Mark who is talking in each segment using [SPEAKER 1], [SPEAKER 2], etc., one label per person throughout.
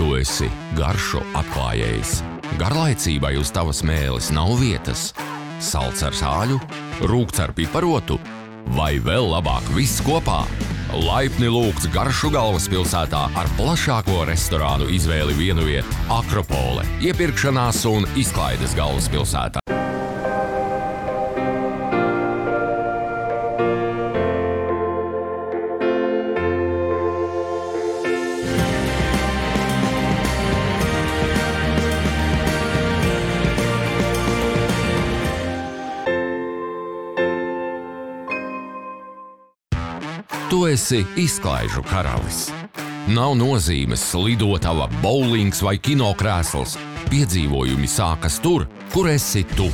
[SPEAKER 1] Tu esi garšu atklājējs. Garlaicībai uz tavas mēles nav vietas. Salds ar sāļu, rūgts ar piparotu vai vēl labāk viss kopā. Laipni lūgts Garšu galvaspilsētā ar plašāko restorānu izvēli vienviet Akropole, iepirkšanās un izklaides galvaspilsētā. Tu esi izklaižu karalis. Nav nozīmes lidotava, bowlings vai kinokrēsls. Piedzīvojumi sākas tur, kur esi tu.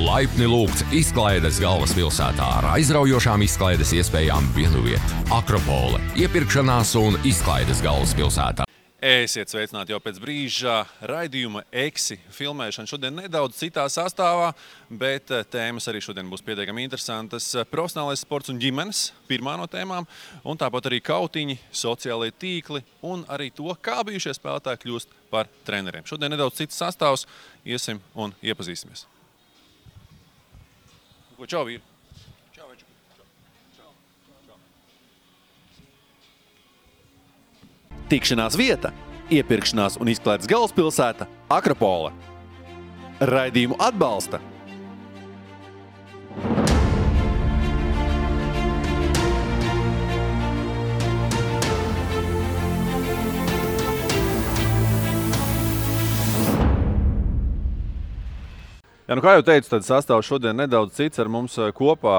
[SPEAKER 1] Laipni lūgts izklaides galvaspilsētā ar aizraujošām izklaides iespējām vienviet Akropole, iepirkšanās un izklaides galvaspilsētā.
[SPEAKER 2] Esiet sveicināti jau pēc brīža raidījuma Eksi filmēšana. Šodien nedaudz citā sastāvā, bet tēmas arī šodien būs pietiekami interesantas. Profesionālais sports un ģimenes, pirmā no tēmām, un tāpat arī kautiņi, sociālie tīkli un arī to, kā bijušie spēlētāji kļūst par treneriem. Šodien nedaudz cits sastāvs, iesim un iepazīsimies. Čau, vīri! Tikšanās vieta, iepirkšanās un izklaides galvaspilsēta Akropole. Raidījumu atbalsta Jā, kā jau teicu, tad sastāvs šodien nedaudz cits. Ar mums kopā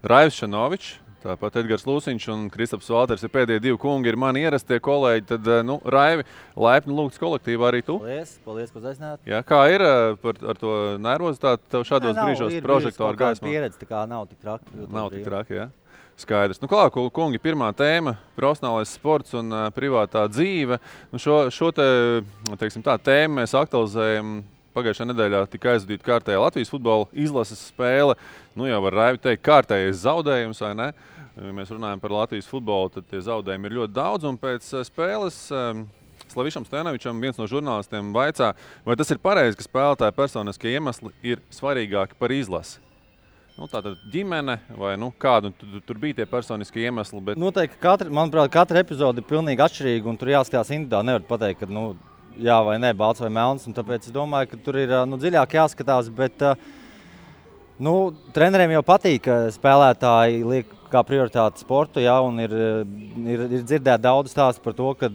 [SPEAKER 2] Raivs Šanovičs, tāpat Edgars Lūsiņš un Kristaps Valters ir pēdējie divi kungi, ir mani ierastie kolēģi. Tad, Raivi, laipni lūgts kolektīvā arī tu.
[SPEAKER 3] Paldies, ka uzaicināt.
[SPEAKER 2] Jā, kā ir ar to nervozitāti tev šādos brīžos prožektoru gaismā?
[SPEAKER 3] Pieredze, tā kā nav tik traki.
[SPEAKER 2] Nav tik traki, jā. Skaidrs. Klāt, kungi, pirmā tēma – profesionālais sports un privātā dzīve. Šo tēmu mēs aktualizējam. Pagājušajā nedēļā tika aizvadīta kārtējā Latvijas futbola izlases spēle. Jau var Raivi teikt, kārtējais zaudējums, vai ne? Ja mēs runājam par Latvijas futbolu, tad tie zaudējumi ir ļoti daudz. Un pēc spēles Slavišam Stenovičam viens no žurnālistiem vaicā, vai tas ir pareizi, ka spēlētāja personiskie iemesli ir svarīgāki par izlasi. Tātad ģimene vai kādu tur bija tie personiskie iemesli. Bet...
[SPEAKER 3] Noteikti, manuprāt, katra epizode ir pilnīgi atšķirīga un tur jāskatās individuāli. Nevar pateikt, ka jā vai nē, balts vai melns, un tāpēc es domāju, ka tur ir dziļāk jāskatās, bet treneriem jau patīk, ka spēlētāji liek kā prioritāti sportu, jā, un ir dzirdēt daudz stāstu par to, ka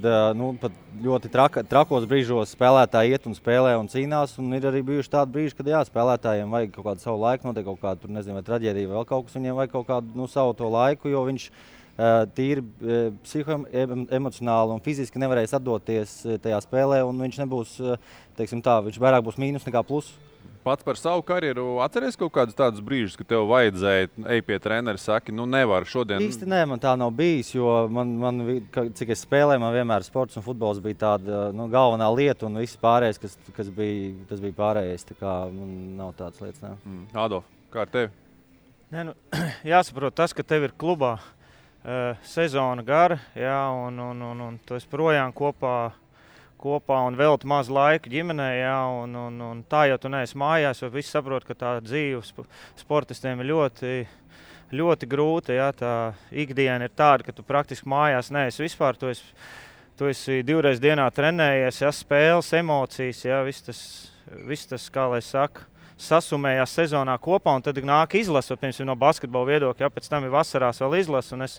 [SPEAKER 3] pat ļoti trakos brīžos spēlētāji iet un spēlē un cīnās, un ir arī bijuši tādi brīži, kad jā, spēlētājiem vajag kaut kādu savu laiku, notiek kaut kādu, tur nezinu, vai traģēdija, vēl kaut kas, viņiem vajag kaut kādu savu to laiku, jo viņš tīri psihoemocionāli un fiziski nevarēs atdoties tajā spēlē, un viņš nebūs, viņš vairāk būs mīnus nekā plus.
[SPEAKER 2] Pats par savu karjeru atceries kaut kādus tādus brīžus, ka tev vajadzēja ej pie treneri, saki, nevar šodien?
[SPEAKER 3] Īsti nē, man tā nav bijis, jo cik es spēlēju, man vienmēr sports un futbols bija tāda galvenā lieta, un viss pārējais, tas bija pārējais, tā kā nav tādas lietas, nē.
[SPEAKER 2] Adolf, kā ar tevi?
[SPEAKER 4] Nē, jāsaprot tas, ka tev ir klubā sezona gara, jā, un tu esi projām kopā un velti maz laika ģimenē, jā, un tā jau tu neesi mājās, jo visi saprot, ka tā dzīve sportistiem ir ļoti, ļoti grūta, jā, tā ikdiena ir tāda, ka tu praktiski mājās neesi vispār, tu esi 2 reizes dienā trenējies, jā, spēles, emocijas, jā, viss tas, kā lai saka, sasumējās sezonā kopā, un tad nāk izlase, piemēram, no basketbola viedokļa, ja pēc tam ir vasarās vēl izlase, un es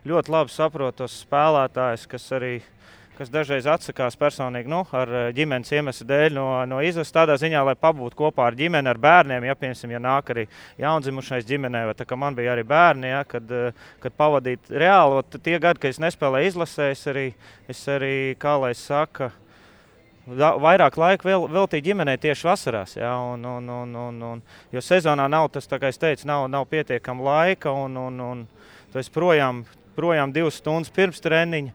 [SPEAKER 4] ļoti labi saprotu tos spēlētājus, kas dažreiz atsakās personīgi ar ģimenes iemeslu dēļ no izlases, tādā ziņā, lai pabūtu kopā ar ģimeni, ar bērniem, ja, piemēram, ja nāk arī jaundzimušais ģimenē, vai tā kā man bija arī bērni, ja, kad pavadīt reāli, tie gadi, kad es nespēlēju izlasē, es arī, kā lai saka, vairāk laika veltīja ģimenei tieši vasarās, jā, jo sezonā nav tas, tā kā es teicu, nav pietiekama laika, un tu esi projām 2 stundas pirms treniņa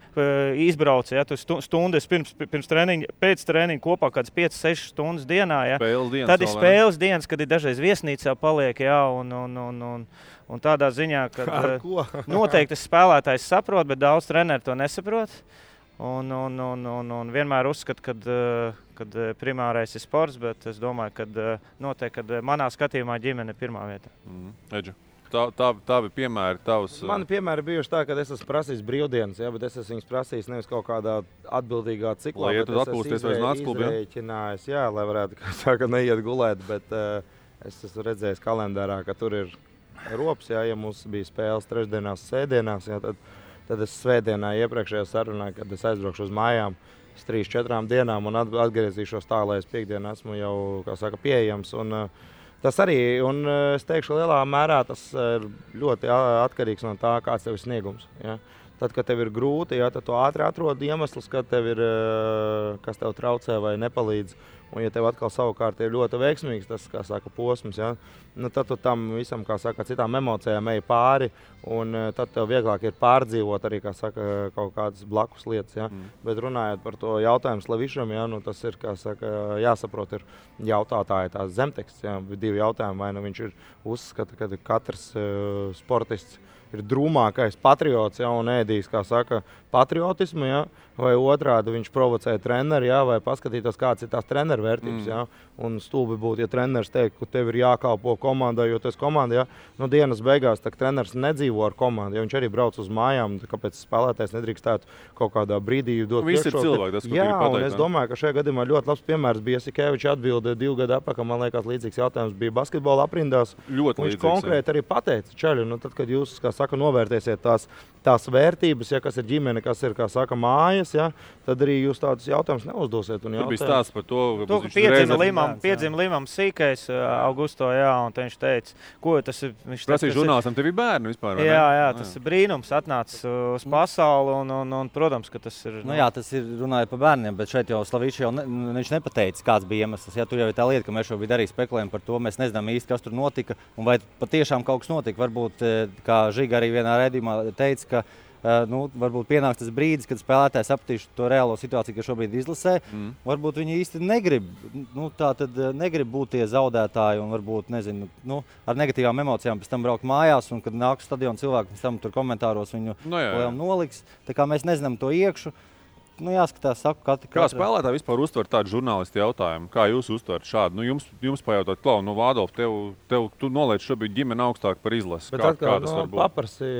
[SPEAKER 4] izbrauc, ja, tu stundas pirms treniņa, pēc treniņa kopā kāds 5-6 stundas dienā, ja. Tad ir spēles dienas, kad ir dažreiz viesnīcā paliek, jā, un tādā ziņā, ka noteikti spēlētājs saprot, bet daudz treneri to nesaprot. Un vienmēr uzskatu, kad primārais ir sports, bet es domāju, ka noteikti, kad manā skatījumā ģimene ir pirmā vieta.
[SPEAKER 2] Edžu, tavi piemēri, tavs...
[SPEAKER 5] Mani piemēri bijuši tā, ka es esmu prasījis brīvdienas, bet es esmu viņus prasījis nevis kaut kādā atbildīgā ciklā.
[SPEAKER 2] Lai ietu atpūsties vairs nāc klubu,
[SPEAKER 5] izrēķinājis, lai varētu, kā saka, neiet gulēt, bet es esmu redzējis kalendārā, ka tur ir rops, ja mums bija spēles trešdienās, sēdienās, tad es svētdienā iepriekšējā sarunā, kad es aizbraukšu uz mājām 3-4 dienām un atgriezīšos tā, lai es piekdienu esmu jau, kā saka, pieejams. Un tas arī, un es teikšu, lielā mērā tas ir ļoti atkarīgs no tā, kāds tev ir sniegums. Ja? Tad, kad tev ir grūti, tad tu ātri atrod iemeslus, kad tev ir, kas tev traucē vai nepalīdz. Un, ja tev atkal savukārt ir ļoti veiksmīgs tas, kā saka, posms, tad tu tam visam, kā saka, citām emocijām ej pāri, un tad tev vieglāk ir pārdzīvot arī, kā saka, kaut kādas blakus lietas. Bet runājot par to jautājumu Slavišam, tas ir, kā saka, jāsaprot, ir jautātāji tās zemteksts, divi jautājumi, vai viņš ir uzskata, ka katrs sportists ir drūmākais patriots, un ēdīs, kā saka, patriotismu, vai otrādi viņš provocē treneri, vai paskatītos, kāds ir tās treneru vērtības. Un stulbi būtu, ja treneris teikt, ka tev ir jākalpo komandai, jo tu esi komanda. Dienas beigās treneris nedzīvo ar komandu. Viņš arī brauc uz mājām, kāpēc spēlētājs nedrīkstētu kaut kādā brīdī dot
[SPEAKER 2] priekšroku.
[SPEAKER 5] Un es domāju, ka šajā gadījumā ļoti labs piemērs bija Jasikevičs atbilde 2 gadu atpakaļ. Man liekas, līdzīgs jautājums bija basketbola aprindās. Viņš konkrēti arī pateica, čaļi, tad, kad jūs, kā saka, novērtēsiet tās vērtības, kas ir ģimene, kas ir, kā saka, mājas, tad arī jūs tādus jautājumus neuzdosiet.
[SPEAKER 2] Tur bija stāsts par to,
[SPEAKER 4] ka piedzima Limam Sīkais Augusto, un viņš teica, ko tas ir.
[SPEAKER 2] Prasīja žurnālistam, tev ir bērni vispār, vai ne?
[SPEAKER 4] Jā, tas ir brīnums, atnācis uz pasauli, un protams, ka tas ir...
[SPEAKER 3] Tas ir runājot par bērniem, bet šeit jau Slavičs viņš nepateica, kāds bija iemesls. Tur jau ir tā lieta, ka mēs šobrīd arī spekulējam par to, mēs nezinām īsti, kas tur notika, un vai patiešām kaut kas notika. Varbūt, kā Žiga arī vienā raidījumā teica, ka varbūt pienāks tas brīdis, kad spēlētājs sapratīs to reālo situāciju, kas šobrīd izlasē. Varbūt viņi īsti negrib būt tie zaudētāji un varbūt, ar negatīvām emocijām pēc tam braukt mājās, un kad nāk uz stadionu cilvēki, pēc tam tur komentāros viņu noliks. Tā kā mēs nezinām to iekšu. Jāskatās, saku,
[SPEAKER 2] Kā spēlētāji vispār uztver tādu žurnālistu jautājumu? Kā jūs uztverat šādu? Jums pajautāt, Klau, Vādolf, tu noliec šobrīd ģimeni augstāk par izlasi. Kā tas var būt?
[SPEAKER 5] Paprasī,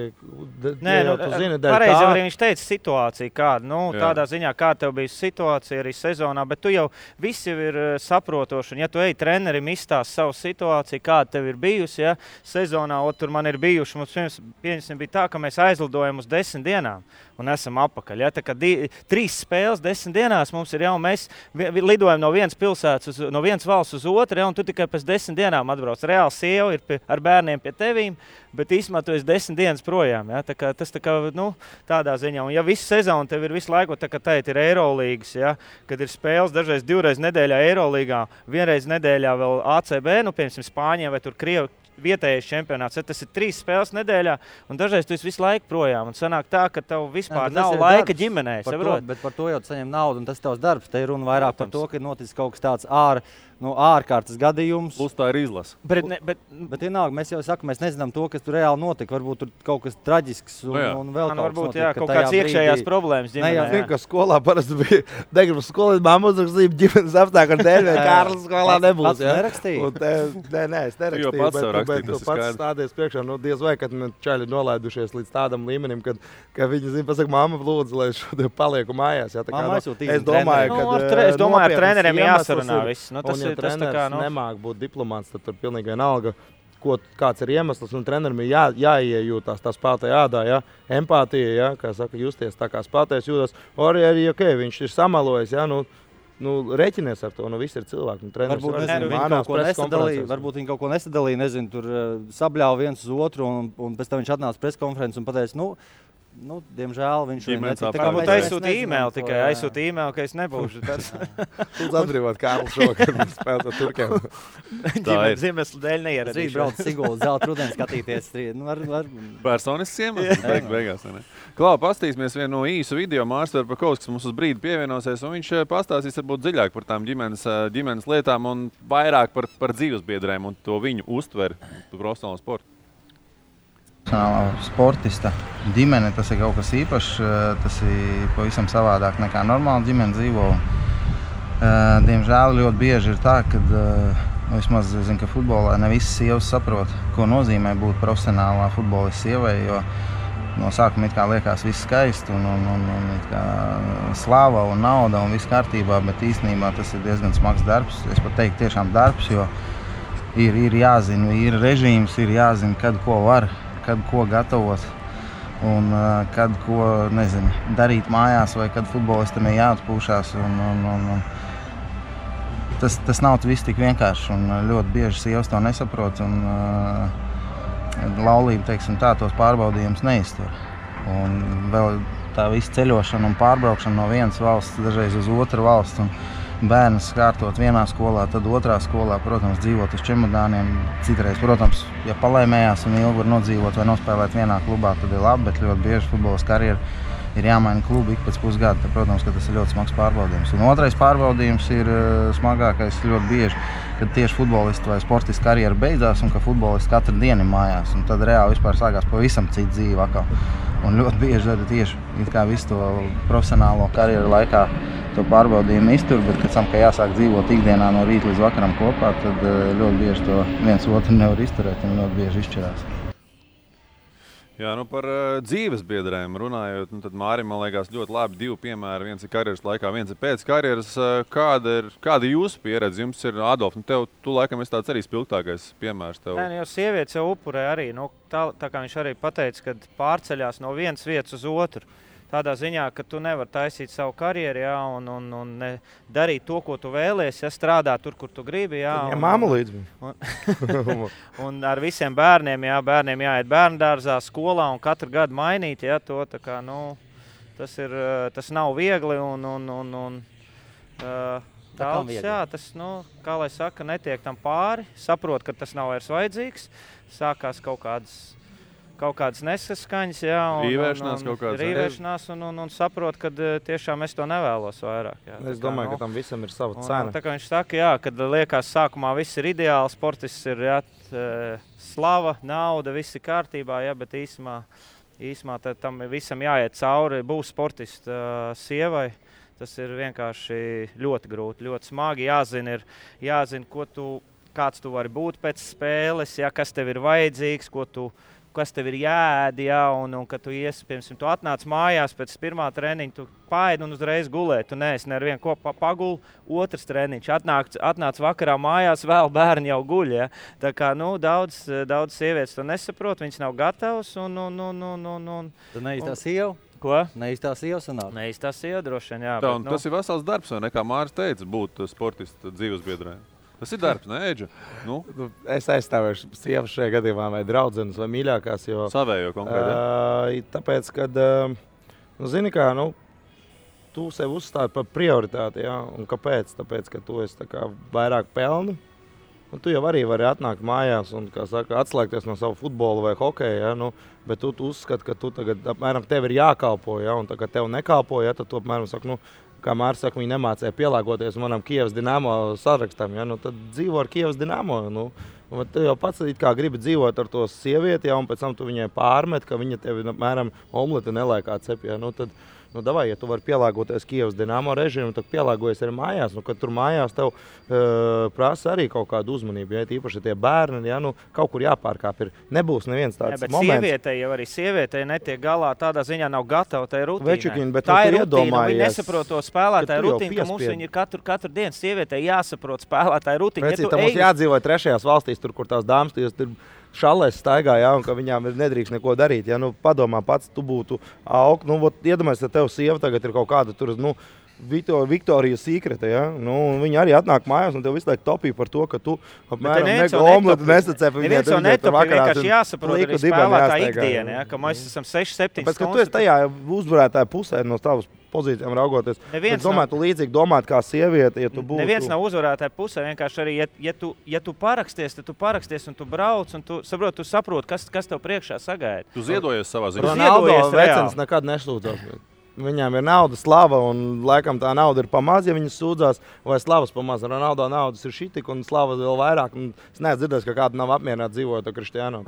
[SPEAKER 4] pareizi arī viņš teica situāciju kādu. Tādā ziņā, kā tev bija situācija arī sezonā, bet tu jau visi ir saprotoši. Un ja tu ej trenerim izstāst savu situāciju, kāda tev ir bijusi, sezonā, tur man ir bijuši, mums bija tā, ka mēs aizlidojam uz 10 dienām un esam apakaļ. Tā kā 3 spēles 10 dienās mums ir mēs lidojam no vienas pilsētas, no vienas valsts uz otru, un tu tikai pēc 10 dienām atbrauc. Reāli sieva ir ar bērniem pie tevīm, bet īstenībā tu esi 10 dienas projām. Tas tādā ziņā. Un ja visu sezonu tev ir visu laiku, tā kā teikt, ir Eirolīgas, kad ir spēles dažreiz 2 reizes nedēļā Eirolīgā, 1 reizi nedēļā vēl ACB, piemēram, Spāņiem vai tur Krievi, vietējais čempionāts. Tas ir 3 spēles nedēļā, un dažreiz tu esi visu laiku projām. Un sanāk tā, ka tev vispār nav laika ģimenei.
[SPEAKER 3] Bet par to jau saņem naudu, un tas ir tavs darbs. Te ir runa vairāk par to, ka ir noticis kaut kas tāds ārkārtas gadījums.
[SPEAKER 2] Plus tā ir izlase.
[SPEAKER 3] Bet vienalga, mēs jau sakam, mēs nezinām to, kas tur reāli notika. Varbūt tur kaut kas traģisks un vēl kaut kas notika.
[SPEAKER 4] Kaut kāds iekšējās problēmas ģimenē.
[SPEAKER 5] Es zinu, ka skolā parasti bija degribas skolā, mamma uzrakstīja ģimenes apstākļu dēļ, vai Kārlis skolā nebūs.
[SPEAKER 3] Nerakstīja?
[SPEAKER 5] Nē, es nerakstīju. Bet tu pats stādies priekšā, diez vai, kad čaļi nolaidušies līdz tādam līmenim, ka viņi zina, pasaka, mamma lūdzu, lai es šodien palieku mājās.
[SPEAKER 3] Es domāju,
[SPEAKER 4] ar treneriem jāsarunā viss.
[SPEAKER 5] Ja treneris nemāk būt diplomāts, tad tur pilnīgi vienalga, kāds ir iemesls, un trenerim ir jāiejūtās tā spēlētāja ādā, empātija, kā saka, justies tā kā spēlētājs jūtas. Arī, viņš ir samalojis, reķinies ar to, viss ir cilvēki.
[SPEAKER 3] Varbūt viņi kaut ko nesadalīja, tur sabļāva viens uz otru, un pēc tam viņš atnāca preskonferences un pateica, diemžēl viņš
[SPEAKER 4] aizsūtīja e-mailu tikai. Aizsūtīja e-mailu, ka es nebūšu.
[SPEAKER 5] Lūdzu atbrīvot Kārli šokar un spēlēt ar Turkiem.
[SPEAKER 4] Ziemeslu dēļ neieradīšu.
[SPEAKER 3] Rīt brauc Siguldas zelta rudeni skatīties.
[SPEAKER 2] Personisks iemesls beigās. Klau, pastīsimies vienu no īsu video. Mārs Verpakovs, kas mums uz brīdi pievienosies, un viņš pastāstīs varbūt dziļāk par tām ģimenes lietām un vairāk par dzīvesbiedrēm un to viņu uztveri par profesionālo sportu.
[SPEAKER 6] Sportista ģimene, tas ir kaut kas īpašs, tas ir pavisam savādāk nekā normāla ģimene dzīvo. Diemžēl ļoti bieži ir tā, ka vismaz es zinu, ka futbolā ne visas sievas saprot, ko nozīmē būt profesionālā futbolista sievai, jo no sākuma it kā liekas viss skaisti un it kā slava un nauda un viss kārtībā, bet īstenībā tas ir diezgan smags darbs. Es pat teiktu tiešām darbs, jo ir jāzina, ir režīms, ir jāzina, kad ko var, kad ko gatavot un kad ko, nezinu, darīt mājās vai kad futbolistam ir jāatpūšās. Tas nav viss tik vienkārši un ļoti bieži sievas to nesaprot un laulība, teiksim tā, tos pārbaudījumus neiztur. Un vēl tā visa ceļošana un pārbraukšana no vienas valsts dažreiz uz otru valstu un bērnus kārtot vienā skolā, tad otrā skolā, protams, dzīvot uz čemodāniem. Citreiz, protams, ja palēmējās un ilgi var nodzīvot vai nospēlēt vienā klubā, tad ir labi, bet ļoti bieži futbolas karjeru ir jāmaina klubu ik pēc pusgada. Tad, protams, ka tas ir ļoti smags pārbaudījums. Un otrais pārbaudījums ir smagākais ļoti bieži, kad tieši futbolistu vai sportistu karjeru beidzās un ka futbolists katru dienu ir mājās. Un tad reāli vispār sākās pavisam cita dzīve atkal. Un ļoti bieži tad tieši it kā visu to profesionālo karjeru laikā to pārbaudījumu iztur, bet pēc tam, ka jāsāk dzīvot ikdienā no rīta līdz vakaram kopā, tad ļoti bieži to viens otru nevar izturēt un ļoti bieži izšķirās.
[SPEAKER 2] Jā, par dzīves biedrēm runājot, tad Mārim, man liekas, ļoti labi divi piemēri. Viens ir karjeras laikā, viens ir pēc karjeras. Kāda ir jūsu pieredze? Jums ir, Adolf, tu laikam esi tāds arī spilgtākais piemērs tev.
[SPEAKER 4] Nē, jau sievietes jau upurē arī. Tā kā viņš arī pateica, kad pārceļās no vienas vietas uz otru. Tādā ziņā, ka tu nevari taisīt savu karjeru, jā, un darīt to, ko tu vēlies, ja strādāt tur, kur tu gribi. Jā,
[SPEAKER 5] ja māmu līdz.
[SPEAKER 4] Un ar visiem bērniem, jā, bērniem jāiet bērndārzā, skolā un katru gadu mainīt, jā, to tā kā, tas nav viegli un daudz, jā, tas, kā lai saka, netiek tam pāri, saprot, ka tas nav vairs vajadzīgs, sākās kaut kādas nesaskaņas, jā, rīvēšanās un saprot, ka tiešām es to nevēlos vairāk. Jā.
[SPEAKER 5] Es domāju, ka tam visam ir sava cena.
[SPEAKER 4] Tā kā viņš saka, jā, kad liekas sākumā viss ir ideāli, sportists ir, jā, slava, nauda, viss ir kārtībā, jā, bet īsumā tam visam jāiet cauri, būs sportista sievai. Tas ir vienkārši ļoti grūti, ļoti smagi, jāzina, kāds tu vari būt pēc spēles, jā, kas tev ir vajadzīgs, kas tev ir jāēd, jā, un kad tu piemēram, tu atnāc mājās pēc pirmā treniņa, tu paēd un uzreiz gulēt. Tu neesi nevienu kopā paguli, otrs treniņš. Atnāc vakarā mājās, vēl bērni jau guļ, jā. Tā kā, daudz sievietes to nesaprot, viņas nav gatavas
[SPEAKER 3] Tu neīstā sieva?
[SPEAKER 4] Ko?
[SPEAKER 3] Neīstā sieva sanāk?
[SPEAKER 4] Neīstā sieva droši vien, jā.
[SPEAKER 2] Tā, tas ir vesels darbs, vai ne, kā Māris teica, būt sportista dzīvesbiedrē. Tas ir darbs, ne, Eģa?
[SPEAKER 5] Es aizstāvēšu sievas šajā gadījumā vai draudzenes vai mīļākās, jo...
[SPEAKER 2] Savējo konkrēti,
[SPEAKER 5] tāpēc, kad, zini kā, tu sev uzstādi par prioritāti, jā, un kāpēc? Tāpēc, ka tu esi tā kā vairāk pelni, un tu jau arī vari atnākt mājās un, kā saka, atslēgties no savu futbolu vai hokeju, jā, bet tu uzskati, ka tu tagad, apmēram, tev ir jākalpo, jā, un tā kā tev nekalpo, jā, tad tu, apmēram, saka, kā Māris saka, viņi nemācēja pielāgoties manam Kievas Dinamo sarakstam, ja? Tad dzīvo ar Kievas Dinamo. Tu jau pats kā gribi dzīvot ar to sievieti, ja? Un pēc tam tu viņai pārmet, ka viņa tevi, apmēram, omleti nelēkā cep. Ja? Tad, davai, ja tu vari pielāgoties Kievas Dinamo režīmu, tad pielāgojies arī mājās. Kad tur mājās tev prasa arī kaut kādu uzmanību, ja īpaši tie bērni, ja, kaut kur jāpārkāp ir. Nebūs neviens tāds moments.
[SPEAKER 4] Sievietei netiek galā, tādā ziņā nav gatava tai rutīnai.
[SPEAKER 5] Večikiņi, bet
[SPEAKER 4] tā ir rutīna, viņi nesaprot to spēlētāju rutīnu, ka mums viņi ir katru dienu. Sievietei jāsaprot spēlētāju rutīnu.
[SPEAKER 5] Ja mums jādzīvo trešajās valstīs, tur, kur tās dāmas tur šalēs staigā, jā, un ka viņām nedrīkst neko darīt. Ja, padomā pats, tu būtu aug. Iedomājies, ka tev sieva tagad ir kaut kāda tur, Viktorijas Secreta, ja? Viņa arī atnāk mājās un tev visu laiku topī par to, ka tu apmēram omletu nesacēp.
[SPEAKER 4] Neviens jau netopī, vienkārši jāsaprot arī spēlētāja ikdiena, ja? Ka mēs esam 6-7 stundas.
[SPEAKER 5] Bet, ka tu esi tajā uzvarētāja pusē no tavas pozīcijām raugoties. Es domāju, tu līdzīgi domāt kā sieviete, ja tu būtu.
[SPEAKER 4] Neviens nav uzvarētāja pusē, vienkārši arī, ja tu paraksties, tad tu paraksties un tu brauc un tu saproti, kas tev priekšā sagaida.
[SPEAKER 2] Tu ziedojies savā ziņā.
[SPEAKER 5] Ronaldo vecens nekad neslūdzās. viņām ir nauda, slava, un laikam tā nauda ir pamaz, ja viņas sūdzās, vai slavas pamaz. Ronaldo naudas ir šitik, un slava vēl vairāk. Un es neesmu dzirdējis, ka kāda nav apmierināta dzīvot ar Kristiānu.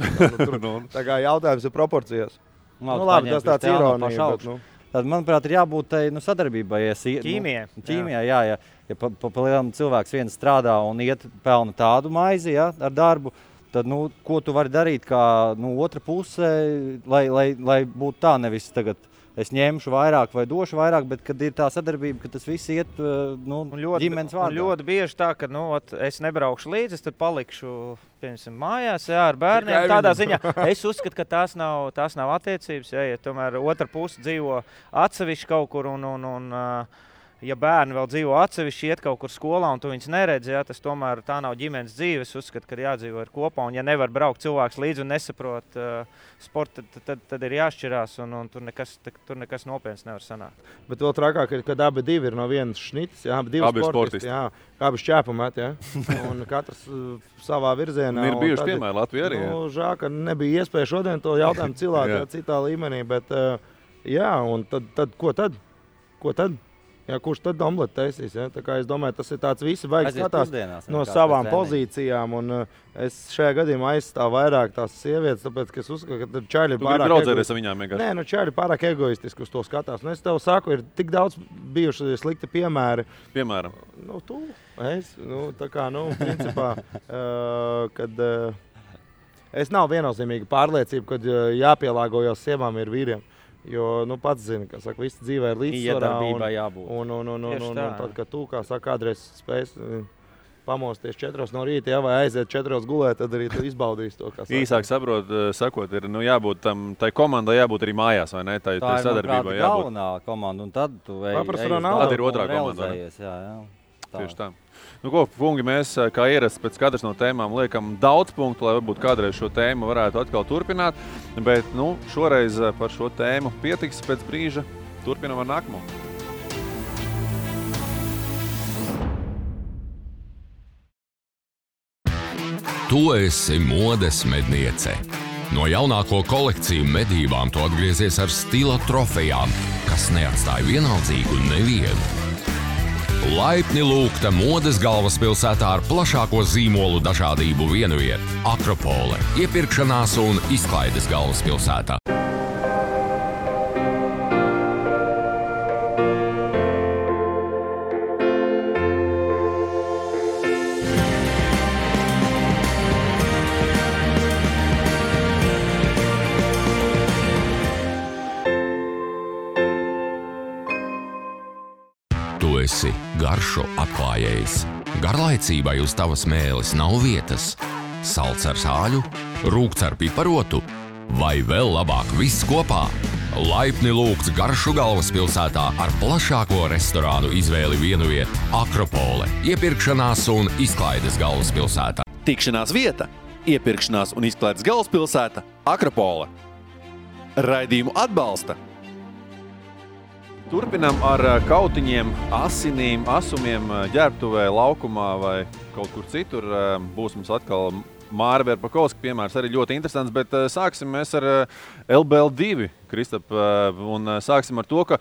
[SPEAKER 5] Tā kā jautājums ir proporcijās. Labi, tas tāds ironija.
[SPEAKER 3] Tad, manuprāt, ir jābūt sadarbībai. Ķīmijai, jā. Ja pa lielam cilvēks viens strādā un iet pelna tādu maizi, ja, ar darbu, tad, ko tu vari darīt kā otra puse, lai būtu tā, nevis tagad es ņemšu vairāk vai došu vairāk, bet kad ir tā sadarbība, ka tas viss iet ģimenes vārdā.
[SPEAKER 4] Ļoti bieži tā, ka es nebraukšu līdzi, es tad palikšu mājās ar bērniem. Tādā ziņā es uzskatu, ka tās nav attiecības, ja tomēr otra puse dzīvo atsevišķi kaut kur un ja bērni vēl dzīvo atsevišķi, iet kaut kur skolā un tu viņus neredzi, tas tomēr tā nav ģimenes dzīve. Es uzskatu, ka jādzīvo ir kopā, un ja nevar braukt cilvēks līdzi un nesaprot sportu, tad ir jāšķirās, un tur nekas nopietns nevar sanākt.
[SPEAKER 5] Bet vēl trakāk ir, kad abi divi ir no vienas šnitas, abi divi sportisti, abi šķēpamēti, un katrs savā virzienā.
[SPEAKER 2] Ir bijuši piemēri Latvijā arī.
[SPEAKER 5] Žēl, ka nebija iespēja šodien to jautājumu cilāt citā līmenī, bet un tad ko tad? Ko tad? Jā, kurš tad omleti taisīs? Ja? Tā kā es domāju, tas ir tāds visi vajag skatās no savām pozīcijām. Un es šajā gadījumā aizstāvu vairāk tās sievietes, tāpēc, ka es uzskatu, ka čaļi ir pārāk
[SPEAKER 2] egoistiski. Viņām vienkārši.
[SPEAKER 5] Nē, čaļi pārāk egoistiski uz to skatās. Es tev saku, ir tik daudz bijuši slikti piemēri.
[SPEAKER 2] Piemēram?
[SPEAKER 5] Tā kā, principā, kad es nav viennozīmīgi pārliecība, kad jāpielāgojas sievām ir vīriem. Jo, pats zini, ka visi dzīvē ir līdzsvarā. Un tad, kad tu, kā saka, kādreiz spēs pamosties 4 no rīta, vai aiziet 4 gulēt, tad arī tu izbaudīsi to, kā saka.
[SPEAKER 2] Īsāk sakot, ir jābūt tai komandai jābūt arī mājās, vai ne? Tā ir, sadarbībai jābūt.
[SPEAKER 3] Galvenā komanda, un tad tu
[SPEAKER 2] tad ir otrā komanda. Tieši tā. Ko, kungi, mēs kā ierasts pēc katras no tēmām liekam daudz punktu, lai varbūt kādreiz šo tēmu varētu atkal turpināt, bet šoreiz par šo tēmu pietiks pēc brīža. Turpinam ar nākamo.
[SPEAKER 1] Tu esi modes medniece. No jaunāko kolekciju medībām tu atgriezies ar stila trofejām, kas neatstāja vienaldzīgu nevienu. Laipni lūgta modes galvaspilsētā ar plašāko zīmolu dažādību vienviet – Akropole, iepirkšanās un izklaides galvaspilsētā. Tu esi garšu atklājējs. Garlaicībai uz tavas mēles nav vietas. Salds ar sāļu, rūgts ar piparotu vai vēl labāk viss kopā. Laipni lūgts garšu galvaspilsētā ar plašāko restorānu izvēli vienviet Akropole, iepirkšanās un izklaides galvaspilsētā.
[SPEAKER 7] Tikšanās vieta, iepirkšanās un izklaides galvaspilsēta Akropole. Raidījumu atbalsta.
[SPEAKER 2] Turpinam ar kautiņiem, asinīm, asumiem ģērbtuvē, laukumā vai kaut kur citur. Būs mums atkal Māra Verpakovska piemērs, arī ļoti interesants, bet sāksim mēs ar LBL2, Kristap, un sāksim ar to, ka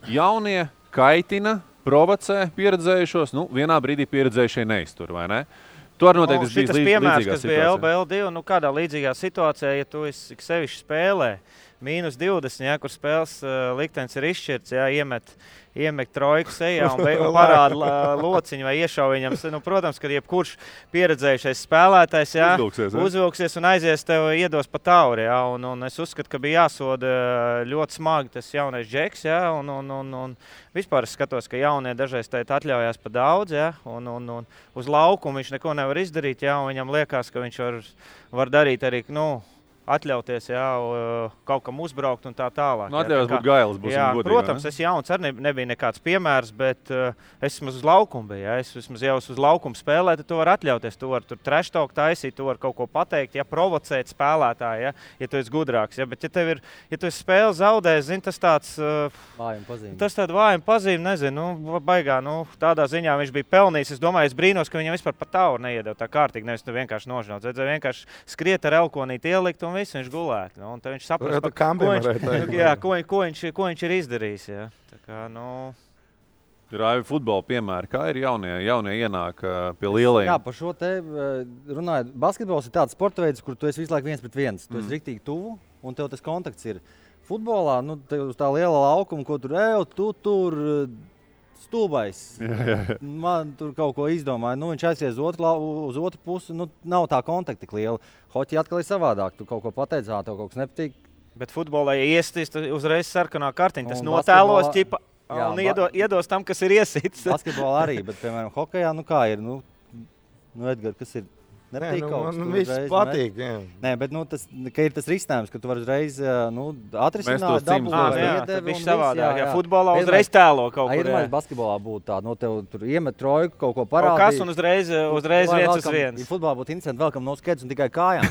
[SPEAKER 2] jaunie kaitina, provocē pieredzējušos, vienā brīdī pieredzējušie neiztur, vai ne? Tu arī noteikti esi bijis
[SPEAKER 4] piemērs, kas bija LBL2, kādā līdzīgā situācijā, ja tu esi sevišķi spēlē, -20, kur spēles liktenis ir izšķirts, iemet trojku sejā un parāda lociņu vai iešau viņam. Protams, ka jebkurš pieredzējušais spēlētājs uzvilksies un aizies tev iedos pa tauri. Un es uzskatu, ka bija jāsoda ļoti smagi tas jaunais Džeks. Un vispār es skatos, ka jaunie dažreiz atļaujās pa daudz. Un uz laukumu viņš neko nevar izdarīt. Un viņam liekas, ka viņš var darīt arī atļauties, kaut kam uzbraukt un tā tālāk.
[SPEAKER 2] Atļaujās būt gailis, būsim godīgi.
[SPEAKER 4] Protams, es jauns arī nebija nekāds piemērs, bet es vismaz uz laukumu biju. Es vismaz jau uz laukumu spēlēju, tad tu vari atļauties. Tu vari tur trash-talk taisīt, tu vari kaut ko pateikt, provocēt spēlētāju, ja tu esi gudrāks. Bet ja tu esi spēli zaudējis, zini, tas tāds
[SPEAKER 3] vājuma pazīme.
[SPEAKER 4] Tas tāds vājuma pazīme, nezinu, baigā, tādā ziņā viņš bija pelnījis. Es domāju, es brīnos, ka viņam vispār pa tauru neiedeva tā kārtīgi, nevis tu vienkārši nožņauts. Vienkārši skriet ar elkonīti ielikt un un viss viņš gulētu. Nu, un tad viņš saprast, ko viņš ir izdarījis. Jā. Tā kā,
[SPEAKER 2] Raivi futbola piemēri, kā ir jaunie ienāk pie lielajiem?
[SPEAKER 3] Jā, par šo te runājot. Basketbols ir tāds sporta veids, kur tu esi visu laiku viens pret viens. Tu esi riktīgi tuvu, un tev tas kontakts ir. Futbolā, tev uz tā liela laukuma, ko tu tur stūbais. Man tur kaut ko izdomāja. Viņš aizies uz otru pusi, nav tā kontakta tik liela. Hoķi atkal ir savādāk. Tu kaut ko pateicā, tev kaut kas nepatīk.
[SPEAKER 4] Bet futbolā, ja iestīs, uzreiz sarkanā kartiņa, tas notēlos ķipa. Un iedos tam, kas ir iesīts.
[SPEAKER 3] Basketbolā arī, bet, piemēram, hokejā, kā ir? Edgar, kas ir? Nepatīk kaut kas?
[SPEAKER 5] Man viss patīk, jā.
[SPEAKER 3] Nē, bet ka ir tas risinājums, ka tu vari uzreiz atrisināt dabu.
[SPEAKER 4] Viņš savādāk, ja futbolā uzreiz tēlo kaut kur.
[SPEAKER 3] Iedomājies, basketbolā būtu tā, tev tur iemet trojku, kaut ko parādīt.
[SPEAKER 4] Kaut kas un uzreiz 1-1.
[SPEAKER 3] Ja futbolā būtu interesanti, vēl kam nav skaidrs un tikai kājām.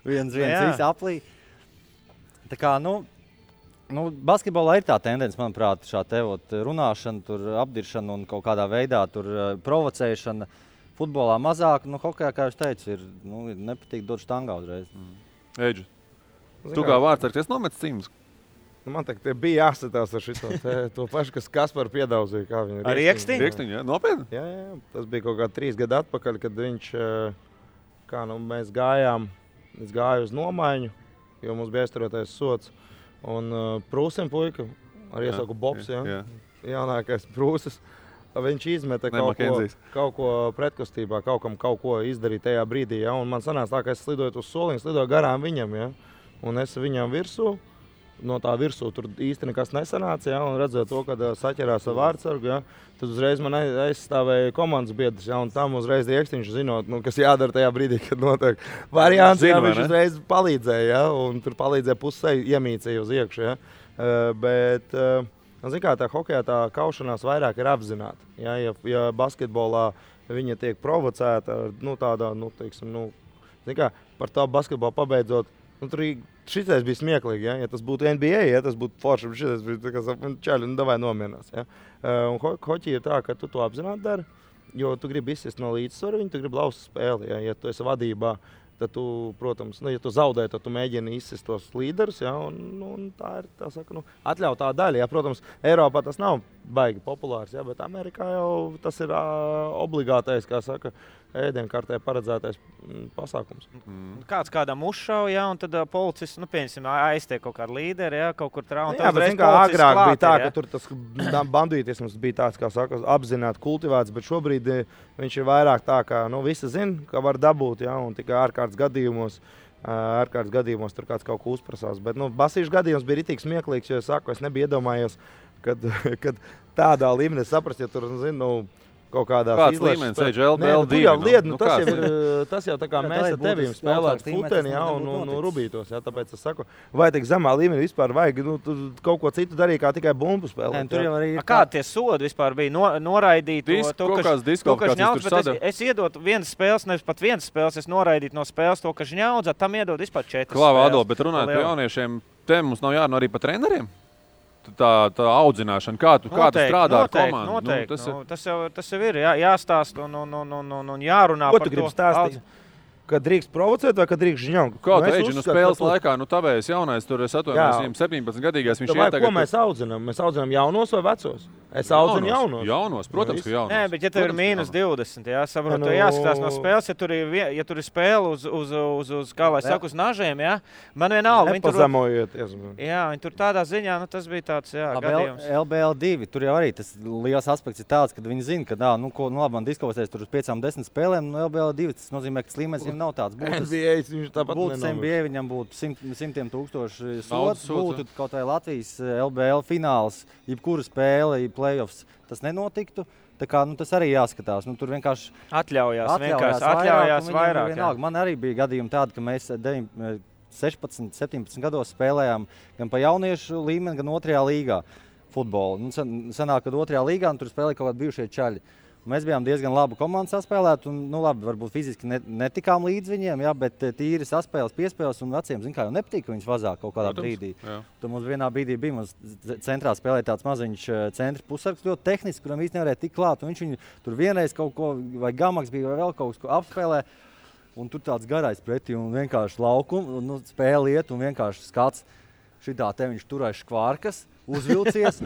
[SPEAKER 3] viens, visi aplī. Tā kā, basketbolā ir tā tendence, manuprāt, šā runāšana, tur apdiršana un kaut kādā veidā tur provocēšana. Futbolā mazāk, hokejā, kā jūs teicu, ir nepatīk dot štangā uzreiz.
[SPEAKER 2] Eģi, tu kā vārdsargs nometis cīmus?
[SPEAKER 5] Man bija jāsatās ar šito to pašu, kas Kaspar piedauzīja, kā viņa
[SPEAKER 4] ar Riekstiņu?
[SPEAKER 2] Riekstiņu, jā, nopietni?
[SPEAKER 5] Jā, tas bija kaut kā 3 gadu atpakaļ, kad viņš, mēs gājām, es gāju uz nomaiņu, jo mums bija aizturotais sots. Un Prūsim puika, ar iesauku Bobs, jaunākais Prūsis, viņš izmeta kaut ko pretkustībā, kaut ko izdarīt tajā brīdī. Ja? Un man sanāca tā, ka es slidoju uz soliņu, slidoju garām viņam, ja? Un es viņam virsū, no tā virsū tur īsti nekas nesanāca, ja? Un redzot to, kad saķerās ar vārdsargu, ja? Tad uzreiz man aizstāvēja komandas biedrs, ja? Un tam uzreiz Riekstiņš zinot, kas jādara tajā brīdī, kad notiek variants, ja? Viņš uzreiz palīdzēja, ja? Un tur palīdzēja pusei iemīcēja uz iekšu, ja? Bet, zin kā, tā hokejā tā kaušanās vairāk ir apzināta, ja? Ja basketbolā viņa tiek provocēta, tādā, zin kā, par tā basketbolu pabeidzot, tur šitais bija smieklīgi, ja tas būtu NBA, ja tas būtu forši, šitais bija čaļi, davai nomierinās. Ja? Un hoķi ir tā, ka tu to apzināti dari, jo tu gribi izsist no līdzsvaru, tu gribi lauzt spēli. Ja tu esi vadībā, tad tu, protams, ja tu zaudē, tad tu mēģini izsist tos līderus, ja? Un tā ir atļautā daļa. Ja? Protams, Eiropā tas nav baigi populārs, ja? Bet Amerikā jau tas ir obligātais, kā saka, ēdienkartē paredzētais pasākums.
[SPEAKER 4] Kāds kādam uzšauja, ja, un tad policists, pieņemsim, aiztiek kaut kādu līderi, ja, kaut kur traumu.
[SPEAKER 5] Jā, bet zin, kā agrāk bija tā, ka tur tas bandītisms bija tāds, kā saka, apzināti kultivēts, bet šobrīd viņš ir vairāk tā, ka visi zina, ka var dabūt, ja, un tikai ārkārtas gadījumos tur kāds kaut ko uzprasās. Bet basīšu gadījums bija ritīgi smieklīgs, jo es nebiju iedomājies, kad tādā līmenī saprast, ja tur, kaut kādās
[SPEAKER 2] līmenis, LBL2.
[SPEAKER 5] Tas jau tā kā mēs ar tevīm spēlētu futeni, un rubītos, ja, tāpēc es saku, vai tik zemā līmenī vispār vajag, kaut ko citu darīt, kā tikai bumbu spēlēt.
[SPEAKER 4] Kādi tie sodi vispār bija noraidīt? Es iedotu vienas spēles, nevis pat vienas spēles, es noraidītu no spēles to, ka žņaudzā, tam iedod vispār 4 spēles.
[SPEAKER 2] Klāva, Ado, bet runājot par jauniešiem, te mums nav jārunā arī par treneriem? Tā audzināšana, kā tu strādā ar komandu?
[SPEAKER 4] Noteikti. Tas jau ir jāstāst un jārunā
[SPEAKER 5] par to. Ko tu gribi stāstīt? Kad drīkst provocēt vai kad drīkst žņaukt?
[SPEAKER 2] Kā tu eģi, spēles laikā, tavējs jaunais, tur es atvainojos, viņam 17-gadīgais, viņš iet tagad...
[SPEAKER 5] Ko mēs audzinām? Mēs audzinām jaunos vai vecos? Es audzinu jaunos.
[SPEAKER 2] Jaunos, protams, ka jaunos.
[SPEAKER 4] Nē, bet ja tev ir -20, saprotu, jāskatās no spēles, ja tur ir spēle uz kā lai saka, uz nažiem, man vienalga.
[SPEAKER 5] Nepazemojieties.
[SPEAKER 4] Jā, viņi tur tādā ziņā, tas bija tāds, gadījums.
[SPEAKER 3] LBL2, tur jau arī tas liels aspekts ir tāds, kad viņi zina, ka, labi, man diskvalificēs tur uz 5-10 spēlēm, LBL2, tas nozīmē, ka līmenis viņam nav tāds. Būtu NBA, viņam būtu 100 000 sots, būtu kaut vai Latvijas LBL fināls, jebkura spēle, playoffs, tas nenotiktu. Tā kā, tas arī jāskatās. Tur vienkārši
[SPEAKER 4] atļaujās vairāk.
[SPEAKER 3] Man arī bija gadījumi tādi, ka mēs 16, 17 gados spēlējām gan pa jauniešu līmeni, gan 2. līgā futbolu. Sanāk, kad 2. līgā tur spēlēja kaut kādi bijušie čaļi. Mēs bijām diezgan labu komandu saspēlēt, un, labi, varbūt fiziski netikām līdz viņiem, bet tīri saspēles, piespēles un veciem, kā jau nepatīk, ka viņus vazāk kaut kādā brīdī. Tur mums vienā brīdī bija, mums centrā spēlēja tāds maziņš centra pusargs, ļoti tehniski, kuram īsti nevarēja tik klāt, un viņš viņu tur vienreiz kaut ko, vai gamaks bija, vai vēl kaut ko apspēlē. un tur tāds garais pretī un vienkārši laukums, un spēle iet un vienkārši skats. Šitā te viņš turēs škvārkas, uzvilcies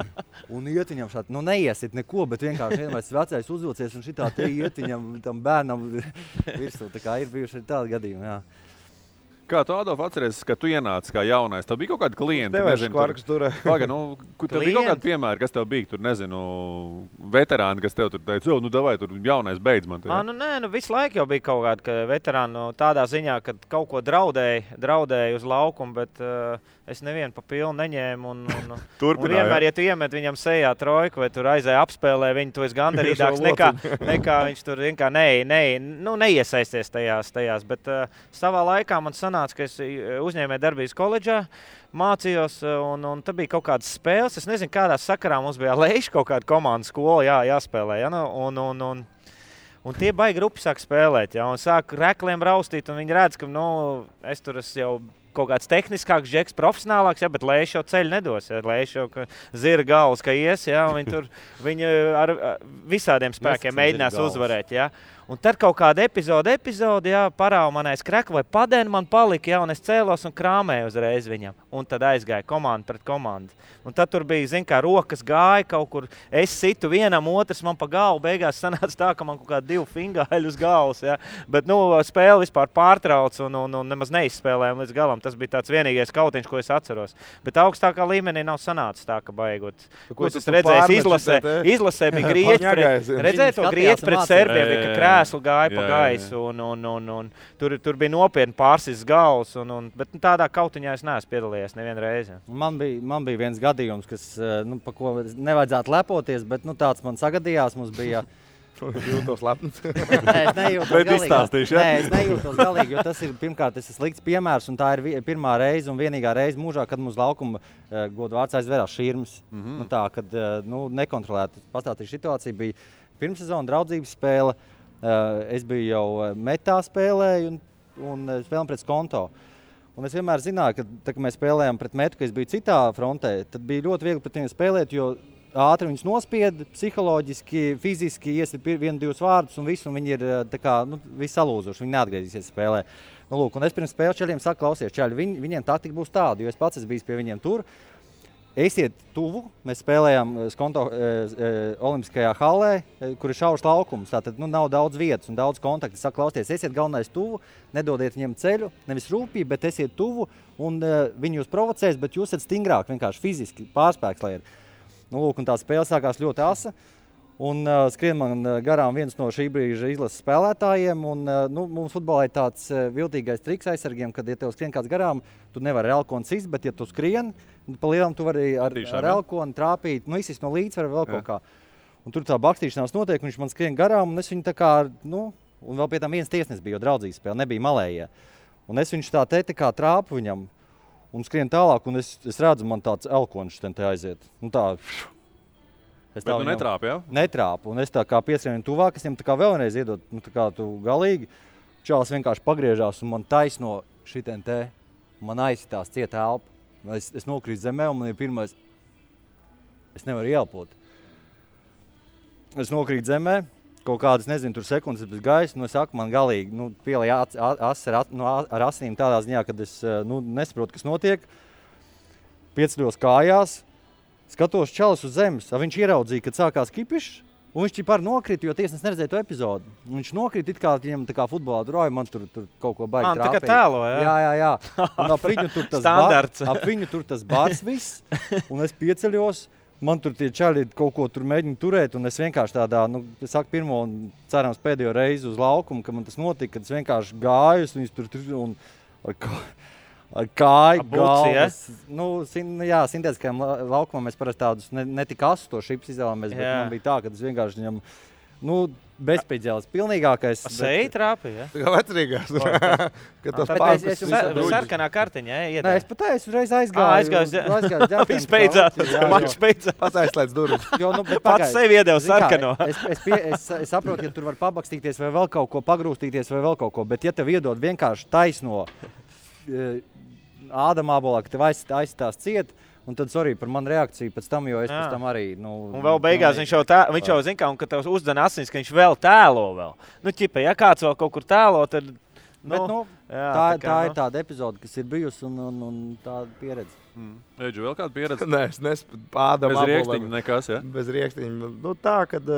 [SPEAKER 3] un iet viņam šādi, neiesit neko, bet vienkārši vienmēr vecais uzvilcies un šitā te iet viņam tam bērnam virsū. Tā kā ir bijuši tādi gadījumi, jā.
[SPEAKER 2] Kā tu, Adolf, atceries, ka tu ienāci kā jaunais? Tev bija kaut kādi klienti?
[SPEAKER 5] Tev škvarkas turē.
[SPEAKER 2] Paga, tev bija kaut kādi piemēri, kas tev bija tur, nezinu, veterāni, kas tev tur teica, davai, tur jaunais beidz man.
[SPEAKER 4] Visu laiku jau bija kaut kādi veterāni tādā ziņā, ka kaut ko draudēja uz laukumu, bet es nevienu pa pilnu neņēmu. Un vienmēr, ja tu iemet viņam sejā trojku vai tur aizēja apspēlē, viņu tu esi gandarīdāks nekā viņš tur neiesaisties tajās. Bet savā laikā man sanāca, ka es uzņēmēju darbības koledžā, mācījos, un tad bija kaut kādas spēles. Es nezinu, kādā sakarā mums bija Leiša kaut kāda komandas skola jāspēlē. Ja? Un tie baigi grupi sāk spēlēt, ja? Un sāk rekliem raustīt, un viņi redz, ka es tur esmu jau kaut kāds tehniskāks džeks, profesionālāks, ja, bet Leiša jau ceļu nedos. Ja. Leiša jau zira galvas, ka ies, ja, un viņi ar visādiem spēkiem mēģinās uzvarēt. Ja. Un tad kaut kāda epizode, ja, parāva man aiz krekla vai padēna man palika, ja, un es cēlos un krāmēju uzreiz viņam. Un tad aizgāja komanda pret komandu. Un tad tur bija, rokas gāja kaut kur, es situ vienam, otrs man pa galvu, beigās sanāca tā, ka man kaut kādi 2 fingāļi uz galvas, ja. Bet, spēle vispār pārtrauc un nemaz neizspēlējām līdz galam. Tas bija tāds vienīgais kautiņš, ko es atceros. Bet augstākā līmenī nav sanācis tā, ka baigot. Ko es redzēju, izlasē bija grieķi redzēju to grieķi pret serbiem, ka krēslu gāja pa gaisu un tur bija nopietni pārsis galvas, bet tādā kautiņā es neesmu piedalījies nevienu reizi.
[SPEAKER 3] Man bija viens gadījums, kas, pa ko nevajadzētu lepoties, bet tāds man sagadījās, mums bija...
[SPEAKER 5] Jūtos lepns.
[SPEAKER 3] Nē, es nejūtos galīgi, jo tas ir pirmkārt slikts piemērs, un tā ir pirmā reize un vienīgā reize mūžā, kad mums laukuma godvārds aizvērās širmas. Tā, kad nekontrolēta pastāstīja situācija, bija pirmsezona draudzības spēle, es biju jau metā spēlēju un spēlēm pret Skonto. Un es vienmēr zināju, ka, kad mēs spēlējām pret metu, ka es biju citā frontē, tad bija ļoti viegli pret viņiem spēlēt, jo ātri viņus nospied, psiholoģiski, fiziski iesit 1-2 vārdus un visu, un viņi ir visi salūzuši, viņi neatgriezīsies spēlē. Un es pirms spēles čaļiem saku, klausies, čaļi, viņiem taktika būs tāda, jo es pats esmu bijis pie viņiem tur. Esiet tuvu, mēs spēlējām Skonto olimpiskajā hallē, kur ir šaurs laukums, tātad nav daudz vietas un daudz kontaktu. Es saku, klausieties, esiet galvenais tuvu, nedodiet viņiem ceļu, nevis rūpīgi, bet esiet tuvu, un viņi jūs provocēs, bet jūs esat stingrāk, vienkārši fiziski pārspēks, lai ir. Un tā spēle sākās ļoti asa, un skrien man garām viens no šī brīža izlases spēlētājiem, un mums futbolā ir tāds viltīgais triks aizsargiem, kad, ja tev skrien kāds garām, tu nevari ar elkonu sist, bet ja tu skrien, pa lielam tu vari ar elkonu trāpīt, izsist no līdzsvara vēl kaut kā. Un tur tā bakstīšanās notiek, un viņš man skrien garām, un es viņu tā kā, un vēl pie tam viens tiesnes bija, jo draudzības spēle nebija malējie. Un es viņš tā kā trāpu viņam, un skrien tālāk, un es redzu, man tāds elkonšs te aiziet.
[SPEAKER 2] Bet tu netrāpi, ja?
[SPEAKER 3] Netrāpu, un es tā kā pieskrien tuvāk, es viņam tā kā vēlreiz iedot, tā kā tu galīgi. Čāls vienkārši pagriežās, un man taisno šitien te, man aizsitās cieta elpa. Es nokrītu zemē, un man ir pirmais, es nevaru ielpot. Es nokrītu zemē, kaut kādas, nezinu, tur sekundes bez gaisa, es saku, man galīgi, pielēja ar asinīm tādā ziņā, kad es, nesaprotu, kas notiek. Pieceļos kājās, skatos čalis uz zemes, viņš ieraudzīja, kad sākās kipišs, un viņš ķipāri nokrita, jo tiesnes neredzēja to epizodu. Viņš nokrita, it kā viņam tā kā futbolā droja, man tur kaut ko baigi trāpēja.
[SPEAKER 4] Tā kā tēlo, ja?
[SPEAKER 3] Jā. Un ap viņu tur tas bars viss, un es pieceļos. Man tur tie čaļi kaut ko tur mēģina turēt, un es vienkārši tādā, es saku pirmo un cerams pēdējo reizi uz laukumu, ka man tas notika, kad es vienkārši gāju, viņus tur un ar kāju, galvas. Jā, sintētiskajam laukumam mēs parasti tādus ne tik asus to šips izvēlamies, bet man bija tā, ka es vienkārši viņam, bezpēdzēlis, pilnīgākais.
[SPEAKER 4] Seji trāpīja, ja?
[SPEAKER 5] Tā kā vecrīgās.
[SPEAKER 4] Sarkanā kartiņa, ja?
[SPEAKER 3] Nē, es pat uzreiz aizgāju.
[SPEAKER 4] Viss beidzās, mačs beidzās.
[SPEAKER 5] Pats aizslēdz durvis.
[SPEAKER 4] Pats sevi iedeva sarkano.
[SPEAKER 3] Es saprotu, ja tur var pabakstīties vai vēl kaut ko, pagrūstīties vai vēl kaut ko, bet ja tev iedod vienkārši taisno ādamābolā, ka tev aizstās ciet, un tad, sorry par manu reakciju pēc tam, jo es pēc tam arī, Un
[SPEAKER 4] vēl beigās viņš jau zina, un kad tev uzdana asins, ka viņš vēl tēlo vēl. Ķipa, ja kāds vēl kaut kur tēlo, tad
[SPEAKER 3] Tā ir tāda epizode, kas ir bijusi un tāda pieredze.
[SPEAKER 2] Eģu, vēl kāda pieredze?
[SPEAKER 5] Nē, es pādam
[SPEAKER 2] bez riekstiņa nekas, ja?
[SPEAKER 5] Bez riekstiņa. Tā, kad,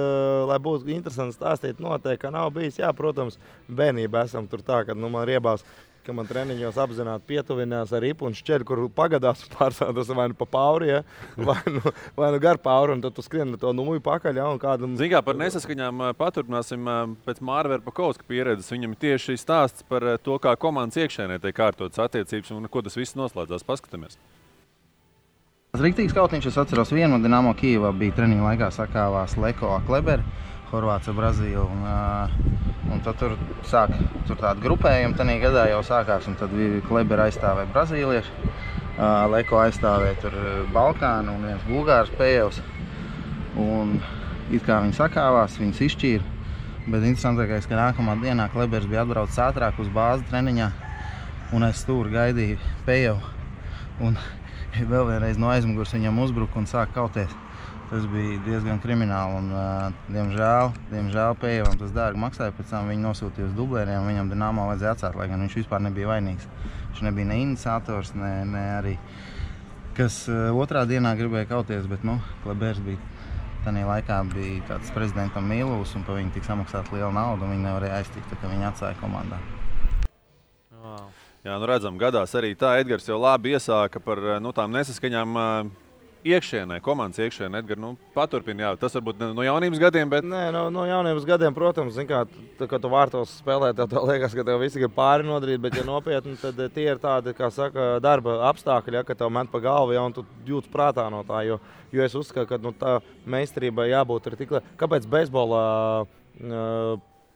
[SPEAKER 5] lai būtu interesanti stāstīt, noteikti, ka nav bijis. Jā, protams, bērnībā esam tur tā, kad man riebās, ka man treniņos apzināti pietuvinās ar ripu un šķeļu, kur pagadās pārstādas vai nu pa pauri, ja? vai nu gar pauri, un tad tu skrien to numuju pakaļ. Ja?
[SPEAKER 2] Zin kā, par nesaskaņām paturpināsim pēc Māra Verpakovska pieredzes. Viņam tieši stāsts par to, kā komandas iekšēnē tiek kārtotas attiecības un ko tas viss noslēdzās. Paskatāmies.
[SPEAKER 6] Riktīgs kautiņš, es atceros vienu, Dinamo Kijevā bija treniņa laikā sakāvās Leko Kleber, Horvāts ar Brazīlu. Un tad tur tāda grupējuma tanī gadā jau sākās, un tad Kleber aizstāvēja brazīlieši, Leko aizstāvēja tur Balkānu un viens Bulgārs Pējevs. Un it kā viņi sakāvās, viņus izšķīra, bet interesantākais, ka nākamā dienā Klebers bija atbraucis ātrāk uz bāzi treniņā, un es stūri gaidīju Pējevu. Un vēl vienreiz no aizmugurs viņam uzbruka un sāka kauties. Tas bija diezgan krimināli un, diemžēl Pējevam tas dārgi maksāja. Pēc tam viņi nosūtīja uz dublēriem, viņam Dinamo vajadzēja atcelt, lai gan viņš vispār nebija vainīgs. Viņš nebija ne iniciators, ne arī, kas otrā dienā gribēja kauties, bet, Klebers bija tanī laikā bija tāds prezidentam Mīlūs un pa viņu tik samaksāt lielu naudu un viņi nevarēja aiztikt, tā kā viņi atstāja komandā.
[SPEAKER 2] Jā, redzam, gadās arī tā. Edgars jau labi iesāka par tām nesaskaņām iekšēnē, komandas iekšēnē. Edgar, paturpini, jā, tas varbūt no jaunības gadiem, bet...
[SPEAKER 5] Nē, no jaunības gadiem, protams, zin kā, kad tu vārtos spēlē, tev liekas, ka tev visi grib pāri nodarīt, bet ja nopietni, tad tie ir tādi, kā saka, darba apstākļi, ja, ka tev met pa galvu, ja, un tu jūtas prātā no tā, jo es uzskatu, ka tā meistarība jābūt ir tik... Kāpēc beisbolā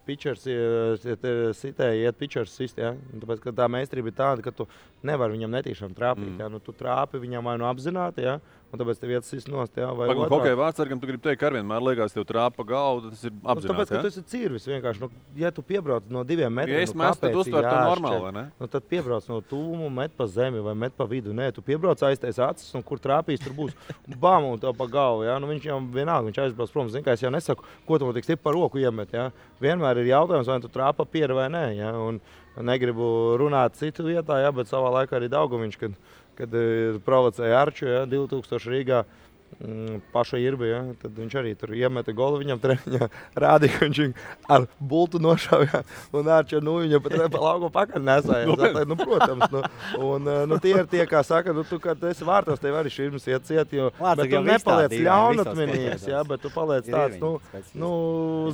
[SPEAKER 5] pitchers iet pitchers sist, ja? Tāpēc, ka tā meistarība ir tāda, ka tu nevari viņam netīšām trāpīt. Ja? Tu trāpi viņam vai apzināti, ja? Un tāpēc tev iet sist nost. Ja? Vai
[SPEAKER 2] hokeja vārdsargam tu gribi teikt, ka vienmēr liekas tev trāpa galvu, tas ir apzināti.
[SPEAKER 5] Tāpēc, ka tu esi cirvis vienkārši. Ja tu piebrauc no 2 metriem,
[SPEAKER 2] ja es mestu, tad uztver to normāli, vai ne?
[SPEAKER 5] Tad piebrauc no tūmu, met pa zemi vai met pa vidu. Nē, tu piebrauc aiztais acis un kur trāpīs, tur būs bam un tev pa galvu. Ja? Viņš jau vienalga, viņš aizbrauc prom. Zin, kā es jau nesaku, ko tu man tik stipri pa roku iemet. Ja? Vienmēr ir jautājums, vai tu trāpa pieri vai nē. Ja? Un negribu runāt citu vietā, ja? Bet savā laikā arī Daugaviņš, kad provocēja Arču, ja? 2000 Rīgā paša Irbi, ja? Tad viņš arī tur iemeta golu viņam treniņā, rādīja, ka viņš ar bultu nošāvja un Arču viņam pat pa lauku pakaļ nesāja. Protams. Tie ir tie, kā saka, tu, kad esi vārtos, tev arī širmas iet ciet, bet tu nepaliec ļaunatminīgs, ja? Bet tu paliec tāds,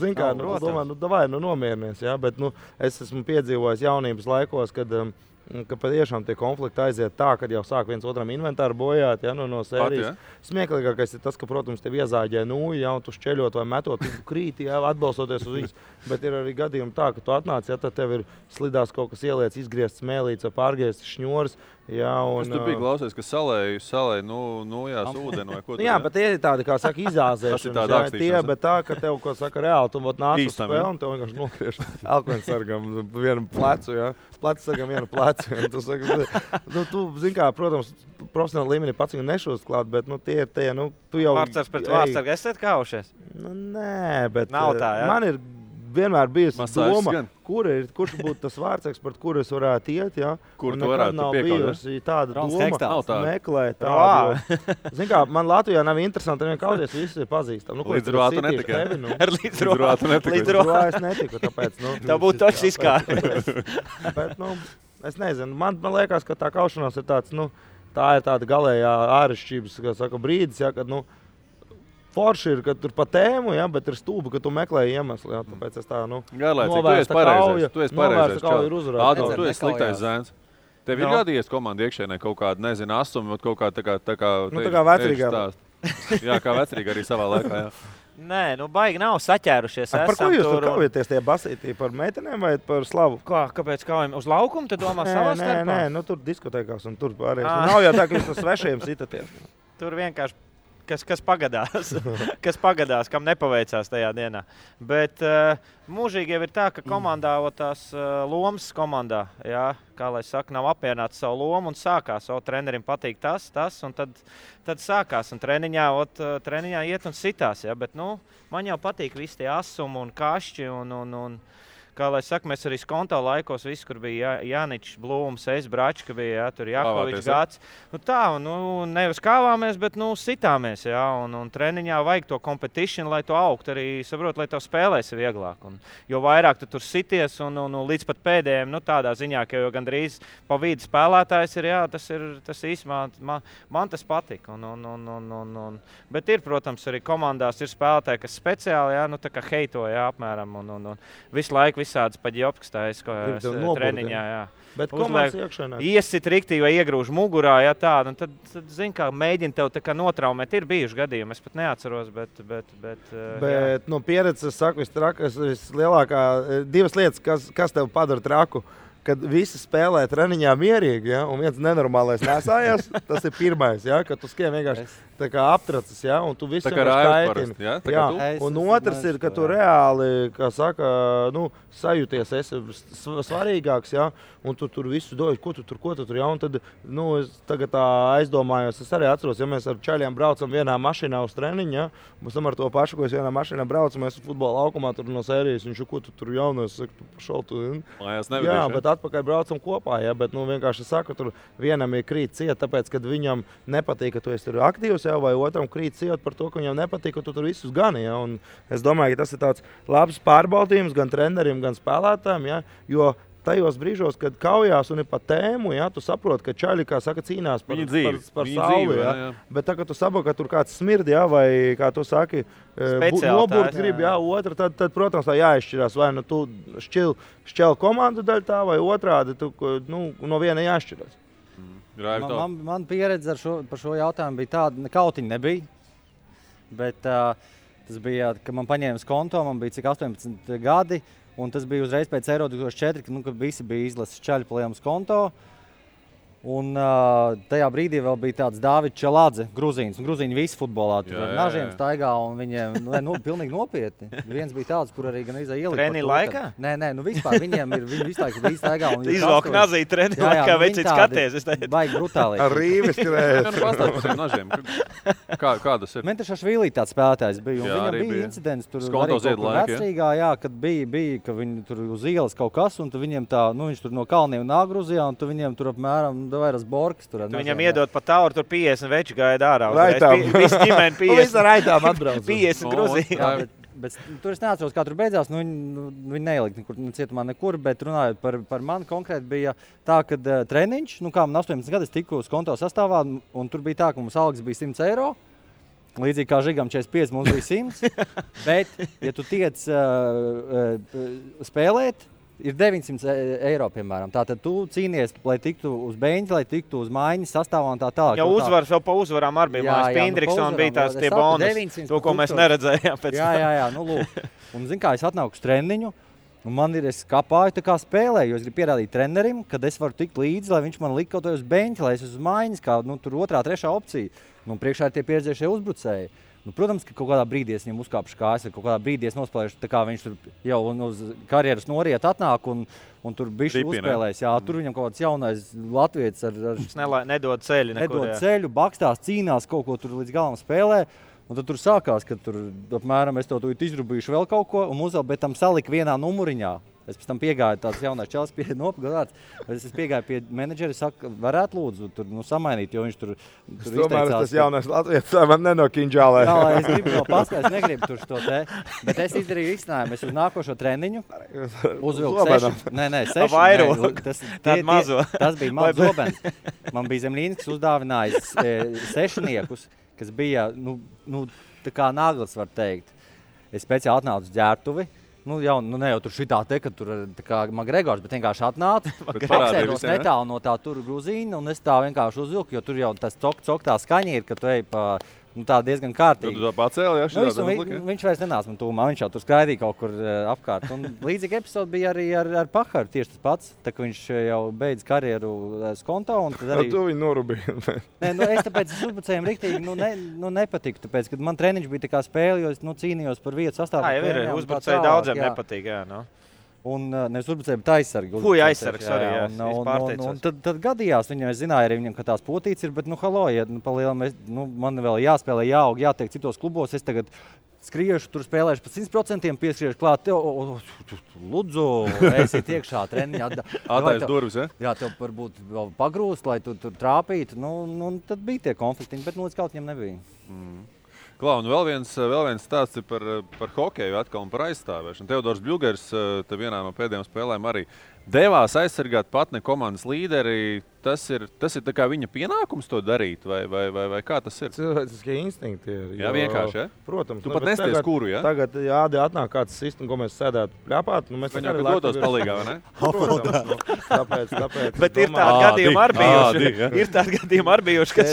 [SPEAKER 5] zin kā, domā, davai, nomierinies, ja? Bet, es esmu piedzīvojis jaunības laikos, ka patiešām tie konflikti aiziet tā, kad jau sāk viens otram inventāru bojāt, ja, no sērijas. Smieklīgākais ir tas, ka, protams, tev iezāģē nūju, ja, un tu šķeļot vai metot, tu krīti, ja, atbalstoties uz viņus. Bet ir arī gadījumi tā, ka tu atnāc, ja tad tev ir slidās kaut kas ieliec, izgriezt smēlīts vai pārgriezts šņoris. Jā, un,
[SPEAKER 2] tu biji klausies, ka salēju nojās ūdeni vai ko tu?
[SPEAKER 5] Jā, bet tie ir tādi, kā saka, izāzēšanas. Bet tā, ka tev, ko saka, reāli, tu nāc uz spēli un tev vienkārši nogriež elkvensargam vienu plecu, jā. Plecsargam vienu plecu. Tu saki, tu, zin kā, protams, profesionāli līmenī pats viņu nešūst klāt, bet, tie ir tie, tu jau...
[SPEAKER 4] Vārdsargs pret vārdsargu, esat kaušies?
[SPEAKER 5] Nē, bet
[SPEAKER 4] nav tā, jā?
[SPEAKER 5] Man ir vienmēr bijusi doma, kurš būtu tas vārdsargs, pret kuru es varētu iet, ja?
[SPEAKER 2] Kur tu varētu
[SPEAKER 5] nav bijusi tāda doma meklēt
[SPEAKER 3] tādu.
[SPEAKER 5] Zin kā, man Latvijā nav interesanti, nevien kauties, visi ir pazīstami.
[SPEAKER 2] Līdzrvātu netika.
[SPEAKER 4] Līdzrvātu
[SPEAKER 5] es netiku, tāpēc.
[SPEAKER 4] Tā būtu točs izkārt.
[SPEAKER 5] Bet, es nezinu, man liekas, ka tā kaušanās ir tāds, tā ir tāda galējā ārešķības, kā saka, brīdis, ja, kad, forši ir, ka tur pa tēmu, ja, bet ir stūbi, ka tu meklē iemeslu. Ja, tāpēc es tā,
[SPEAKER 2] novērsta kauja. Tu esi pareizais.
[SPEAKER 5] Ādam,
[SPEAKER 2] tu esi sliktais zēns. Tev ir gadījies komanda iekšēnē kaut kāda, nezinu, asumi, kaut kā tā kā
[SPEAKER 5] vecrīgā.
[SPEAKER 2] Jā, kā vecrīga arī savā laikā, jā.
[SPEAKER 4] Nē, baigi nav saķērušies.
[SPEAKER 5] Par ko jūs tur kaujieties tie basītī? Par meitenēm vai par slavu?
[SPEAKER 4] Kāpēc kaujam? Uz laukumu te domā savā starpā?
[SPEAKER 5] Nē, tur diskotēkās un tur pārējais. Nav jau tā, ka jūs no svešiem sitaties.
[SPEAKER 4] Tur vienkārši kas pagadās, kam nepaveicās tajā dienā. Bet mūžīgi jau ir tā, ka komandā, tās lomas komandā, jā, kā lai saka, nav apmierināts savu lomu un sākās. Trenerim patīk tas, un tad sākās. Un treniņā iet un sitās, jā, bet, man jau patīk visi tie asumi un kašķi un kā lai saka, mēs arī skonto laikos, viss, kur bija Jāničs, Blūms, Bračka bija, tur Jakovičs gads. Nu tā, nevis kāvāmies, bet, sitāmies, un treniņā vajag to competition, lai to augt arī, saprot, lai tev spēlēs vieglāk. Un, jo vairāk tu tur sities un līdz pat pēdējiem, tādā ziņā, ka jau gandrīz pa vidu spēlētājs ir, tas īsumā, man tas patika. Bet ir, protams, arī komandās ir spēlētāji, kas speciāli, tā kā heito, apmēram, un visu laiku visādas paģiopkas taisa treniņā,
[SPEAKER 5] Bet komandas iekšanā.
[SPEAKER 4] Iesit riktīgi vai iegrūž mugurā, tad zin, kā mēģina tev tā kā notraumēt. Ir bijuši gadījumi, es pat neatceros, bet
[SPEAKER 5] no pieredzes, es saku, vislielākā, divas lietas, kas tev padara traku. Kad visi spēlē treniņā mierīgi, un viens nenormālais nesājās, tas ir pirmais, kad tu skrien vienkārši tā kā aptracis, un tu visu
[SPEAKER 2] kaitini.
[SPEAKER 5] Un otrs ir, ka tu reāli, kā saka, sajūties esi svarīgāks, un tu tur visu doji, ko tu tur, un tad, es tagad tā aizdomājos, es arī atceros, ja mēs ar čaļiem braucam vienā mašīnā uz treniņu, mēs ar to pašu, ko es vienā mašīnā braucam, mēs futbola laukumā tur no sērijas, viņš, ko tu tur jaunais, saka, tu pašaltu, bet atpakaļ braucam kopā, bet vienkārši saku, tur vienam ir krīt ciet, tāpēc, kad viņam nepatīk, ka tu esi tur aktīvs, vai otram krīt ciet par to, ka viņam nepatīk, ka tu tur visus gani, un es domāju, ka tas ir tāds labs pārbaudījums gan treneriem, gan spēlētājiem, jo tajos brīžos, kad kaujās un ir pa tēmu, tu saproti, ka čaļi, kā saka, cīnās par sauli, bet tā, ka tu saproti, ka tur kāds smird, vai, kā tu saki, noburt grib, otra, tad, protams, tā jāizšķirās, vai tu šķel komandu daļ tā, vai otrādi, tu, no viena jāšķirās.
[SPEAKER 3] Man pieredze par šo jautājumu bija tāda, kautiņa nebija, bet tas bija, ka man paņēma skonto, man bija cik 18 gadi, un tas bija uzreiz pēc Eiro 2004, kad visi bija izlases čaļi pa lielu skonto. Un tajā brīdī vēl bija tāds Dāvids Čelādze, gruzīns. Gruzīņi visi futbolā tur ar nažiem staigā, un viņiem pilnīgi nopietni. Viens bija tāds, kur arī gan ielika.
[SPEAKER 4] Treniņa laikā?
[SPEAKER 3] Nē, vispār viņi visu laiku bija staigā.
[SPEAKER 4] Izvalk nazī treniņa laikā, veicīt skaties.
[SPEAKER 3] Baigi brutāli.
[SPEAKER 5] Ar rīvis skrējas.
[SPEAKER 2] Pastāv par tiem nažiem. Kā tas ir?
[SPEAKER 3] Mentrašašvili tāds spēlētājs bija, un viņam bija incidents tur arī kaut vecrīgā, kad bija, ka viņi tur uz ielas kaut kas, un viņiem tā, viņš tur no kalniem nāgruzījā, un viņiem tur apmēram vairs borkas tur.
[SPEAKER 4] Viņam iedod pa tauru, tur 50 veči gaida ārā.
[SPEAKER 5] Raitām.
[SPEAKER 4] Visi ģimeni 50.
[SPEAKER 5] Visi raitām atbrauc.
[SPEAKER 4] 50 gruzījā.
[SPEAKER 3] Bet tur es neatceros, kā tur beidzās. Viņi neilika cietumā nekur, bet runājot par mani konkrēti bija tā, ka treniņš, kā man 18 gadi, es tiku uz konto sastāvā, un tur bija tā, ka mums algas bija 100 eiro. Līdzīgi kā Žigam 45, mums bija 100. Bet, ja tu tiec spēlēt, ir 900 eiro, piemēram. Tātad tu cīnies, lai tiktu uz beņķa, lai tiktu uz maiņas sastāvā un tā tālāk.
[SPEAKER 4] Jā, uzvaras vēl pa uzvarām arī bija. Pindriksons bija tās tie bonus, to, ko mēs neredzējām pēc tam.
[SPEAKER 3] Jā, lūk. Un zin kā, es atnāku uz treniņu, un es kapāju tā kā spēlēju, jo es gribu pierādīt trenerim, kad es varu tikt līdzi, lai viņš man lika kaut uz beņķa, lai es uz maiņas, kā tur otrā, trešā opcija. Priekšā ir tie pieredzējušie uzbrucēji. Protams, ka kaut kādā brīdī es viņam uzkāpšu kājas, kaut kādā brīdī es nospēlēšu, tā kā viņš tur jau uz karjeras noriet atnāk un tur bišķi uzspēlēs. Jā, tur viņam kaut kāds jaunais latvietis ar
[SPEAKER 4] nedod ceļu nekur.
[SPEAKER 3] Nedod ceļu, bakstās, cīnās, kaut ko tur līdz galam spēlē. Un tad tur sākās, ka tur apmēram es to izrubīšu vēl kaut ko un bet tam salika vienā numuriņā. Es pēc tam piegāju tāds jaunais čels pie nopagādāts. Es piegāju pie menedžeri, saku, varētu lūdzu tur samainīt, jo viņš tur
[SPEAKER 5] izteicās. Tomēr tas jaunais latvietis man nenokinžālē.
[SPEAKER 3] Jā, es gribu no paskatīt, es negribu tur šo te. Bet es izdarīju izcinājumu. Es uz nākošo treniņu uzvilku 6. Nē, 6. Tas bija mans zobens. Man bija Zemlīnis, kas uzdāvinājis 6, kas bija, tā kā naglas, var teikt. Es speciāli atnācu uz ģērbtuvi. Ne jau tur šitā te, ka tur tā kā Magregors, bet vienkārši atnāca, apsēdos netālu no tā tur gruzīna, un es tā vienkārši uzvilku, jo tur jau tas cok tā skaņa ir, ka tu ej pa tā diezgan kārtīgi.
[SPEAKER 2] Tu tā pacēli,
[SPEAKER 3] viņš vairs nenāca man tūmā, viņš jau tur skraidīja kaut kur apkārt. Un līdzīgi epizodi bija arī ar Pakaru, tieši tas pats, tā ka viņš jau beidz karjeru skonto. Un tad arī...
[SPEAKER 5] Tu viņu norubīji.
[SPEAKER 3] Es tāpēc uzbrucējiem riktīgi nepatiku, tāpēc, kad man treniņš bija tā kā spēle, jo es cīnījos par vietu sastāvā.
[SPEAKER 4] Uzbrucēji daudziem nepatīk, jā.
[SPEAKER 3] Un nevis uzbrucēji, bet aizsargi.
[SPEAKER 4] Fuj, aizsargs arī, jā.
[SPEAKER 3] Un tad gadījās viņam, es zināju arī viņam, ka tās potītes ir, bet, ja man vēl jāspēlē, jāaug, jātiek citos klubos, es tagad skriešu, tur spēlēšu pa 100%, pieskriešu klāt, lūdzu, esiet iekšā treniņā.
[SPEAKER 2] Atais durvis, ja?
[SPEAKER 3] Jā, tev varbūt vēl pagrūst, lai tu tur trāpītu. Tad bija tie konfliktiņi, bet līdz kaut viņam nebija.
[SPEAKER 2] Klau, un vēl viens stāsts ir par hokeju atkal un par aizstāvēšanu. Teodors Bļugers te vienā no pēdējām spēlēm arī devās aizsargāt patne komandas līderi. Tas ir tā kā viņa pienākums to darīt, vai kā tas ir?
[SPEAKER 5] Cilvēciskie instinkti ir.
[SPEAKER 2] Jā, vienkārši, ja?
[SPEAKER 5] Protams.
[SPEAKER 2] Tu pat nesties kuru, ja?
[SPEAKER 5] Tagad atnāk kāds sistēma, ko mēs sēdētu pļāpāt.
[SPEAKER 2] Viņam, ka dotos palīgā, vai ne?
[SPEAKER 5] Protams, tāpēc.
[SPEAKER 4] Bet ir tādi gadījumi arī bijuši. Ir tādi gadījumi arī bijuši, kas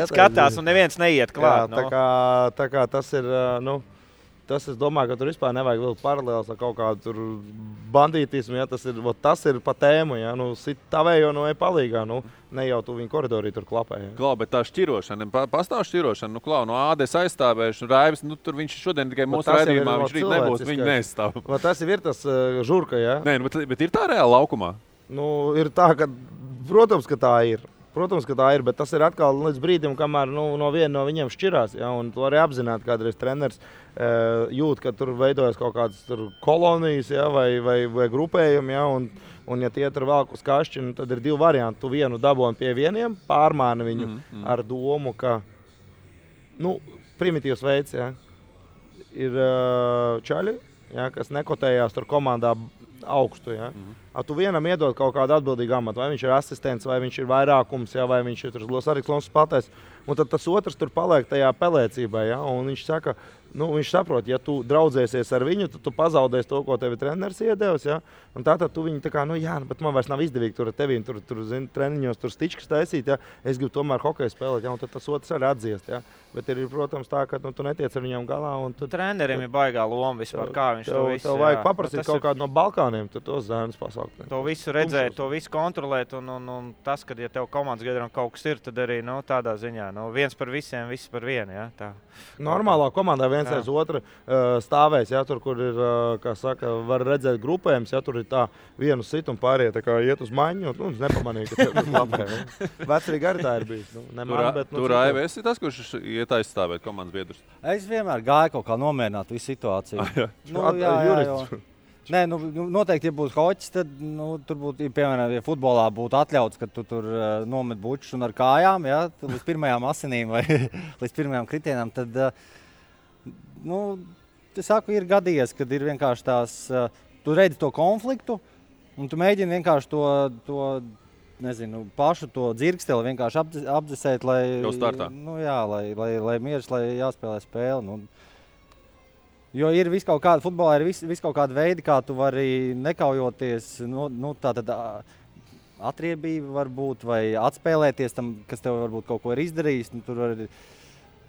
[SPEAKER 4] skatās un neviens neiet klāt.
[SPEAKER 5] Tā kā tas ir, tas es domāju, ka tur vispār nevajag vilkt paralēlas ar kaut kādu tur bandītismu, ja tas ir pa tēmu, ja, sit tavējo no palīgā, ne jau tu viņu koridorī tur klapē. Ja.
[SPEAKER 2] Klau, bet tā šķirošana, pastāv šķirošana, Klau, no Ādes aizstāvēšana, Raivis, tur viņš šodien tikai mūsu raidījumā, viņš rīt nebūs, viņi neizstāv.
[SPEAKER 5] Tas ir tas žurka, ja?
[SPEAKER 2] Nē, bet ir tā reāli laukumā?
[SPEAKER 5] Ir tā, ka, protams, ka tā ir. Protams, ka tā ir, bet tas ir atkal līdz brīdim, kamēr no viena no viņiem šķirās. Ja, un to arī apzināti, kādreiz treneris jūt, ka tur veidojas kaut kādas kolonijas, ja, vai grupējumi. Ja, un ja tie tur velk uz kašķi, tad ir divi varianti. Tu vienu daboni pie vieniem, pārmāni viņu ar domu, ka primitīvs veids, ja, ir čaļi, ja, kas nekotējās tur komandā augstu. Ja. Tu vienam iedod kaut kādu atbildīgu amatu, vai viņš ir asistents, vai viņš ir vairākums, ja, vai viņš ir arī klons spēlētājs. Un tad tas otrs tur paliek tajā pelēcībā. Ja, un viņš saka, viņš saprot, ja tu draudzēsies ar viņu, tad tu pazaudēsi to, ko tevi treneris iedevis. Ja, un tātad tu viņu tā kā, bet man vairs nav izdevīgi tur ar tevi, tur treniņos, tur stičkas taisīt. Ja, es gribu tomēr hokeju spēlēt, ja, un tad tas otrs arī atdziest. Ja. Bet ir, protams, tā, ka tu netiec ar viņam galā.
[SPEAKER 4] Trenerim ir baigā loma vispār, kā viņš to visu.
[SPEAKER 5] Tev vajag paprasīt kaut kādu no Balkāniem, tad tos zēnus pasaukt.
[SPEAKER 4] To visu redzēt, to visu kontrolēt, un tas, kad ja tev komandas gadījumā kaut kas ir, tad arī tādā ziņā, viens par visiem, viss par vienu. Ja, tā.
[SPEAKER 5] Normālā komandā viens aiz otru stāvēs, ja, tur, kur ir, kā saka, var redzēt grupējums, ja tur ir tā vienu sit un pārējie tā kā iet uz maņu, un nepamanīja, ka tev lapē. Vecrīgi arī tā ir bijis.
[SPEAKER 2] Tur AIVS ir tas, kurš iet aizstāvēt komandas biedrus?
[SPEAKER 3] Es vienmēr gāju kaut kā nomierināt visu situāciju. Nē, noteikti, ja būtu hoķis, tad tur būtu, piemēram, ja futbolā būtu atļauts, ka tu tur nomet bučus un ar kājām, ja, līdz pirmajām asinīm vai līdz pirmajām kritienām, tad, es saku, ir gadījies, kad ir vienkārši tās, tu redzi to konfliktu, un tu mēģini vienkārši to pašu to dzirksteli vienkārši apdzesēt, lai, lai mieras, lai jāspēlē spēli. Jo ir futbolā ir vis kaut kāda veida, kā tu vari nekaujoties, tātad atriebība var būt vai atspēlēties tam, kas tev varbūt kaut ko ir izdarījis. Tur var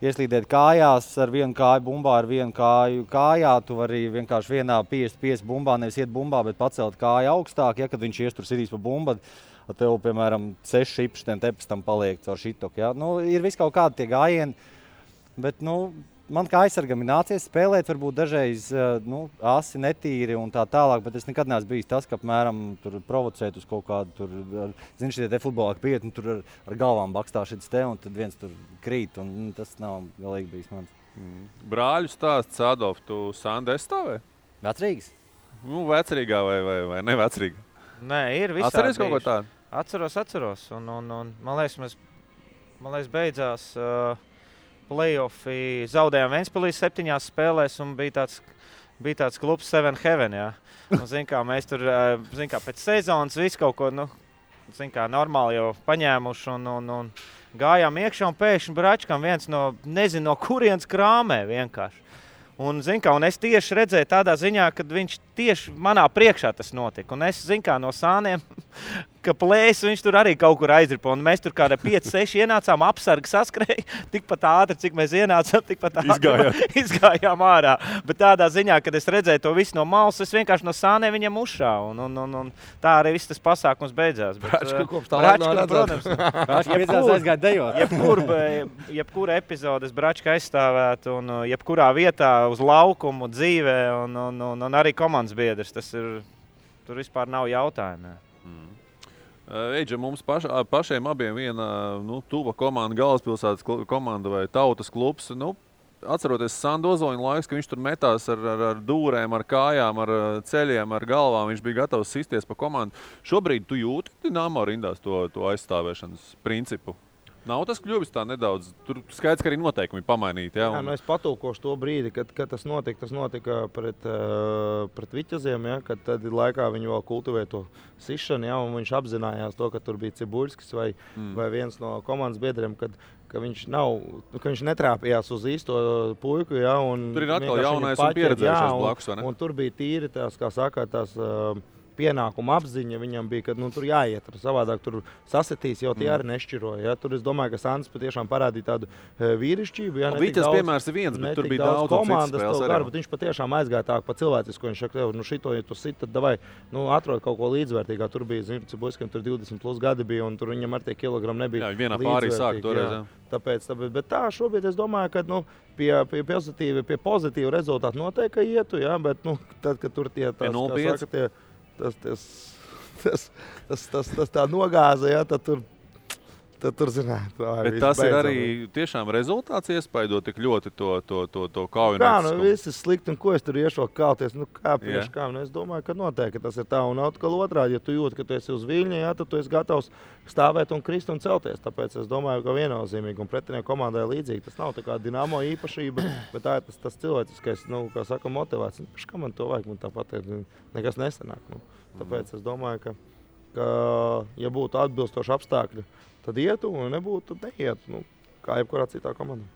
[SPEAKER 3] ieslīdēt kājās ar vienu kāju bumbā, ar vienu kāju kājā. Tu vari vienkārši vienā 50 bumbā, nevis iet bumbā, bet pacelt kāju augstāk. Ja, kad viņš ies tur sidīs pa bumbu, tev, piemēram, 6 šipšiem tepes tam paliek caur šitoku. Ja. Ir vis kaut kādi tie gājieni, bet, man kā aizsargam ir nācies spēlēt, varbūt dažreiz asi netīri un tā tālāk, bet es nekad neesmu bijis tas, ka apmēram tur provocēt uz kaut kādu tur, šitie te futbolā pieti, tur ar galvām bakstā šits te, un tad viens tur krīt, un tas nav galīgi bijis mans.
[SPEAKER 2] Brāļu stāsts, Adolf, tu Sandu aizstāvē?
[SPEAKER 3] Vecrīgas?
[SPEAKER 2] Vecrīgā vai nevecrīga?
[SPEAKER 4] Nē, ir visādi.
[SPEAKER 2] Atceries kaut ko tādu?
[SPEAKER 4] Atceros, un man liekas, beidzās play-offi, zaudējām Ventspilī 7 spēlēs un bija tāds klubs Seven Heaven, jā. Un, mēs tur, pēc sezonas visu kaut ko, normāli jau paņēmuši un gājām iekšā un pēkšņi Bračkam viens nezinu no kurienes krāmē vienkārši. Un es tieši redzēju tādā ziņā, kad viņš tieši manā priekšā tas notika. Un es, no sāniem, ka plēs viņš tur arī kaut kur aizripa. Un mēs tur kādā 5-6 ienācām, apsargi saskrēja. Tikpat ātri, cik mēs ienācām, tikpat ātri izgājām ārā. Bet tādā ziņā, kad es redzēju to visu no malas, es vienkārši no sāniem viņam uzšāvu. Un tā arī viss tas pasākums beidzās.
[SPEAKER 5] Bračka kopš tā laika nav
[SPEAKER 3] redzēts. Bračka beidzās aizgāja dejot.
[SPEAKER 4] Jebkura epizodes Bračka aizstāvētu un jebkurā vietā uz laukumu, dzīvē un arī komandas biedrs. Tas ir tur vispār nav jautājumu.
[SPEAKER 2] Eidža, mums pašiem abiem viena tuva komanda, galvaspilsētas komanda vai tautas klubs. Atceroties Sandu Ozoņu laiks, ka viņš tur metās ar dūrēm, ar kājām, ar ceļiem, ar galvām. Viņš bija gatavs sisties pa komandu. Šobrīd tu jūti Dinamo rindās to aizstāvēšanas principu? Nav tas kļuvis tā nedaudz. Tur skaidrs, ka arī noteikumi pamainīti.
[SPEAKER 5] Jā, es patūkošu to brīdi, kad tas notika pret Viķaziem, ja, kad tad laikā viņi vēl kultivēja to sišanu, ja, un viņš apzinājās to, ka tur bija Cibuļskis vai viens no komandas biedriem, ka viņš netrāpījās uz īsto puiku. Ja,
[SPEAKER 2] tur ir atkal jaunais un pieredzējušais blakus, vai ne?
[SPEAKER 5] Un tur bija tīri tās, kā saka, tās pienākuma apziņa viņam bija, ka tur jāiet. Savādāk tur sasitīs, jau tie arī nešķiroja. Ja. Tur es domāju, ka Sants patiešām parādīja tādu vīrišķību. Ja,
[SPEAKER 2] Vitas piemērs ir viens, bet tur bija daudz
[SPEAKER 5] komandas. Viņš patiešām aizgāja tā pa cilvēcisku. Viņš saka, šito, ja tu sit, tad davai, atrod kaut ko līdzvērtīgā. Tur bija, Cibuļskim tur 20 plus gadi bija, un tur viņam ar tie kilogrami nebija.
[SPEAKER 2] Jā, vienā pārī sāk toreiz.
[SPEAKER 5] Tāpēc, bet tā šobrīd es domāju, ka pie pozitīva rezultāta noteikti ietu, ja, bet tad, kad tur tie tas tā nogāza, ja, tad tur zināt.
[SPEAKER 2] Bet tas ir arī tiešām rezultāts iespaido tik ļoti to kaujinieciskumu.
[SPEAKER 5] Viss ir slikti, un ko es tur iešu kauties? Es domāju, ka noteikti tas ir tā. Un atkal otrādi, ja tu jūti, ka tu esi uz viļņa, ja, tad tu esi gatavs stāvēt un krist un celties. Tāpēc es domāju, ka viennozīmīgi un pretinieku komandai līdzīgi. Tas nav tā kā Dinamo īpašība, bet tā ir tas cilvēciskais, kā saka, motivācija. Kā man to vajag? Man tāpat nekas nesanāk. Tāpēc es domāju, ka ja būtu atbilstoši apstākļi, tad ietu, un nebūtu, tad neietu, kā jebkurā citā komandā.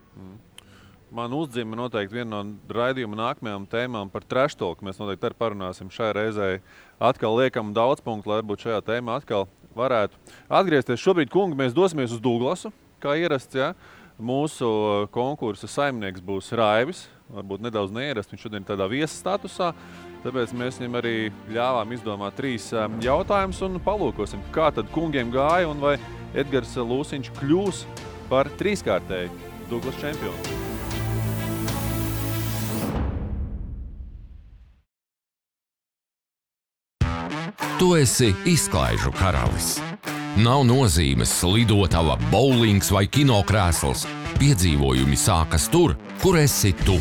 [SPEAKER 2] Man uzdzima noteikti viena no raidījuma nākamajām tēmām par trash talk. Mēs noteikti arī parunāsim šai reizei. Atkal liekam daudz punktu, lai varbūt šajā tēmā atkal varētu atgriezties. Šobrīd, kungi, mēs dosimies uz Duglasu, kā ierasts, ja. Mūsu konkursa saimnieks būs Raivis, varbūt nedaudz neierast, viņš šodien tādā viesa statusā. Tāpēc mēs viņam arī ļāvām izdomāt 3 jautājumus un palūkosim, kā tad kungiem gāja un vai Edgars Lūsiņš kļūs par 3-kārtēju Duglas čempionu.
[SPEAKER 1] Tu esi izklaižu karalis. Nav nozīmes lidotava, bowlings vai kinokrēsls. Piedzīvojumi sākas tur, kur esi tu.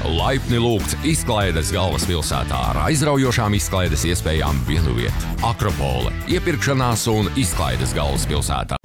[SPEAKER 1] Laipni lūgts izklaides galvaspilsētā ar aizraujošām izklaides iespējām vienuviet. Akropole, iepirkšanās un izklaides galvaspilsētā.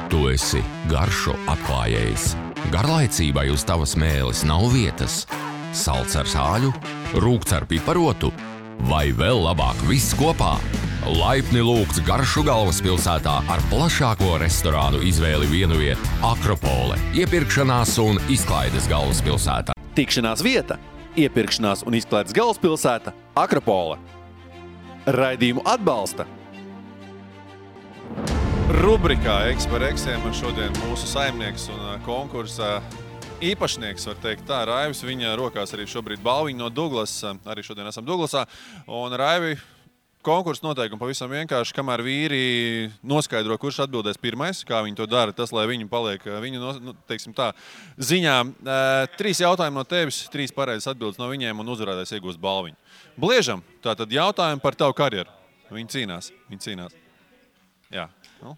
[SPEAKER 1] Tu esi garšu atklājējs. Garlaicībai uz tavas mēles nav vietas. Salds ar sāļu, rūgts ar piparotu vai vēl labāk viss kopā. Laipni lūgts garšu galvaspilsētā ar plašāko restorānu izvēli vienuviet Akropole, iepirkšanās un izklaides galvaspilsētā.
[SPEAKER 7] Tikšanās vieta, iepirkšanās un izklaides galvaspilsēta Akropole. Raidījumu atbalsta
[SPEAKER 2] Rubrikā X par Xiem šodien mūsu saimnieks un konkursa īpašnieks, var teikt tā, Raivis. Viņa rokās arī šobrīd balviņa no Duglas. Arī šodien esam Duglasā. Un Raivi, konkursa noteikumi pavisam vienkārši, kamēr vīri noskaidro, kurš atbildēs pirmais, kā viņi to dara, tas, lai viņi paliek viņu, teiksim tā, ziņā. 3 jautājumi no tevis, 3 pareizes atbildes no viņiem un uzvarētājs iegūst balviņu. Bliežam, tātad jautājumi par tavu karjeru. Viņi cīnās. Jā.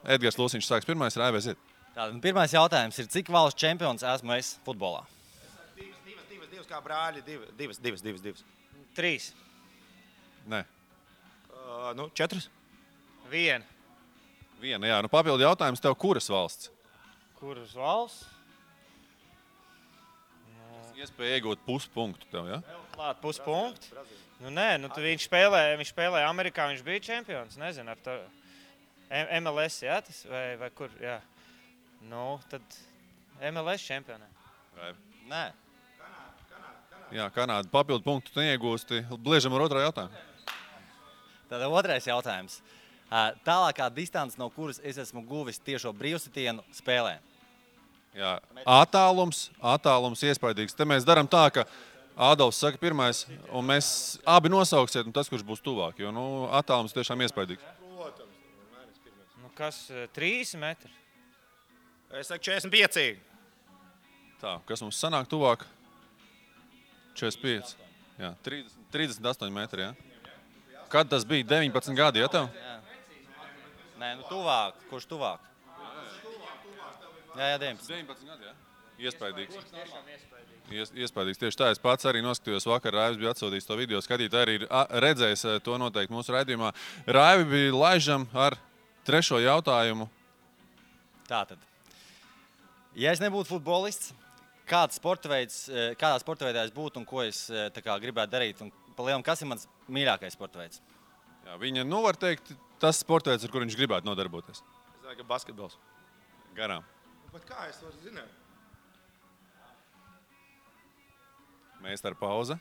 [SPEAKER 2] Edgars Lūsiņš sāks pirmais, Raivi, aiziet.
[SPEAKER 3] Tātad pirmais jautājums ir, cik valsts čempions esmu es futbolā?
[SPEAKER 5] 2 kā brāļi, 2.
[SPEAKER 4] 3.
[SPEAKER 2] Nē.
[SPEAKER 5] 4.
[SPEAKER 4] 1.
[SPEAKER 2] Jā. Papildu jautājums tev, kuras valsts?
[SPEAKER 4] Kuras valsts?
[SPEAKER 2] Iespēja iegūt puspunktu tev, ja?
[SPEAKER 4] Klāt puspunktu? Viņš spēlēja Amerikā, viņš bija čempions, nezinu, ar to. MLS, jā, tas vai kur, jā. Tad MLS čempionē. Nē.
[SPEAKER 2] Jā, Kanāda. Papildu punktu tu neiegūsti. Bliežam ar otrā jautājumu.
[SPEAKER 3] Tātad otrais jautājums. Tālākā distance, no kuras es esmu guvis tiešo brīvsitienu spēlē?
[SPEAKER 2] Jā, attālums iespaidīgs. Te mēs darām tā, ka Ādolfs saka pirmais, un mēs abi nosauksiet, un tas, kurš būs tuvāk, jo attālums tiešām iespaidīgs.
[SPEAKER 4] Nu, kas 3 metri?
[SPEAKER 5] Es saku 45.
[SPEAKER 2] Tā, kas mums sanāk tuvāk? 45. Jā, 38 metri, jā. Kad tas bija? 19 gadi, ja tev?
[SPEAKER 3] Jā. Nē, nu tuvāk. Kurš tuvāk? Jā,
[SPEAKER 2] 19 gadi, jā. Iespaidīgs. Iespaidīgs. Tieši tā, es pats arī noskatījos vakar, Raivs bija atsūtījis to video, skatītāji arī ir redzējis to noteikti mūsu raidījumā. Raivi bija laižam ar 3. jautājumu.
[SPEAKER 3] Tātad. Ja es nebūtu futbolists, kādā sporta veidā es būtu un ko es gribētu darīt? Un pa lielam, kas ir mans mīļākais sporta veids?
[SPEAKER 2] Jā, viņa, var teikt, tas sporta veids, ar kur viņš gribētu nodarboties.
[SPEAKER 5] Es saku, ka basketbols.
[SPEAKER 2] Garām.
[SPEAKER 5] Bet kā es varu zināt?
[SPEAKER 2] Meistara pauze.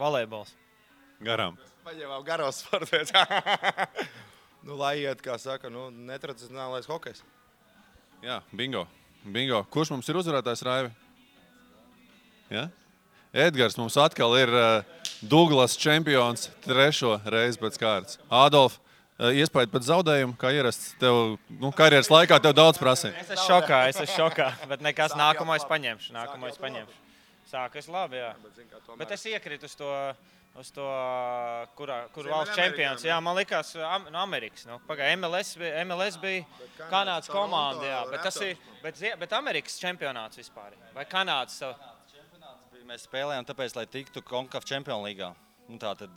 [SPEAKER 4] Volejbols.
[SPEAKER 2] Garām.
[SPEAKER 5] Paņēmām garos sporta veids. Lai iet, kā saka, netradicionālais hokejs.
[SPEAKER 2] Jā, bingo. Kurš mums ir uzvarētājs, Raivi? Ja? Edgars mums atkal ir Douglas čempions 3. reizi pēc kārtas. Ādolf, iespēja pēc zaudējumu, kā ierasts tev, karjeras laikā tev daudz prasīja.
[SPEAKER 4] Es esmu šokā, bet nekas nākamo es paņemšu. Sākas labi, jā. Bet es iekrītu uz to, kur valsts čempions. Jā, man likās no Amerikas. Pagāja, MLS bija Kanādas komanda, jā. Bet Amerikas čempionāts vispār. Vai Kanādas savu?
[SPEAKER 3] Mēs spēlējām tāpēc, lai tiktu CONCACAF Champions līgā. Tātad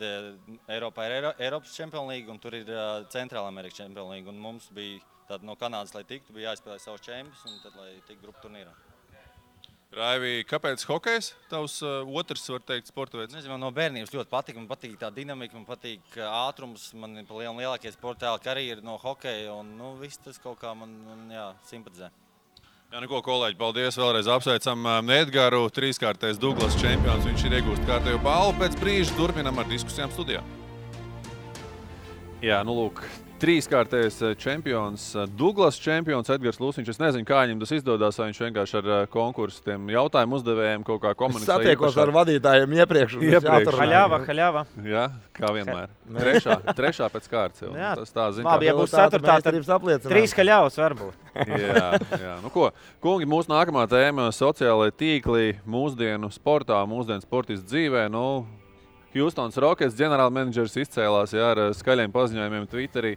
[SPEAKER 3] Eiropā ir Eiropas Champions līga un tur ir Centrāla Amerikas Champions līga. Un mums bija no Kanādas, lai tiktu, bija jāizspēlē savus čempions un tad, lai tiktu grupu turnīrā.
[SPEAKER 2] Raivi, kāpēc hokejs? Tavs otrs, var teikt, sporta veids?
[SPEAKER 3] Nezinu, man no bērnības ļoti patīk. Man patīk tā dinamika, man patīk ātrums. Man ir lielākie sporta karjera no hokeja un viss tas kaut kā man simpatizē.
[SPEAKER 2] Jā, kolēģi, paldies. Vēlreiz apsveicam Edgaru, 3-kārtais Douglas čempions. Viņš ir iegūst kārtējo balvu. Pēc brīža turpinam ar diskusijām studijā. Jā, lūk, 3-kārtais čempions, Douglas čempions, Edgars Lūsiņš. Es nezinu, kā viņam tas izdodas, vai viņš vienkārši ar konkursu tiem jautājumu uzdevējiem kaut kā komunicē.
[SPEAKER 5] Satiekos ar vadītājiem iepriekš.
[SPEAKER 4] Haļāva.
[SPEAKER 2] Jā, kā vienmēr. Trešā pēc kārtas jau.
[SPEAKER 4] Jā,
[SPEAKER 2] tas tā zina.
[SPEAKER 4] Labi, ja būs 4, tad 3 haļāvas varbūt.
[SPEAKER 2] Jā. Kungi, mūsu nākamā tēma - sociālai tīkli mūsdienu sportā, mūsdienu sportistu dzīvē. Houstons Rockets ģenerālmenedžers izcēlās ar skaļiem paziņojumiem Twitterī.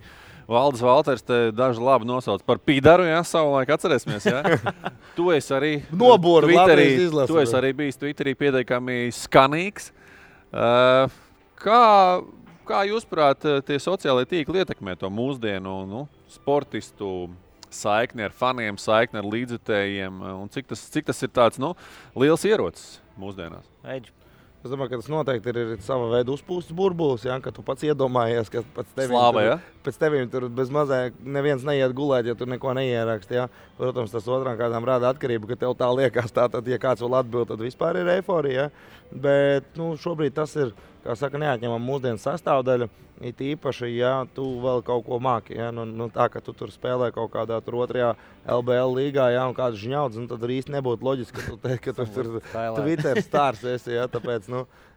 [SPEAKER 2] Valdis Valters te daži labi nosauc par pīdaru, savulaik atcerēsimies. Tu esi arī
[SPEAKER 5] Nobūri,
[SPEAKER 2] tu esi arī bijis Twitterī pietiekami skanīgs. Kā jūs prāt tie sociālai tīkli ietekmē to mūsdienu sportistu saikni ar faniem, saikni ar līdzjutējiem? Un cik tas ir tāds liels ierocis mūsdienās?
[SPEAKER 5] Es domāju, ka tas noteikti ir sava veida uzpūstas burbulis, ka tu pats iedomājies, ka pēc tevīm tur bez mazāk neviens neiet gulēt, ja tu neko neieraksti. Protams, tas otrām kārtām rāda atkarību, ka tev tā liekas. Tātad, ja kāds vēl atbild, tad vispār ir eiforija. Bet šobrīd tas ir, kā saka, neatņemama mūsdienu sastāvdaļa. It īpaši, ja tu vēl kaut ko māki. Tā, ka tu tur spēlē kaut kādā tur 2. LBL līgā, un kāds žņauds, tad arī īsti nebūtu loģiski, ka tu teici, ka tu tur Twitter stārs esi.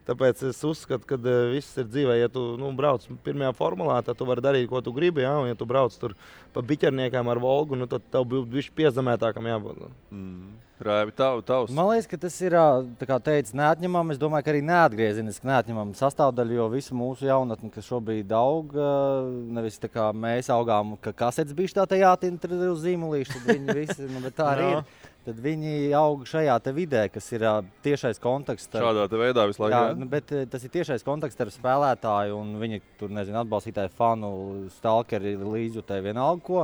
[SPEAKER 5] Tāpēc es uzskatu, ka viss ir dzīvē. Ja tu brauc pirmajā formulā, tad tu vari darīt, ko tu gribi. Un ja tu brauc tur pa biķerniekām ar Volgu, tad tev būtu bišķi piezemētākam jābūt.
[SPEAKER 2] Raivi, tavs.
[SPEAKER 3] Man liekas, ka tas ir, tā kā teica, neatņemama. Es domāju, ka arī neatgriezeniski neatņemama sastāvdaļa, jo visu mūsu jaunatni, kas šobrīd aug, nevis tā kā mēs augām, ka kasetes bišķi tā jātintra uz zīmulīšu, tad viņi visi, bet tā arī ir. Tad viņi aug šajā te vidē, kas ir tiešais kontakts.
[SPEAKER 2] Šādā te veidā visu laiku.
[SPEAKER 3] Jā, bet tas ir tiešais kontakts ar spēlētāju un viņa tur, atbalstītāju fanu, stalkeri, līdzjutēji, vienalga ko.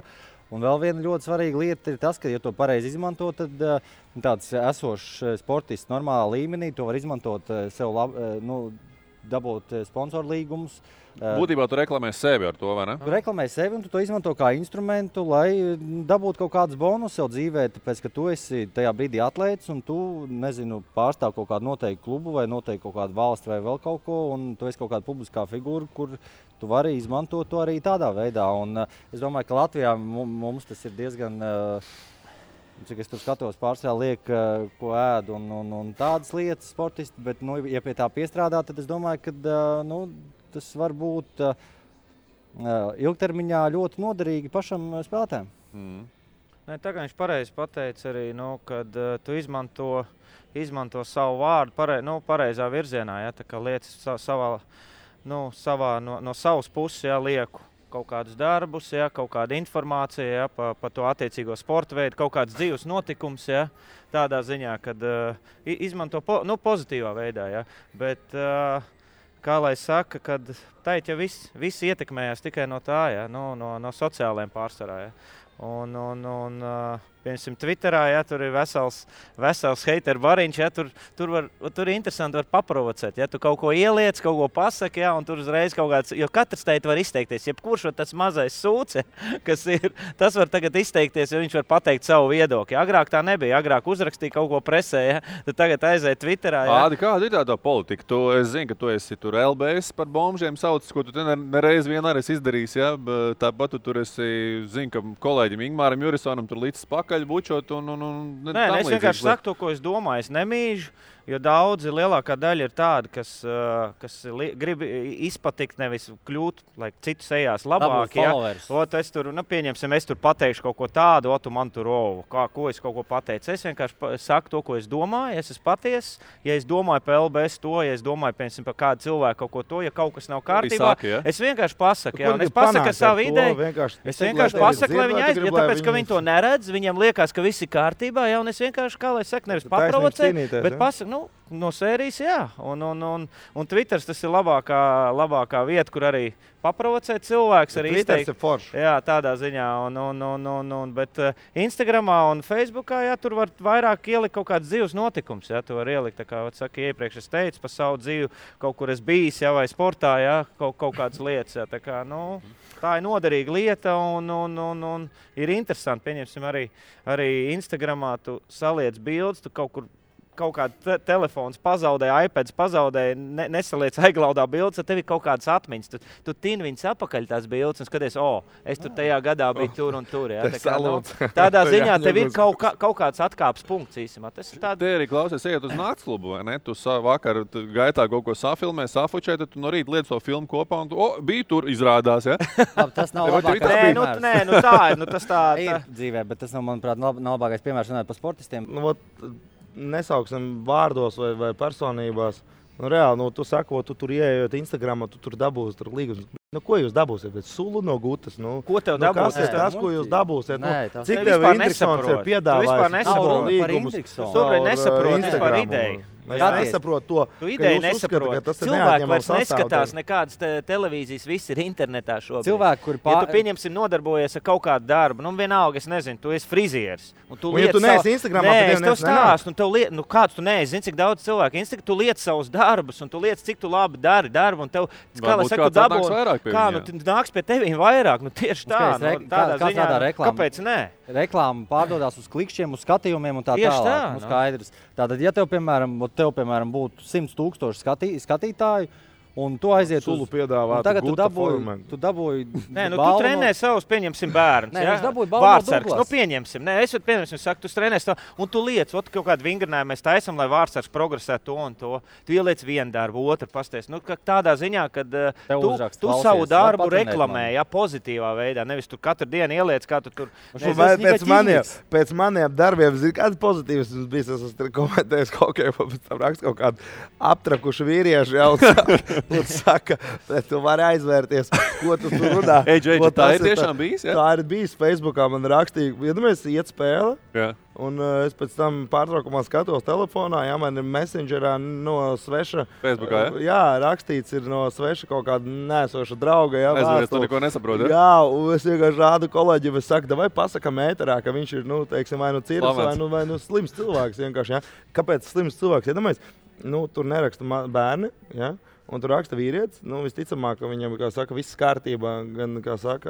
[SPEAKER 3] Un vēl viena ļoti svarīga lieta ir tas, ka, ja to pareizi izmanto, tad tāds esošs sportists normālā līmenī to var izmantot sev dabūt sponsoru līgumus.
[SPEAKER 2] Būtībā tu reklamē sevi ar to, vai ne?
[SPEAKER 3] Tu reklamē sevi un tu to izmanto kā instrumentu, lai dabūtu kaut kādus bonus sev dzīvē, tāpēc, ka tu esi tajā brīdī atlētis un tu, pārstāv kaut kādu noteiktu klubu vai noteikti kaut kādu valsti vai vēl kaut ko, un tu esi kaut kāda publiskā figūra, kur tu vari izmantot to arī tādā veidā. Un es domāju, ka Latvijā mums tas ir diezgan cik es tur skatos, pārsvarā liek, ko ēd un tādas lietas sportisti, bet, nu, ja pie tā piestrādā, tad es domāju, ka tas var būt ilgtermiņā ļoti noderīgi pašam spēlētājiem.
[SPEAKER 4] Nē, tā kā viņš pareizi pateica arī, kad tu izmanto savu vārdu pareizā virzienā, ja, tā kā lietas no savas puses, ja, lieku kaut kādus darbus, ja, kaut kāda informācija, ja, par to attiecīgo sporta veidu, kaut kāds dzīves notikums, ja, tādā ziņā, kad izmanto pozitīvā veidā, ja, bet kā lai saka, kad teikt, ja viss ietekmējās tikai no tā, ja, no sociālajiem pārsvarā, ja. Piemēram, Twitterā, ja, tur ir vesels hateru bariņš, ja, tur ir interesanti var paprovocēt. Ja, tu kaut ko ieliec, kaut ko pasaki, ja, un tur uzreiz kaut kāds, jo katrs teikt var izteikties. Jebkurš tas mazais sūce, kas ir, tas var tagad izteikties, jo viņš var pateikt savu viedokli. Agrāk tā nebija, agrāk uzrakstīja kaut ko presē, ja, tad tagad aiziet Twitterā. Ja.
[SPEAKER 2] Ādi, kāda ir tā politika? Es zinu, ka tu esi tur LBS par bombžiem saucis, ko tu nereiz vien arī izdarījis, ja, tāpat tu tur esi, zinu, ka kolēģim Ingmāram Jurisonam tur līdz pakaļ bučot
[SPEAKER 4] Nē, es vienkārši saku to, ko es domāju. Es nemīžu, jo daudzi, lielākā daļa ir tādi, kas grib izpatikt, nevis kļūt, lai citu sejās labāk. Ja? Es tur, pieņemsim, es tur pateikšu kaut ko tādu, tu man tur ko es kaut ko pateicu. Es vienkārši saku to, ko es domāju, es esmu patiess. Ja es domāju par LBS to, ja es domāju, piemēram, par kādu cilvēku kaut ko to, ja kaut kas nav kārtībā,
[SPEAKER 2] ja?
[SPEAKER 4] Es vienkārši pasaku. Ja? Es pasaku savu ideju. Es vienkārši pasaku, lai viņi aiziet, tāpēc, ka viņi to neredz, viņiem liekas, ka viss ir kārtībā, ja? Un es vienkārši, kā lai saka, nevis paprovocēju, bet pasaku, no sērijas, jā. Un Twitters tas ir labākā vieta, kur arī paprovocēt cilvēks. Arī
[SPEAKER 5] Twitters ir forši.
[SPEAKER 4] Jā, tādā ziņā. Bet Instagramā un Facebookā, jā, tur var vairāk ielikt kaut kāds dzīves notikums. Jā, tu var ielikt, tā kā iepriekš es teicu, par savu dzīvi, kaut kur es bijis, jā, vai sportā, jā, kaut kādas lietas. Jā, tā kā, tā ir noderīga lieta un ir interesanti. Pieņemsim arī Instagramā tu saliec bildes, tu kaut kāda telefons pazaudēja, iPads pazaudēja, nesaliec aiglaudā bildes, tad tev ir kaut kādas atmiņas. Tu tini viņas apakaļ tās bildes un skaties, es tur tajā gadā biju tur un tur. Ja? Tādā ziņā tev ir kaut kāds atkāpes punkts īsimā.
[SPEAKER 2] Te arī klausies, ejot uz naktsklubu, vai ne? Tu vakar gaitā kaut ko safilmē, safučē, tad tu no rīta liec to filmu kopā un tu, bija tur izrādās, ja?
[SPEAKER 3] Tas nav labākais piemērs.
[SPEAKER 4] Nē, tā ir. Tas tā
[SPEAKER 3] ir dzīvē, bet tas nav, manuprāt, nav labākais piemērs runāt par sportistiem.
[SPEAKER 5] Nesauksim vārdos vai personībās. Reāli, tu sako, tu tur ieejot Instagramā, tu tur dabūsi tur līgumus. Ko jūs dabūsiet? Sulu no gutas.
[SPEAKER 4] Ko tev dabūsiet?
[SPEAKER 5] Kas ir tas, ko jūs dabūsiet?
[SPEAKER 4] Cik tev Indriksons ir piedāvājis
[SPEAKER 5] līgumus?
[SPEAKER 4] Tu nesaproti vispār ideju.
[SPEAKER 5] Es nesaprotu to,
[SPEAKER 4] tu ideju nesaproti. Cilvēki vairs neskatās nekādas televīzijas, viss ir internetā šobrīd.
[SPEAKER 3] Cilvēki, kuri
[SPEAKER 4] ja tu pieņemsim nodarbojies ar kaut kādu darbu, vienalga, es nezinu, tu esi frizieris.
[SPEAKER 5] Ja tu neesi Instagramā,
[SPEAKER 4] tad tev stāstu. Kāds tu neesi, zini, cik daudz cilvēku Instagramā, tu liec savus darbus, un tu liec, cik tu labi dari darbu, un tev, kā lai saka, tu dabū. Kā, nāks pie tevīm vairāk, tieši tā, tādā ziņā, kāpēc nē?
[SPEAKER 3] Reklāma pārdodās uz klikšķiem, uz skatījumiem un tā tālāk. Skaidrs. Tātad, ja tev, piemēram, būtu 100,000 skatītāju, un tu aiziet
[SPEAKER 5] Sulu piedāvāt,
[SPEAKER 3] tagad tu dabūji
[SPEAKER 4] Nē, tu trenē savus, pieņemsim, bērnus.
[SPEAKER 3] Nē, viņš dabūja balvu no Douglas.
[SPEAKER 4] Pieņemsim. Nē, es saku, tu trenē savu, un tu liec, kaut kādu vingrinājumu mēs taisam, lai Vārtsargs progresē to un to. Tu ieliec vienu darbu, otru pasties. Tādā ziņā, kad tu savu darbu reklamē, ja, pozitīvā veidā, nevis tu katru dienu ieliec, kā tu tur.
[SPEAKER 5] Pēc maniem darbiem, zini, kāds pozitīvs bijis, es esmu komentējis pēc tam rakstu kaut kādu aptrakušu vīriešu jau. Un saka, tu vari aizvērties, ko tu tur runā.
[SPEAKER 2] Tā ir tiešām bijis, ja?
[SPEAKER 5] Tā ir bijis Facebookā, man rakstīja, iedomājies, iet spēle,
[SPEAKER 2] jā.
[SPEAKER 5] Un es pēc tam pārtraukumā skatos telefonā, jā, man ir messengerā no sveša.
[SPEAKER 2] Facebookā, ja?
[SPEAKER 5] Jā, rakstīts ir no sveša kaut kāda nesoša drauga, jā,
[SPEAKER 2] vēstuli. Tu neko nesaproti, ja?
[SPEAKER 5] Jā, un es vienkārši rādu kolēģiem, es saku, vai pasakam ēterā, ka viņš ir, teiksim, vai cirks, vai slims cilvēks vienkārši, jā. Kāpēc slims cilvēks? Iedomājies, tur neraksta bērni, jā. Un tur raksta vīrietis, visticamāk, ka viņam, kā saka, viss kārtībā, gan, kā saka,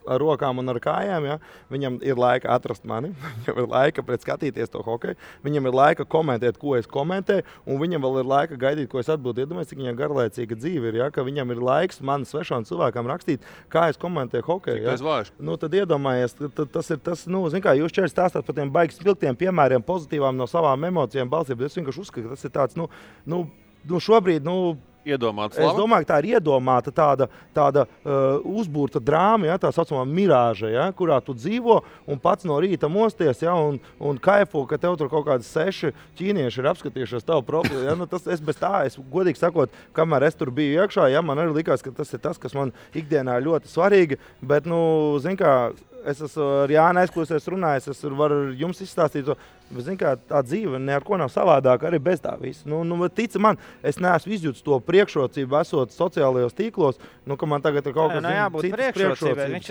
[SPEAKER 5] ar rokām un ar kājām, ja? Viņam ir laika atrast mani, viņam ir laika skatīties to hokeju, viņam ir laika komentēt, ko es komentēju, un viņam vēl ir laika gaidīt, ko es atbildu. Iedomājies, cik viņam garlaicīga dzīve ir, ja? Ka viņam ir laiks man svešām cilvēkam rakstīt, kā es komentēju hokeju. Ja? Nu, tad iedomājies, tas ir tas, nu, zin kā, jūs šķiet stāstāt par tiem baigi spilgtiem piemēriem, pozitīvām no savām emocijām balsīm, bet es vienkārši uzskatu, ka tas ir tāds, nu šobrīd,
[SPEAKER 2] iedomāta
[SPEAKER 5] slava? Es domāju, ka tā ir iedomāta tāda uzbūrta drāma, ja, tā saucamā mirāža, ja, kurā tu dzīvo un pats no rīta mosties, ja, un kaifo, ka tev tur kaut kādi 6 ķīnieši ir apskatījušies tavu profilu. Ja, es godīgi sakot, kamēr es tur biju iekšā, ja, man arī likās, ka tas ir tas, kas man ikdienā ļoti svarīgi, bet, zin kā, es esmu ar Jānu aizklausies runājis, es varu jums izstāstīt to, bet, zin kā, tā dzīve ne ar ko nav savādāk arī bez tā visa. Tic man, es neesmu izjūtis to priekšrocību esot sociālajos tīklos, ka man tagad ir kaut kas citas priekšrocības.
[SPEAKER 4] Viņš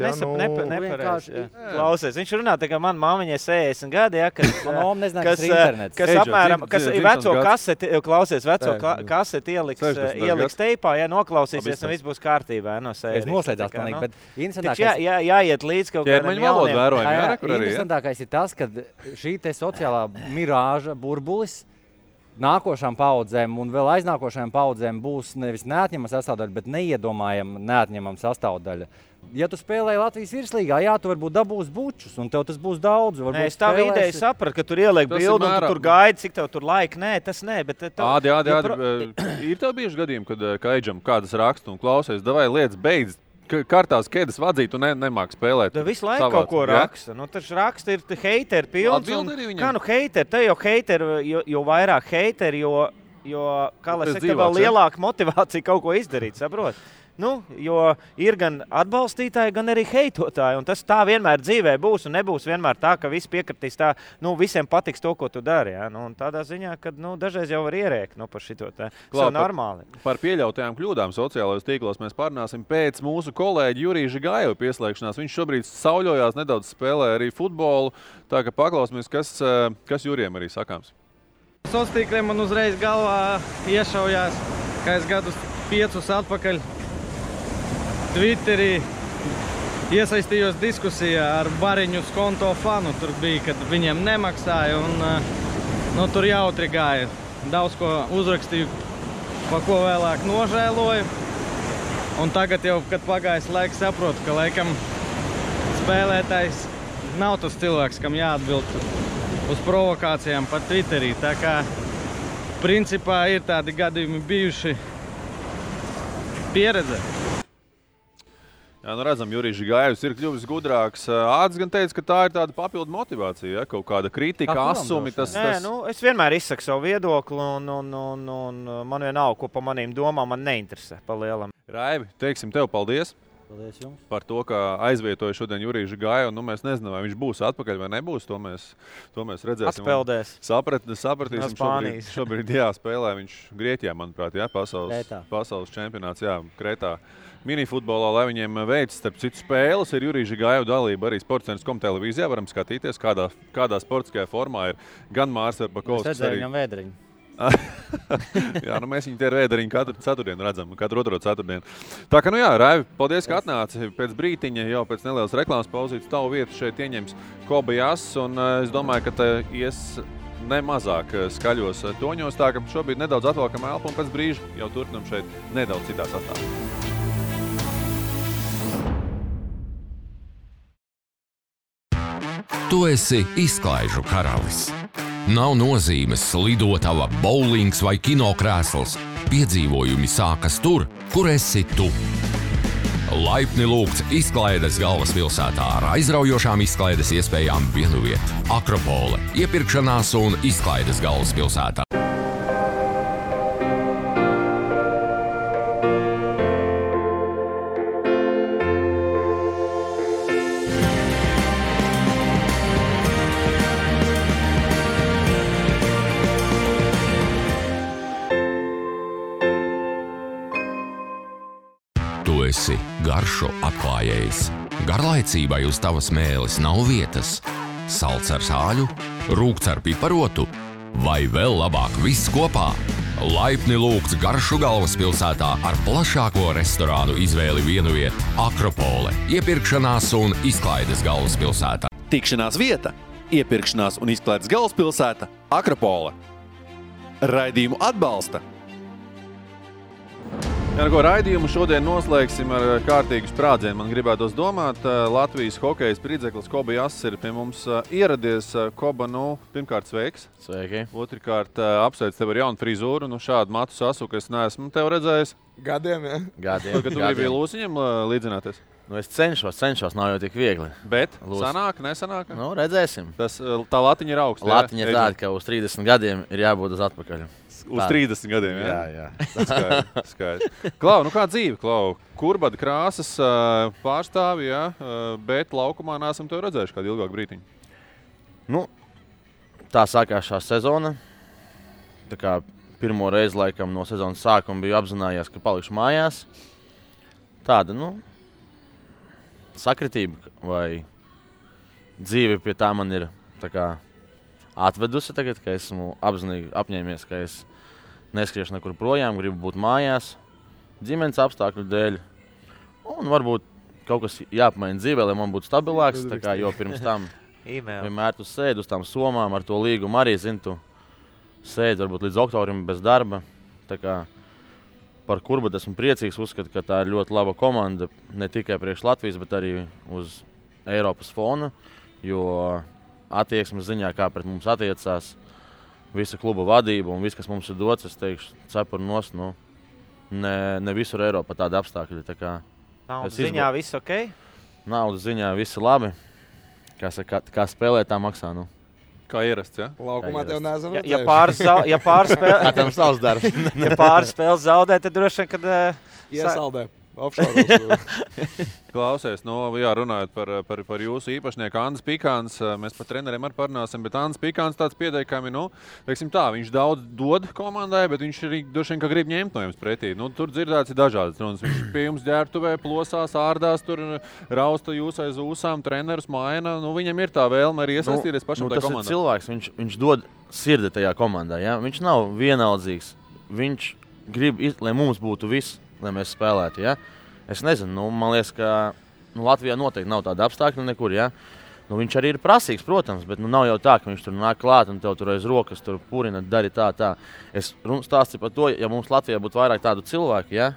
[SPEAKER 4] nepareizi. Klausies, viņš runā, tā kā man māmiņai 60 gadi, ja, kas apmēram, kas veco kaseti, klausies, veco kaseti ieliks teipā, ja, noklausīsies, un viss būs kārtībā, ja, no sērijas.
[SPEAKER 3] Es noslēdzās manīgi, bet interesantākais...
[SPEAKER 4] Jāiet līdz kaut kādiem jauniem.
[SPEAKER 3] Interesantākais ir tas, ka šī te sociālā mirāža burbulis nākošām paudzēm un vēl aiznākošajām paudzēm būs nevis neatņemama sastāvdaļa, bet neiedomājama neatņemama sastāvdaļa. Ja tu spēlēji Latvijas virslīgā, jā, tu varbūt dabūsi bučus, un tev tas būs daudz.
[SPEAKER 4] Es tā ideja sapratu, ka tur ieliek bildu, un tu tur gaidi, cik tev tur laika. Nē, tas nē, bet...
[SPEAKER 2] Ir tev bieži gadījumi, kad Kaidžam kādas raksta un klausies, davai lietas beidz. Kartās ķēdes vadzīt un nemāk spēlēt.
[SPEAKER 4] Tu visu laiku kaut ko raksta. Nu, taču raksta ir heiteri pilns. Kā heiteri? Te jau heiteri, jo vairāk heiteri, jo kā lai saka, vēl lielāka motivācija kaut ko izdarīt, saprot? Jo ir gan atbalstītāji, gan arī heitotāji. Un tas tā vienmēr dzīvē būs un nebūs vienmēr tā, ka visi piekritīs tā, visiem patiks to, ko tu dari. Ja? Un tādā ziņā, ka dažreiz jau var ierēkt par šito tā. Tas ir normāli.
[SPEAKER 2] Par pieļautajām kļūdām sociālajos tīklos mēs parunāsim pēc mūsu kolēģi Jurija Žigājeva pieslēgšanās. Viņš šobrīd sauļojās, nedaudz spēlē arī futbolu. Tā ka paklausīsimies, kas Jurijam arī sakāms.
[SPEAKER 8] Sociālos tīkliem man uzreiz galvā iešaujās, ka es gadus 5 atpakaļ Twitterī iesaistījos diskusijā ar Bariņu skonto fanu. Tur bija, kad viņiem nemaksāja un tur jautri gāja. Daudz ko uzrakstīju, pa ko vēlāk nožēloju. Un tagad jau, kad pagājis laiks, saprotu, ka laikam spēlētājs nav tas cilvēks, kam jāatbild uz provokācijām pa Twitterī. Tā kā principā ir tādi gadījumi bijuši pieredze.
[SPEAKER 2] Jā, redzam, Jurijs Žigājevs ir kļuvis gudrāks. Āds gan teica, ka tā ir tāda papildu motivācija, ja? Kaut kāda kritika, asumi.
[SPEAKER 4] Es vienmēr izsaku savu viedokli un man vienalga, ko pa manīm domām, man neinteresē pa lielam.
[SPEAKER 2] Raivi, teiksim tev paldies.
[SPEAKER 3] Paldies jums.
[SPEAKER 2] Par to, ka aizvietoja šodien Juriju Žigājevu. Mēs nezinām, vai viņš būs atpakaļ vai nebūs. To mēs redzēsim.
[SPEAKER 4] Atpeldēs.
[SPEAKER 2] Sapratīsim. Šobrīd spēlē viņš Grieķijā, manuprāt, pasaules čempionāts, Kretā. Minifutbolā, lai viņiem veids, starp citu spēles, ir Jurija Žigājeva dalība arī Sportcentrs.com televīzijā. Varam skatīties, kādā sportiskajā formā ir gan Mārs Verpakovskis.
[SPEAKER 3] Es redzēju viņam vēdriņu.
[SPEAKER 2] Jā, mēs viņu tie ar vēdriņu katru ceturtdienu redzam, katru otro ceturtdienu. Tā kā, Raivi, paldies, ka atnāci. Pēc brītiņa, jau pēc nelielas reklāmas pauzītes, tavu vietu šeit ieņems Koba Jass, un es domāju, ka te ies nemazāk skaļos toņos. Tā ka šobrīd nedaudz atvalkam elpu, un pēc brīža jau turpinam šeit nedaudz citā sastāvā.
[SPEAKER 1] Tu esi izklaižu karalis. Nav nozīmes lidotava, bowlings vai kinokrēsls. Piedzīvojumi sākas tur, kur esi tu. Laipni lūgts izklaides galvaspilsētā ar aizraujošām izklaides iespējām vienviet. Akropole, iepirkšanās un izklaides galvaspilsētā. Esi garšo atklājējs. Garlaicībai uz tavas mēles nav vietas. Salds ar sāļu, rūgts ar piparotu vai vēl labāk viss kopā. Laipni lūgts garšu galvaspilsētā ar plašāko restorānu izvēli vienvieta Akropole, iepirkšanās un izklaides galvaspilsētā.
[SPEAKER 7] Tikšanās vieta, iepirkšanās un izklaides galvaspilsēta Akropole. Raidījumu atbalsta.
[SPEAKER 2] Ar ko raidījumu šodien noslēgsim ar kārtīgu sprādzienu. Man gribētos domāt, Latvijas hokeja spridzeklis Koba Jass ir pie mums ieradies. Koba, pirmkārt sveiks.
[SPEAKER 9] Sveiki.
[SPEAKER 2] Otrkārt apsveic tev ar jaunu frizūru. Šādu matu sasuku es neesmu tev redzējis.
[SPEAKER 5] Gadiem, ja?
[SPEAKER 9] Gadiem.
[SPEAKER 2] Kad tu gribi Lūsiņam līdzināties?
[SPEAKER 9] Es cenšos, nav jau tik viegli.
[SPEAKER 2] Bet sanāk, nesanāk?
[SPEAKER 9] Redzēsim.
[SPEAKER 2] Tā latiņa ir augsta.
[SPEAKER 9] Latiņa ir tāda, ka uz 30 gadiem ir jābūt uz atpakaļ.
[SPEAKER 2] Uz 30 gadiem, jā?
[SPEAKER 9] Jā.
[SPEAKER 2] Skaidrs. Klau, kā dzīve, Klau? Kurbada krāsas pārstāvi, jā, bet laukumā neesam tev redzējuši kādu ilgāku brītiņu.
[SPEAKER 9] Tā sākās šā sezona. Tā kā pirmo reizi laikam no sezonas sākuma biju apzinājies, ka palikšu mājās. Tāda, sakritība vai dzīve pie tā man ir tā kā atvedusi tagad, ka esmu apzinīgi apņēmies, ka es neskriešu nekur projām, gribu būt mājās, ģimenes apstākļu dēļ. Un varbūt kaut kas jāpamaina dzīvē, lai man būtu stabilāks, tā kā, jo pirms tam vienmēr tu sēdi uz tām somām ar to līgumu arī, tu sēdi varbūt līdz oktobrim bez darba. Tā kā par Kurbadu esmu priecīgs, uzskatu, ka tā ir ļoti laba komanda, ne tikai priekš Latvijas, bet arī uz Eiropas fona, jo attieksmes ziņā, kā pret mums attiecās visa kluba vadība un viss, kas mums ir dots, es teikšu, cepur nost, ne visur Eiropā tādi apstākļi. Tā kā
[SPEAKER 4] naudas ziņā viss ok?
[SPEAKER 9] Naudas ziņā viss labi. Kā spēlē, tā maksā,
[SPEAKER 2] Kā ierasts, ja?
[SPEAKER 5] Laukumā tev neesam redzējuši.
[SPEAKER 4] Ja pāris spēles zaudē, tad droši vien, kad...
[SPEAKER 5] Iesaldē. Offshore.
[SPEAKER 2] Klausies, runājot par jūsu īpašnieku Andris Pikāns, mēs par treneriem arī parunāsim, bet Andris Pikāns tāds pieteikami, teiksim tā, viņš daudz dod komandai, bet viņš arī droši vien, ka grib ņemt no jums pretī. Tur dzirdēts ir dažādas runas. Viņš pie jums ģērbtuvē, plosās, ārdās, tur rausta jūs aiz ūsām, trenerus maina. Viņam ir tā vēlme arī iesaistīties pašam tajā komandā.
[SPEAKER 9] Tas ir cilvēks, viņš dod sirdi tajā komandā, ja? Viņš nav vienaldzīgs. Viņš grib, lai mums būtu viss, lai mēs spēlētu, ja? Es nezinu, man liekas, ka Latvijā noteikti nav tāda apstākļa nekur, ja? Viņš arī ir prasīgs, protams, bet nav jau tā, ka viņš tur nāk klāt un tev tur aiz rokas tur purina, dari tā. Es stāstīju par to, ja mums Latvijā būtu vairāk tādu cilvēku, ja?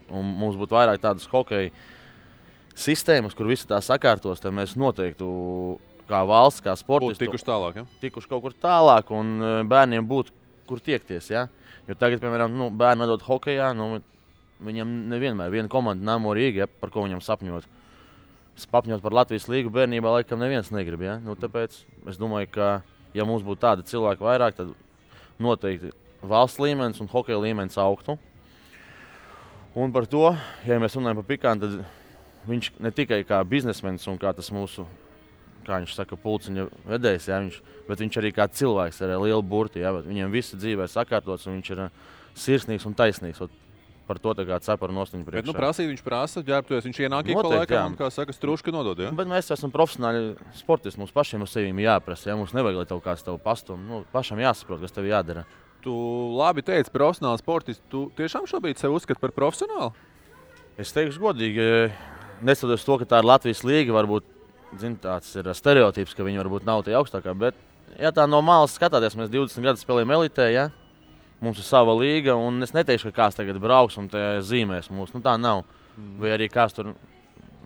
[SPEAKER 9] Un mums būtu vairāk tādas hokeja sistēmas, kur visi tā sakārtos, tad mēs noteikti kā valsts, kā sportisti
[SPEAKER 2] tikuši tālāk, ja?
[SPEAKER 9] Tikuši kaut kur tālāk un bērniem būtu kur tiekties, ja? Jo tagad, piemēram, bērni atdod hokejā, viņam nevienmēr viena komanda Namo Rīga, ja, par ko viņam sapņot. Sapņot par Latvijas līgu bērnībā laikam neviens negrib, ja? Tāpēc es domāju, ka ja mums būtu tādi cilvēki vairāk, tad noteikti valsts līmenis un hokeja līmenis augtu. Un par to, ja mēs runājam par Pikānu, tad viņš ne tikai kā biznesmenis un kā tas mūsu, kā viņš saka, pulciņa vedējs, ja, bet viņš arī kā cilvēks ar lielu burti, ja, viņam visi dzīvē sakārtots un viņš ir sirsnīgs un taisnīgs. Par to tagad cepar nostiņu priekšā.
[SPEAKER 2] Bet prasīt viņš prasa, ģērbtuvies, viņš ienāk ik pa laikam un, kā saka, struška nodod, ja?
[SPEAKER 9] Bet mēs esam profesionāli sportisti, mums pašiem uz sevīm jāprasa, ja? Mums nevajag, lai tev kāds tev pastum, pašam jāsaprot, kas tev jādara.
[SPEAKER 2] Tu labi teici, profesionāli sportisti, tu tiešām šobrīd sevi uzskati par profesionālu?
[SPEAKER 9] Es teikšu godīgi, neskatoties to, ka tā ir Latvijas līga, varbūt, tāds ir stereotips, ka viņi varbūt nav tie augstākā, bet, ja tā no malas skatāties, mēs 20 gadus spēlējam elitē, ja? Mums ir sava līga, un es neteikšu, ka kāds tagad brauks un zīmēs mūs. Tā nav. Vai arī kāds tur,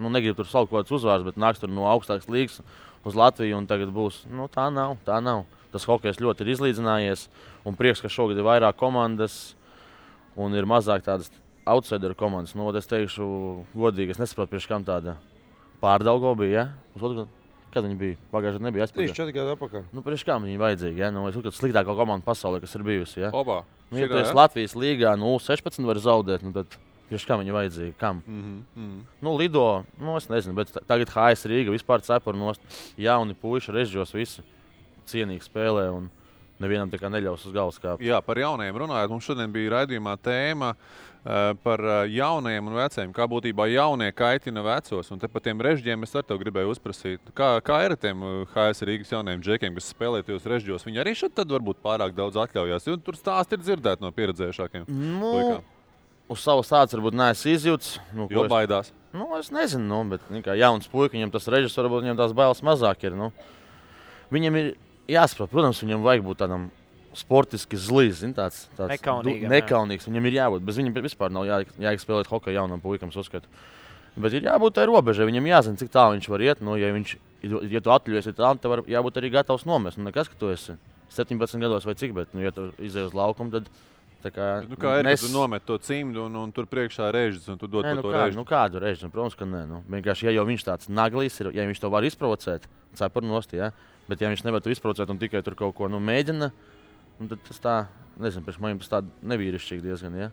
[SPEAKER 9] negrib tur saukt kaut kāds uzvārds, bet nāks tur no augstākas līgas uz Latviju un tagad būs. Tā nav. Tas hokejs ļoti ir izlīdzinājies, un prieks, ka šogad ir vairāk komandas un ir mazāk tādas outsideru komandas. Es teikšu godīgi, es nesaprotu, priekš kam tāda Pārdaugo bija, ja? Kad viņi bija? Pagājušajā nebija aizpakaļ.
[SPEAKER 5] 3-4 gadu atpakaļ.
[SPEAKER 9] Priekš kā viņi vajadzīgi, ja? Es uzskatu sliktākā komanda pasaulē, kas ir bijusi, ja?
[SPEAKER 2] Opa.
[SPEAKER 9] Ja tu esi Latvijas līgā, 16 var zaudēt, tad priekš kā viņi vajadzīgi? Kam? Lido, es nezinu, bet tagad HS Rīga vispār cepur nost. Jauni puiši, režģos visi cienīgi spēlē un nevienam tā kā neļaus uz galvas kāpt.
[SPEAKER 2] Jā, par jaunajiem runājot, mums šodien bija raidījumā tēma par jaunajiem un veciem. Kā būtībā jaunie kaitina vecos. Un te par tiem režģiem es ar tev gribēju uzprasīt. Kā ir ar tiem HS Rīgas jaunajiem džekiem, kas spēlē tajos režģos? Viņi arī šeit tad varbūt pārāk daudz atļaujās. Jo tur stāsti ir dzirdēti no pieredzējušākiem puikām.
[SPEAKER 9] Uz savu stāstu varbūt neesmu izjūts.
[SPEAKER 2] Jo baidās.
[SPEAKER 9] Es nezinu, bet kā jauns puika, viņam tas režģis varbūt viņam tās bailes mazāk ir. Viņam ir jāsaprot, protams, viņam vajag būt tādam sportiski zlīs, tāds nekaunīgs. Viņam ir jābūt, bez viņam vispār nav jāiek spēlēt hokeju jaunam puikam, uzskatu. Bet ir jābūt tai robežai, viņam jāzina, cik tālu viņš var iet. Ja tu atļaujies, tad tev jābūt arī gatavs nomest. Nekas, ka tu esi 17 gados vai cik, bet, ja tu izej uz laukumu, tad tā kā...
[SPEAKER 2] kā ir, kad tu nomet to cimdu un tur priekšā režģis un tu dod to režģi?
[SPEAKER 9] Kādu režģi? Protams, ka nē. Vienkārši, ja jau viņš tāds naglīs ir, ja viņš to var izprovocēt, cepur nost, ja? Bet ja viņš nevar to izprovocēt un tikai tur kaut ko mēģina, tad tas tā, nezinu, priekš manim tas tā nevīrišķīgi diezgan, ja?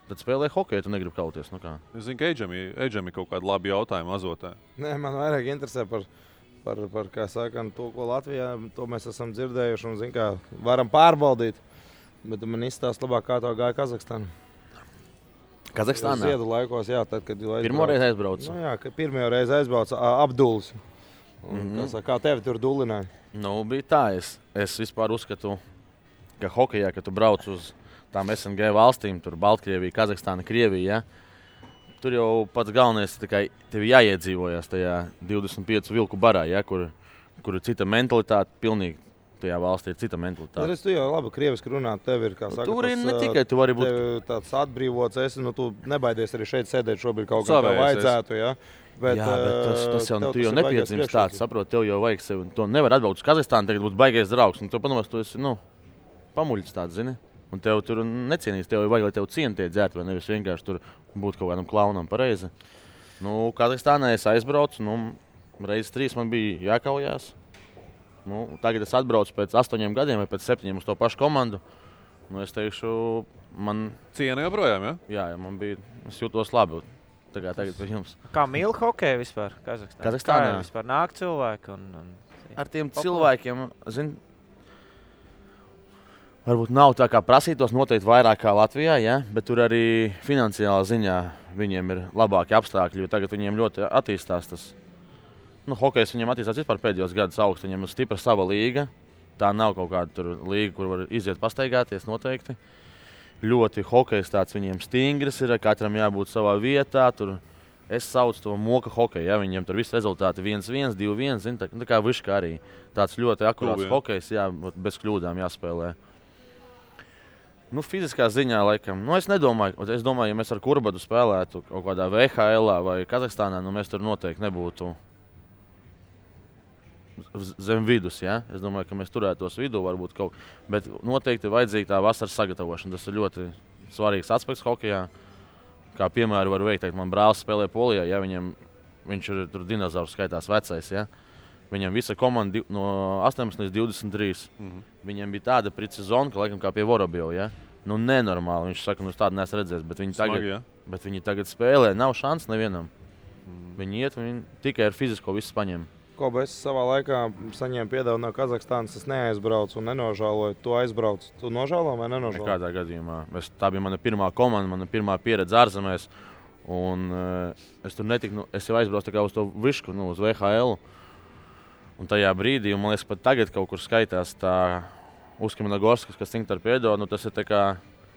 [SPEAKER 9] Tad spēlē hokeju, tu negribi kauties, kā.
[SPEAKER 2] Es zinu, ka Eidžam ir kaut kādi labi jautājumi azotē.
[SPEAKER 5] Nē, man vairāk interesē par kā saka, to, ko Latvijā, to mēs esam dzirdējuši un, zin, kā varam pārbaudīt. Bet man izstāst labāk, kā to gāja Kazahstāna.
[SPEAKER 9] Kazahstānā?
[SPEAKER 5] Ziedu laikos, jā, tad, kad jūs
[SPEAKER 9] pirmo reizi aizbraucu.
[SPEAKER 5] Jā, ka pirmo reizi aizbraucu Abduls. Kā tevi tur dulināja?
[SPEAKER 9] Bija tā, es vispār uzskatu, ka hokejā, kad tu brauc uz tām SNG valstīm, tur Baltkrievija, Kazahstāna, Krievija, ja, tur jau pats galvenais, tev jāiedzīvojas tajā 25 vilku barā, ja, kur ir cita mentalitāte, pilnīgi tajā valstī ir cita mentalitāte.
[SPEAKER 5] Tu jau labi krieviski runā, tev ir, kā saka,
[SPEAKER 9] tur ir ne tikai tu vari būt
[SPEAKER 5] tāds atbrīvots, tu nebaidies arī šeit sēdēt šobrīd kaut kā vajadzētu, ja. Bet
[SPEAKER 9] tas jau tu jau nepiedzimst tāds, saprot, tev jau vajag sevi. To nevar atbraukt uz Kazahstānu, tagad būtu baigais draugs. Un tev padomās, tu esi, pamuļķis tāds, zini. Un tev tur necienīs, tev vajag, lai tev cieni tie dzērt, vai nevis vienkārši tur būt kaut kādam klaunam pareizi. Kazahstānā es aizbraucu, reizes 3 man bija jākaujās. Tagad es atbraucu pēc 8 gadiem vai pēc 7 uz to pašu komandu. Es teikšu, man...
[SPEAKER 2] Ciena joprojām, ja?
[SPEAKER 9] Jā, man bija, es jūtos labi. Tagad pie jums.
[SPEAKER 4] Kā mīl hokeju vispār Kazahstānā? Kā vispār nāk cilvēki?
[SPEAKER 9] Ar tiem cilvēkiem, varbūt nav tā kā prasītos noteikti vairāk kā Latvijā, ja? Bet tur arī finansiālā ziņā viņiem ir labāki apstākļi, jo tagad viņiem ļoti attīstās tas. Hokejs viņiem attīstās vispār pēdējos gadus augstu, viņiem ir stipra sava līga. Tā nav kaut kāda tur līga, kur var iziet pastaigāties noteikti. Ļoti hokejs tāds viņiem stingrs ir, katram jābūt savā vietā. Tur es saucu to moka hokeju, ja viņiem tur visi rezultāti 1-1, 2-1, zin, tā kā višķi arī. Tāds ļoti akurāts hokejs, jā, bez kļūdām jāspēlē. Fiziskā ziņā laikam, es nedomāju, es domāju, ja mēs ar Kurbadu spēlētu kaut kādā VHL vai Kazahstānā, mēs tur noteikti nebūtu zem vidus, ja? Es domāju, ka mēs turētos vidū varbūt kaut, bet noteikti vajadzīga tā vasaras sagatavošana. Tas ir ļoti svarīgs aspekts hokejā. Kā piemēru var veikt, man brālis spēlē Polijā, ja viņš ir tur dinozaurs skaitās vecais, ja? Viņam visa komanda no 18 līdz 23. Viņam bija tāda precizona, ka laikam kā pie Vorobjova, ja? Nenormāli, viņš saka, tādu neesmu redzējis, bet viņi tagad spēlē, nav šans nevienam. Viņi iet, viņi tikai ar fizisko visu paņem.
[SPEAKER 5] Koba, es savā laikā saņēmu piedevu no Kazahstānas, es neaizbraucu un nenožāloju. Tu aizbrauc, tu nožālo vai nenožālo?
[SPEAKER 9] Nekādā gadījumā. Tā bija mana pirmā komanda, mana pirmā pieredze ārzemēs. Un es tur netiku, es jau aizbraucu tā kā uz to višku, uz VHL. Un tajā brīdī, un man liekas, pat tagad kaut kur skaitās tā Uskimanagorskas, kas Cinktar piedo, tas ir tā kā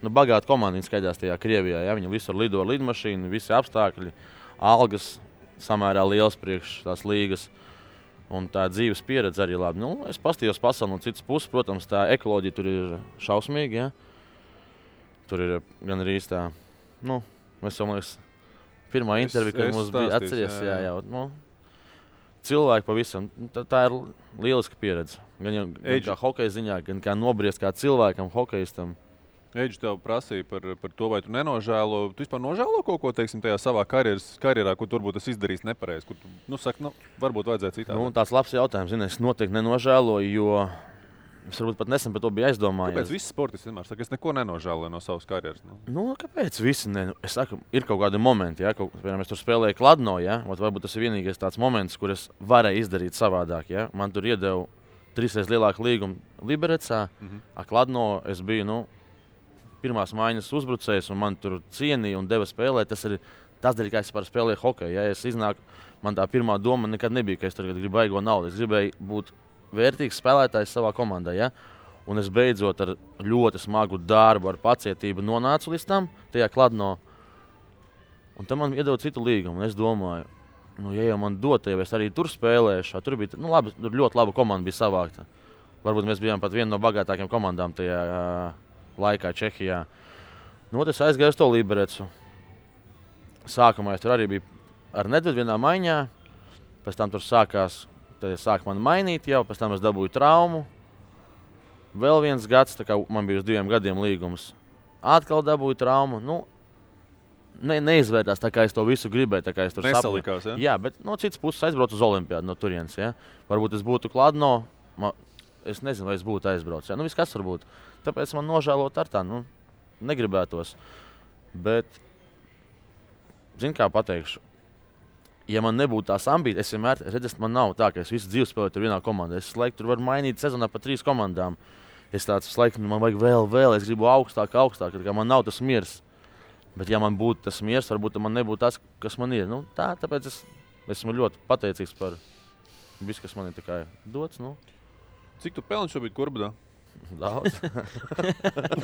[SPEAKER 9] bagāta komanda, viņi skaitās tajā Krievijā. Ja? Viņi visur lido ar lidmašīnu, visi apstākļi, algas samērā liels priekš tās līgas. Un tā dzīves pieredze arī labi. Es pastījos pasauli no citas puses, protams, tā ekoloģija tur ir šausmīga, ja? Tur ir gan arī tā, mēs jau, man liekas, pirmā intervija, kad mums bija atceries, jā. Cilvēki pavisam, tā ir lieliska pieredze. Gan kā hokeja ziņā, gan kā nobriest kā cilvēkam, hokejistam.
[SPEAKER 2] Eidž tev prasīja par to, vai tu nenožēlo. Tu vispār nožēlo kaut ko, teiksim, tajā savā karjerā, kur turbūt es izdarījis nepareizi, kur tu, saki, varbūt vajadzētu citādi.
[SPEAKER 9] Tāds labs jautājums, es noteikti nenožēloju, jo es varbūt pat nesen par to biju aizdomājies.
[SPEAKER 2] Kāpēc visi sportisti vienmēr saka, es neko nenožēloju no savas karjeras?
[SPEAKER 9] Kāpēc visi Es saku, ir kaut kādi momenti, ja, piemēram, es tur spēlēju Kladno, ja, varbūt tas ir vienīgais tāds moments, kur es varēju izdarīt savādāk, ja. Man tur iedeva 3 reizes lielāku līgumu Liberecā. Kladno es biju pirmās maiņas uzbrucējs, un man tur cienīja un deva spēlēt. Tas ir tas dēļ, kā es spēlēju hokeju. Ja es iznāku, man tā pirmā doma nekad nebija, ka es tagad gribu baigo naudu. Es gribēju būt vērtīgs spēlētājs savā komandā. Ja? Un es beidzot ar ļoti smagu darbu, ar pacietību nonācu līdz tam, tajā Kladno. Un tam man iedod citu līgumu. Es domāju, ja jau man dod, ja es arī tur spēlēšu, tur bija labi, tur ļoti laba komanda bija savākta. Varbūt mēs bijām pat viena no bagātākajām komandām tajā laikā Čehijā. Es aizgāju uz to Liberecu. Sākumā es tur arī biju ar Nedvedu vienā maiņā. Pēc tam tur sāk man mainīt jau, pēc tam es dabūju traumu. Vēl viens gads, tā kā man bija uz 2 gadiem līgums. Atkal dabūju traumu. Neizvērtās tā, kā es to visu gribēju. Tā kā es tur
[SPEAKER 2] nesalikās, ja?
[SPEAKER 9] Jā, bet no citas puses aizbraucu uz Olimpiādu no turienes. Ja? Varbūt es būtu Kladno. Es nezinu, vai es būtu aizbraucis. Ja? Viss kas var būt. Tāpēc man nožēlot ar tā. Negribētos. Bet, zini, kā pateikšu. Ja man nebūtu tās ambīcijas, es vienmēr redzēju, man nav tā, ka es visu dzīvi spēlēju tur vienā komandā. Es laiku tur varu mainīt sezonā pa 3 komandām. Es tāds laiku, man vajag vēl, es gribu augstāk, kā man nav tas miers. Bet ja man būtu tas miers, varbūt man nebūtu tas, kas man ir. Tāpēc es esmu ļoti pateicīgs par visu, kas man ir dots.
[SPEAKER 2] Cik tu pelni šobrīd Kurbadā?
[SPEAKER 9] Daudz.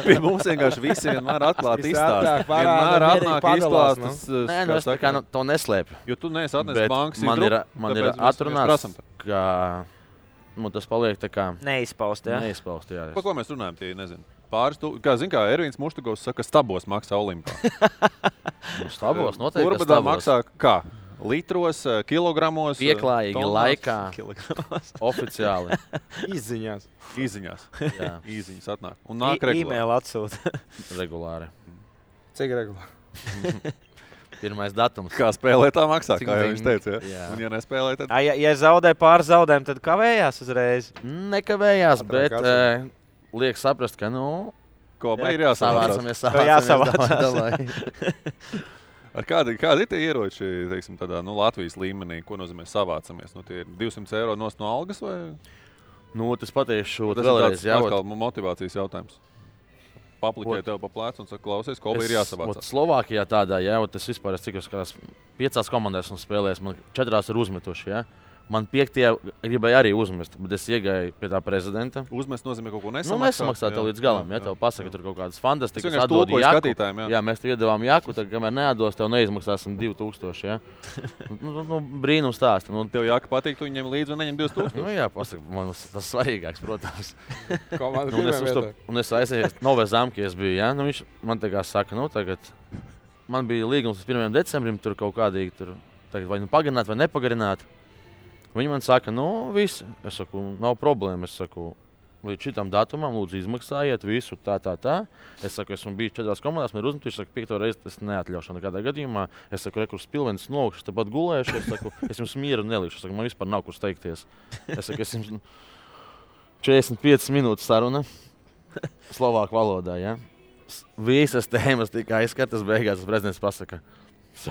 [SPEAKER 2] Pie mums vienkārši visi vienmēr atklāti izstāst. Vienmēr atnāk izstāstas.
[SPEAKER 9] Nē, es tā kā to neslēpju.
[SPEAKER 2] Jo tu neesi atnesis bankas
[SPEAKER 9] man ir atrunāts, ka tas paliek tā kā
[SPEAKER 10] neizpaust, jā.
[SPEAKER 9] Neizpaust, jā.
[SPEAKER 2] Pa ko mēs runājam, tie nezinu. Pāris, kā Ervīns Muštugovs saka, stabos maksā Olimpā.
[SPEAKER 9] Stabos, noteikti
[SPEAKER 2] Kurbadā maksā kā? Litros, kilogramos.
[SPEAKER 9] Pieklājīgi laikā. Oficiāli.
[SPEAKER 5] Izziņās.
[SPEAKER 9] Jā.
[SPEAKER 2] Īziņas atnāk. Un nāk regulāri.
[SPEAKER 10] E-mail atsūta.
[SPEAKER 9] Regulāri.
[SPEAKER 5] Cik regulāri?
[SPEAKER 9] Pirmais datums.
[SPEAKER 2] Kā spēlē tā maksā, kā jau viņš teica. Ja? Un ja nespēlē, tad...
[SPEAKER 10] Ja zaudē pāris zaudējumu, tad kavējās uzreiz?
[SPEAKER 9] Nekavējās, bet liek saprast, ka
[SPEAKER 2] Ko ir jāsavācās? Kādi ir tie ieroči, teiksim, tādā Latvijas līmenī, ko nozīmē savācamies? Tie ir 200 eiro no algas vai?
[SPEAKER 9] Tas pateikšu
[SPEAKER 2] tas
[SPEAKER 9] vēlreiz.
[SPEAKER 2] Tas ir motivācijas jautājums. Papliķē tev pa plēcu un saka, klausies, ko ir jāsavācās.
[SPEAKER 9] Slovākijā tādā, tas vispār es cik uz 5 komandās un spēlēs, man 4 ir uzmetuši, Man 5. gribēja arī uzmest, bet es iegāju pie tā prezidenta.
[SPEAKER 2] Uzmest nozīmē kaut ko nesamaksāt?
[SPEAKER 9] Nesamaksāt tev līdz galam, tev pasaka tur kaut kādas fantastikas.
[SPEAKER 2] Es atdod jaku.
[SPEAKER 9] Mēs tev iedavām jaku, tad kamēr neatdos, tev neizmaksāsim 2000, brīnums stāsti.
[SPEAKER 2] Tev jaka patīk, tu viņiem līdzi un neņem 2000?
[SPEAKER 9] Jā, pasaka, man tas svarīgāks, protams. Un es aizēju Nove Zamki, es biju, viņš man tā kā saka, tagad man bija līgums uz 1. decembrim, tur kaut kādīgi tur, tagad vai pagarināt vai nepagarināt. Viņi man saka, viss. Es saku, nav problēma. Es saku, līdz šitam datumam lūdzu izmaksājiet visu tā. Es saku, esmu bijis 4 komandās, man ir uzmetuši, es saku, 5. reizi tas neatļaušu nekādā gadījumā. Es saku, rekurs pilvenis nolikuši, tāpat gulējuši. Es saku, es jums mieru nelikšu. Es saku, man vispār nav kur steigties. Es saku, es jums 45 minūtes saruna slovāku valodā, Visas tēmas tika aizskatas, beigās prezidents pasaka,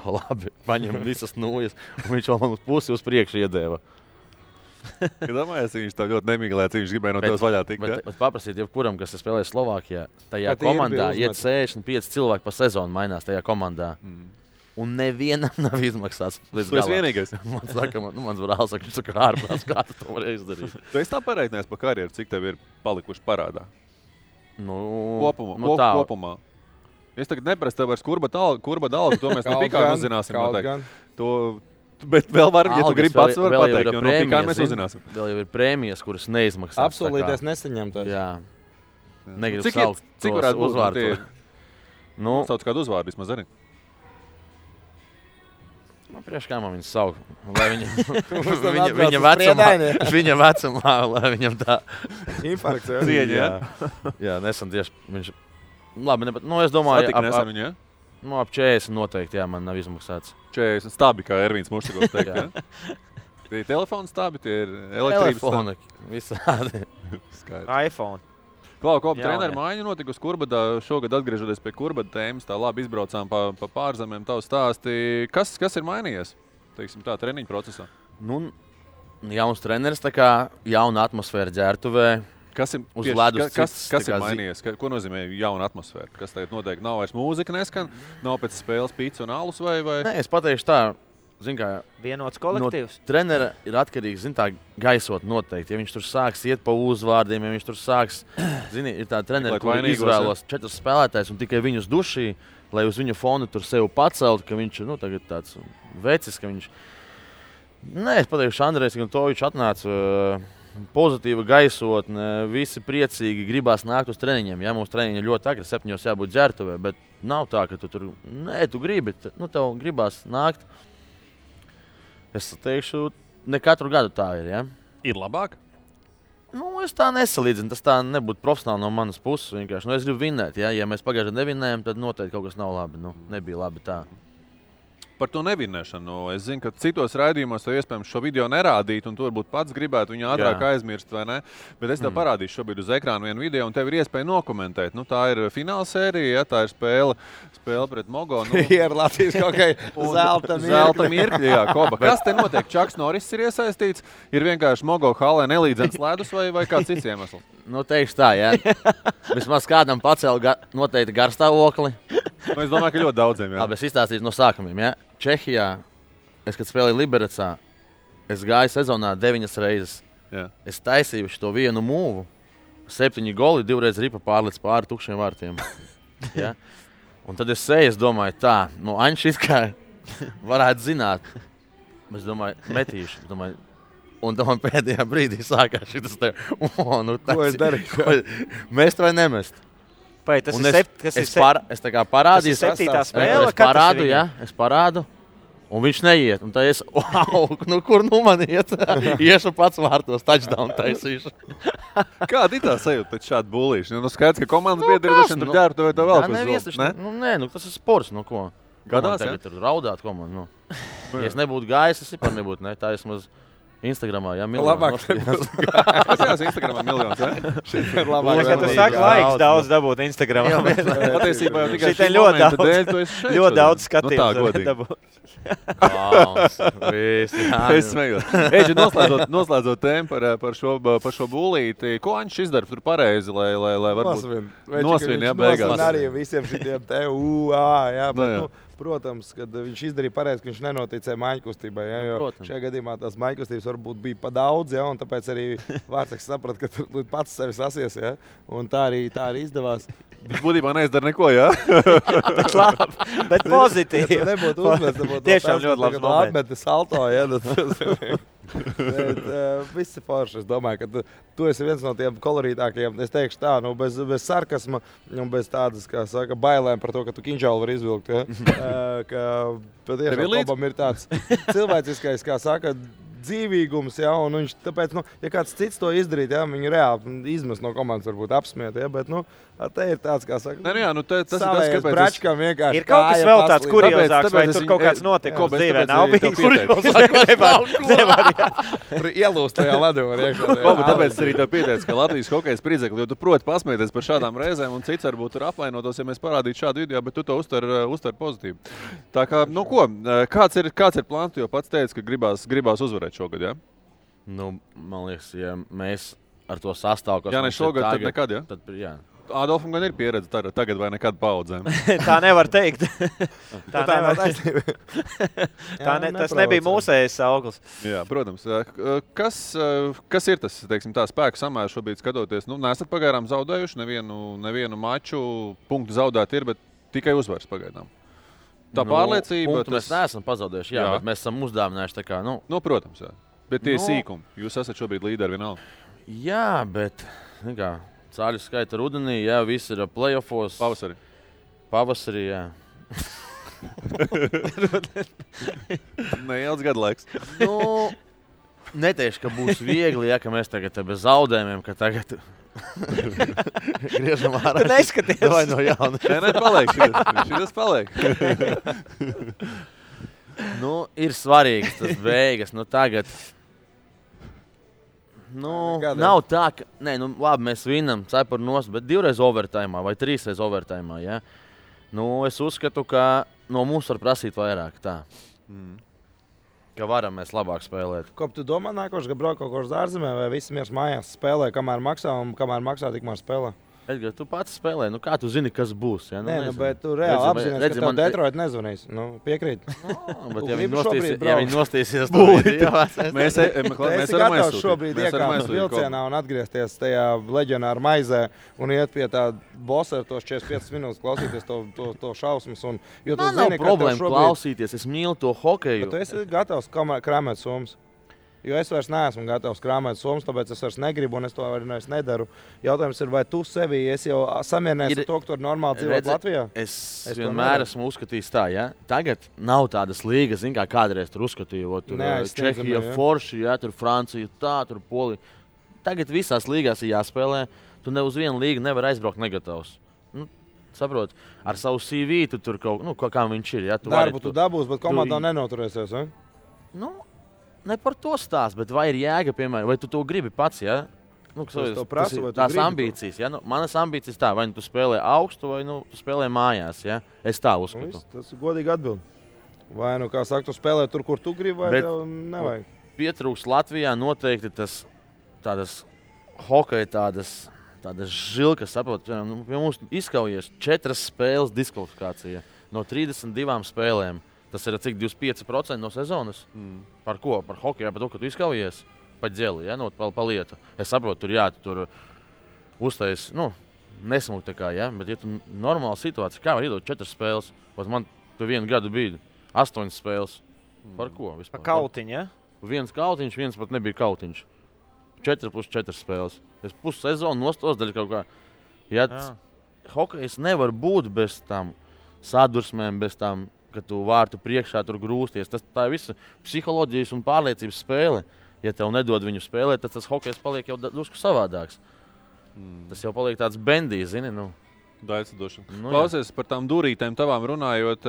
[SPEAKER 9] labi, paņem visas nūjas, un viņš vēl man uz pusi uz priekšu iedēva.
[SPEAKER 2] Domājies, viņš tā ļoti nemīglēts, viņš gribēja no tevis vaļā tikt.
[SPEAKER 9] Bet paprasīt jebkuram, kas spēlē Slovākijā, tajā komandā iet 65 cilvēki pa sezonu mainās tajā komandā. Un nevienam nav izmaksāts līdz galam.
[SPEAKER 2] Tu esi vienīgais.
[SPEAKER 9] Man saka, mans brālis saka, viņš saka, ārprāts, kā tu to vari izdarīt.
[SPEAKER 2] Tu esi tā pareiķinājis pa karjeru, cik tev ir palikuši parādā?
[SPEAKER 9] Kopumā.
[SPEAKER 2] Kopumā. Es tagad neprasu tev vairs kurba dalgu, to mēs no Pikāna uzzināsim noteikti. Bet vēl var, ja tu gribi pats var pateikt, jo no Pikāna mēs uzzināsim.
[SPEAKER 9] Vēl jau ir prēmijas, kuras neizmaksās.
[SPEAKER 5] Absolūties nesaņemtās.
[SPEAKER 9] Jā. Negribu saukt
[SPEAKER 2] cik varētu
[SPEAKER 9] uzvārdu.
[SPEAKER 2] Sauc kādu uzvārdu vismaz arī.
[SPEAKER 9] Priekš kā man viņu saukt. Viņa vecumā, lai viņam tā
[SPEAKER 5] infarkts
[SPEAKER 2] cieņa.
[SPEAKER 9] Jā, nesen tieši viņš... Labi, es domāju, ap 40 noteikti, man nav izmaksāts.
[SPEAKER 2] 40 stabi, kā Ervīns Muštugovs teikt, Tie ir telefonu stabi, tie ir elektrības
[SPEAKER 9] stabi. Visādi.
[SPEAKER 10] iPhone.
[SPEAKER 2] Klau, treneru maiņu notika uz Kurbadā. Šogad atgriežoties pie Kurbada tēmas, tā labi izbraucām pa pārzemēm tavu stāsti. Kas ir mainījies, teiksim tā, treniņu procesā?
[SPEAKER 9] jauns treneris, tā kā jauna atmosfēra ģērbtuvē.
[SPEAKER 2] Kas ir,
[SPEAKER 9] uz ledus
[SPEAKER 2] kas ir mainījies? Ko nozīmē jauna atmosfēra? Kas tagad noteikti nav vairs mūzika neskan? Nav pēc spēles pīca un alus vai?
[SPEAKER 9] Nē, es pateikšu tā. Zin kā,
[SPEAKER 10] vienots kolektīvs.
[SPEAKER 9] No trenera ir atkarīgs, zin tā, gaisot noteikti. Ja viņš tur sāks iet pa uzvārdiem, ja viņš tur sāks, zini, ir tā treneri, kur izvēlos 4 spēlētājs un tikai viņus dušī, lai uz viņu fonu tur sev pacelt, ka viņš ir, tagad tāds vecis, ka viņš... Nē, es pateikšu, Andrejs Guntovičs atnāca pozitīva gaisotne, visi priecīgi, gribās nākt uz treniņiem. Ja, mums treniņi ļoti agri, 7 jābūt ģērbtuvē, bet nav tā, ka tu tur, nē, tu gribi, tev gribās nākt. Es teikšu, ne katru gadu tā ir, ja.
[SPEAKER 2] Ir labāk?
[SPEAKER 9] Es tā nesalīdzinu, tas tā nebūtu profesionāli no manas puses vienkārši. Es gribu vinnēt, ja mēs pagājušajā nevinnējam, tad noteikti kaut kas nav labi, nebija labi tā.
[SPEAKER 2] Par to nevinnēšanu. Es zinu, ka citos raidījumos tev iespējams šo video nerādīt, un tu varbūt pats gribētu viņu ātrāk aizmirst, vai ne? Bet es tev parādīšu šobrīd uz ekrāna vienu video, un tev ir iespēja nokomentēt. Tā ir fināla sērija, ja, tā ir spēle pret Mogo.
[SPEAKER 5] Ir Latvijas kaut kā zelta
[SPEAKER 2] mirkļi. Jā, Koba. Kas te notiek? Čaks Norris ir iesaistīts, ir vienkārši Mogo halē nelīdzens ledus vai kāds cits iemesls?
[SPEAKER 9] Teikšu tā, jā. Vismaz kādam pacēla noteikti garstāvokli.
[SPEAKER 2] Es domāju, ka ļoti daudziem, jā.
[SPEAKER 9] Labi, es izstāstīšu no sākumiem, jā. Čehijā, kad spēlēju Liberecā, es gāju sezonā 9 reizes.
[SPEAKER 2] Jā.
[SPEAKER 9] Es taisīju šo vienu mūvu, 7 goli, 2 reizes ripa pārliec pāri tukšiem vārtiem. Ja? Un tad es seju, es domāju, tā, Aņš kā varētu zināt. Es domāju, metīšu. Un tam pēdējā brīdī sākās šitas te,
[SPEAKER 5] ko es darīju?
[SPEAKER 9] Mest vai nemest?
[SPEAKER 10] Pai, tas
[SPEAKER 9] es tā kā parādīju.
[SPEAKER 10] Tas ir 7. spēle?
[SPEAKER 9] Es parādu, un viņš neiet. Un tā es, kur man iet? Iešu pats vārtos, touchdown taisīšu.
[SPEAKER 2] Kāda ir tā sajūta pēc šāda bulīšana? Skaidrs, ka komandas biedri ir tur ģērbtu vai to vēl
[SPEAKER 9] ko ne? Tas ir sports, ko?
[SPEAKER 2] Gadās,
[SPEAKER 9] tagad tur raudāt komandu, Ja es nebūtu gājis, es vispār nebūtu, ne? Tā esmaz Instagramā, jā, miljonus.
[SPEAKER 2] Labāk, Instagramā miljonus, jā?
[SPEAKER 5] Šeit ir labāk.
[SPEAKER 10] Tu saki, laiks daudz dabūt Instagramā.
[SPEAKER 2] Patiesībā jau tikai
[SPEAKER 10] šī momenta dēļ, tu esi šeit. Ļoti daudz skatījums dabūt.
[SPEAKER 2] Es smējos. Eģi, noslēdzot tēmu par šo bulīti, ko Aņš izdara tur pareizi, lai varbūt nosvin, jā, beigās.
[SPEAKER 5] Nosvin arī visiem šitiem te, jā, bet, protams, kad viņš izdarīja pareizi, ka viņš nenoticēja maiņkustībai, ja, jo šajā gadījumā tās maiņkustības varbūt bija pa daudz, ja, un tāpēc arī Vārtseks saprata, ka tu pats sevi sasies, ja, un tā arī izdevās.
[SPEAKER 2] Viņš būtībā neizdara neko, jā?
[SPEAKER 10] Bet labi, bet pozitīvi.
[SPEAKER 5] Ja nebūtu uzmest,
[SPEAKER 10] tiešām ļoti labs moments.
[SPEAKER 5] Atmeti salto, ja, bet viss ir forši. Es domāju, ka tu esi viens no tiem kolorītākajiem, es teikšu tā, bez sarkasma un bez tādas, kā saka, bailēm par to, ka tu kinžālu var izvilkt, ja, ka patiešām Kobam ir tāds cilvēciskais, kā saka, dzīvīgums, ja, un viņš tāpēc, ja kāds cits to izdarīt, ja, viņi reāli izmest no komandas varbūt apsmiet, ja, bet, te ir tāds, kā saka,
[SPEAKER 2] tas ir tas, kāpēc
[SPEAKER 5] bračkam vienkārši
[SPEAKER 10] ir kaut kas vēl tāds kuriozāks, vai tur kaut kāds notikums dzīvē nav bijis.
[SPEAKER 5] Tur ielūst tajā ledu var iekšā.
[SPEAKER 2] Tāpēc arī tev pieteic, ka Latvijas hokejs pridzekli, jo tu proti pasmieties par šādām reizēm, un cits varbūt tur apvainotos, ja mēs parādītu šādu video, bet tu to uztver pozitīvi. Tā kā, kāds ir plāns, jo pats teici, ka gribās uzvarēt šogad, jā?
[SPEAKER 9] Man liekas, ja mēs ar to sastāvu, kas
[SPEAKER 2] jā, ne šogad, tad nekad, jā?
[SPEAKER 9] Tad, jā.
[SPEAKER 2] Adolfam gan ir pieredze tagad vai nekad paudzēm.
[SPEAKER 10] Tā nevar teikt. Tas nebija mūsējais auglis.
[SPEAKER 2] Jā, protams. Kas ir tas, teiksim, tā spēku samērs šobrīd skatoties? Nesat pagaidām zaudējuši nevienu maču, punktu zaudēt ir, bet tikai uzvaras pagaidām. Tā pārliecība...
[SPEAKER 9] Mēs neesam pazaudējuši, jā, bet mēs esam uzdāvinājuši tā kā,
[SPEAKER 2] protams, jā. Bet tie sīkumi. Jūs esat šobrīd līderi vienalga.
[SPEAKER 9] Jā, bet, cāļu skaita rudenī, jā, viss ir playoffos. Pavasarī, jā.
[SPEAKER 2] Neilds gadu laiks.
[SPEAKER 9] Neteikšu, ka būs viegli, ja, ka mēs tagad bez zaudējumiem, ka tagad griežam ārā.
[SPEAKER 10] Tu neskaties.
[SPEAKER 9] Vai no jauna.
[SPEAKER 2] Nē, paliek. Šitas paliek.
[SPEAKER 9] Ir svarīgs tas beigas. Tagad... nav tā, ka... Nē, labi, mēs vinam cepuru nost, bet 2 reizes overtājumā vai 3 reizes overtājumā, ja? Es uzskatu, ka no mums var prasīt vairāk tā. ka varam mēs labāk spēlēt.
[SPEAKER 5] Ko tu domā nākošais, ka brauc kaut kur uz ārzemē vai visi miers mājās spēlē, kamēr maksā un kamēr maksā, tikmēr spēlē?
[SPEAKER 9] Edgar, tu pats spēlē, nu kā tu zini, kas būs? Ja? Nu,
[SPEAKER 5] Nē, bet tu reāli apzināties, ka tev Detroit nezvanīs. Nu, piekrīt.
[SPEAKER 9] Bet ja viņi nostīsies,
[SPEAKER 5] mēs varam šobrīd iekāpt vilcienā un atgriezties tajā leģionāra maizē un iet pie tā bosa ar tos 45 minūtes klausīties to šausmas. Jo tu
[SPEAKER 9] nav problēma klausīties, es mīlu to hokeju.
[SPEAKER 5] Bet tu esi gatavs krāmēt somas. Jo es vairs neesmu gatavs krāmēt somas, tāpēc es vairs negribu un es to vairs nedaru. Jautājums ir, vai tu sevi esi jau samierinājies ar to, ka tu vari normāli dzīvot Latvijā?
[SPEAKER 9] Es vienmēr esmu uzskatījis tā, ja? Tagad nav tādas līgas, kā kādreiz tur uzskatīju. Tur Čehija, forši, ja? Tur Francija, tā, tur Polija. Tagad visās līgās ir jāspēlē. Tu ne uz vienu līgu nevar aizbraukt negatavs. Nu, saprot, ar savu CV tu tur kaut kā viņš ir. Ja?
[SPEAKER 5] Darbu tu dabūs, bet komandā nenoturēsies, vai?
[SPEAKER 9] Nu, ne par to stāst, bet vai ir jēga, piemēram, vai tu to gribi pats, ja? Nu, tās ambīcijas, ja? Nu, manas ambīcijas tā, vai nu tu spēlē augstu, vai nu tu spēlē mājās, ja? Es tā uzskatu.
[SPEAKER 5] Tas ir godīgi atbild. Vai nu, kā saka, tu spēlē tur, kur tu gribi, vai tev nevajag?
[SPEAKER 9] Pietrūks Latvijā noteikti tādas hokeja, tādas žilkas, saprot, nu, pie mums izkaujies 4 spēles diskvalifikācija no 32 spēlēm. Tas ir cik 25% no sezonas. Par ko? Par hokeju, par to, ka tu izkaujies pa ģeli, ja? Nu, pa lietu. Es saprotu, tur uztais, nesmuk tā kā, ja? Bet ja tu normāla situācija, kā var iedot 4 spēles? Pat man tu vienu gadu bija 8 spēles. Par ko vispār?
[SPEAKER 10] Pa kautiņu, ja?
[SPEAKER 9] Viens kautiņš, viens pat nebija kautiņš. 4 plus 4 spēles. Es pusi sezonu nostos daļu kaut kā. Ja hokejs nevar būt bez tam sadursmēm, bez tam, ka tu vārtu priekšā tur grūsties. Tā ir visa psiholoģijas un pārliecības spēle. Ja tev nedod viņu spēlēt, tad tas hokejs paliek jau drusku savādāks. Tas jau paliek tāds bendijs, zini, nu.
[SPEAKER 2] Daļcedošana. Klausies par tām durītēm tavām runājot,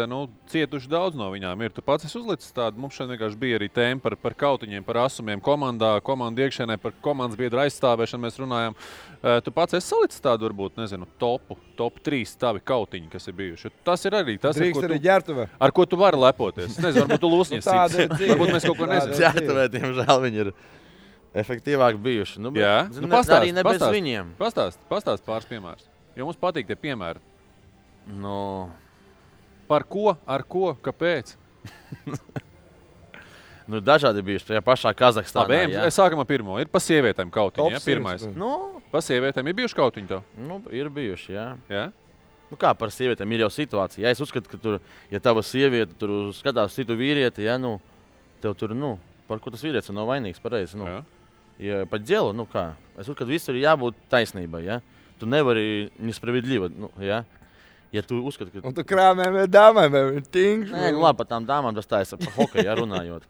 [SPEAKER 2] cietuši daudz no viņām ir. Tu pats esi uzlicis tādu, mums šeit vienkārši bija arī tēma par kautiņiem, par asumiem komandā, komandu iekšienē, par komandas biedru aizstāvēšanu mēs runājam. Tu pats esi salicis tādu, varbūt, nezinu, top 3 tavi kautiņi, kas ir bijuši. Tas ir arī tas, ar ko tu vari lepoties. Nezinu, varbūt tu lūsņies cits. Varbūt mēs kaut ko nezinām.
[SPEAKER 9] Ģērtuvē, diemžēl, viņi ir efektīvāk bijuši. Nu,
[SPEAKER 2] jā,
[SPEAKER 9] arī ne bez viņiem.
[SPEAKER 2] Pastāst pāris piemērus. Jo mums patīk tie piemēri.
[SPEAKER 9] No.
[SPEAKER 2] Par ko, ar ko, kāpēc?
[SPEAKER 9] Dažādi bijuši tajā pašā Kazahstānā.
[SPEAKER 2] Labi, sākam ar pirmo. Ir pa sievietēm kautiņi, ja? Pirmais. Pa sievietēm ir bijuši kautiņi tev?
[SPEAKER 9] Ir bijuši, jā.
[SPEAKER 2] Jā?
[SPEAKER 9] Kā par sievietēm ir jau situācija. Ja es uzskatu, ka tur, ja tava sieviete tur skatās citu vīrieti, ja, tev tur, par ko tas vīrietis nav vainīgs, pareizi, Ja pa ģelu, kā? Es uzskatu, visur ir jābūt taisnībai, ja? Tu nevari nespravedlība, ja? Ja tu uzskati, ka...
[SPEAKER 5] Un tu krāmēm vai dāmēm vai tingš?
[SPEAKER 9] Nē, labi, par tām dāmām tas tā ir par hokeju, ja, runājot.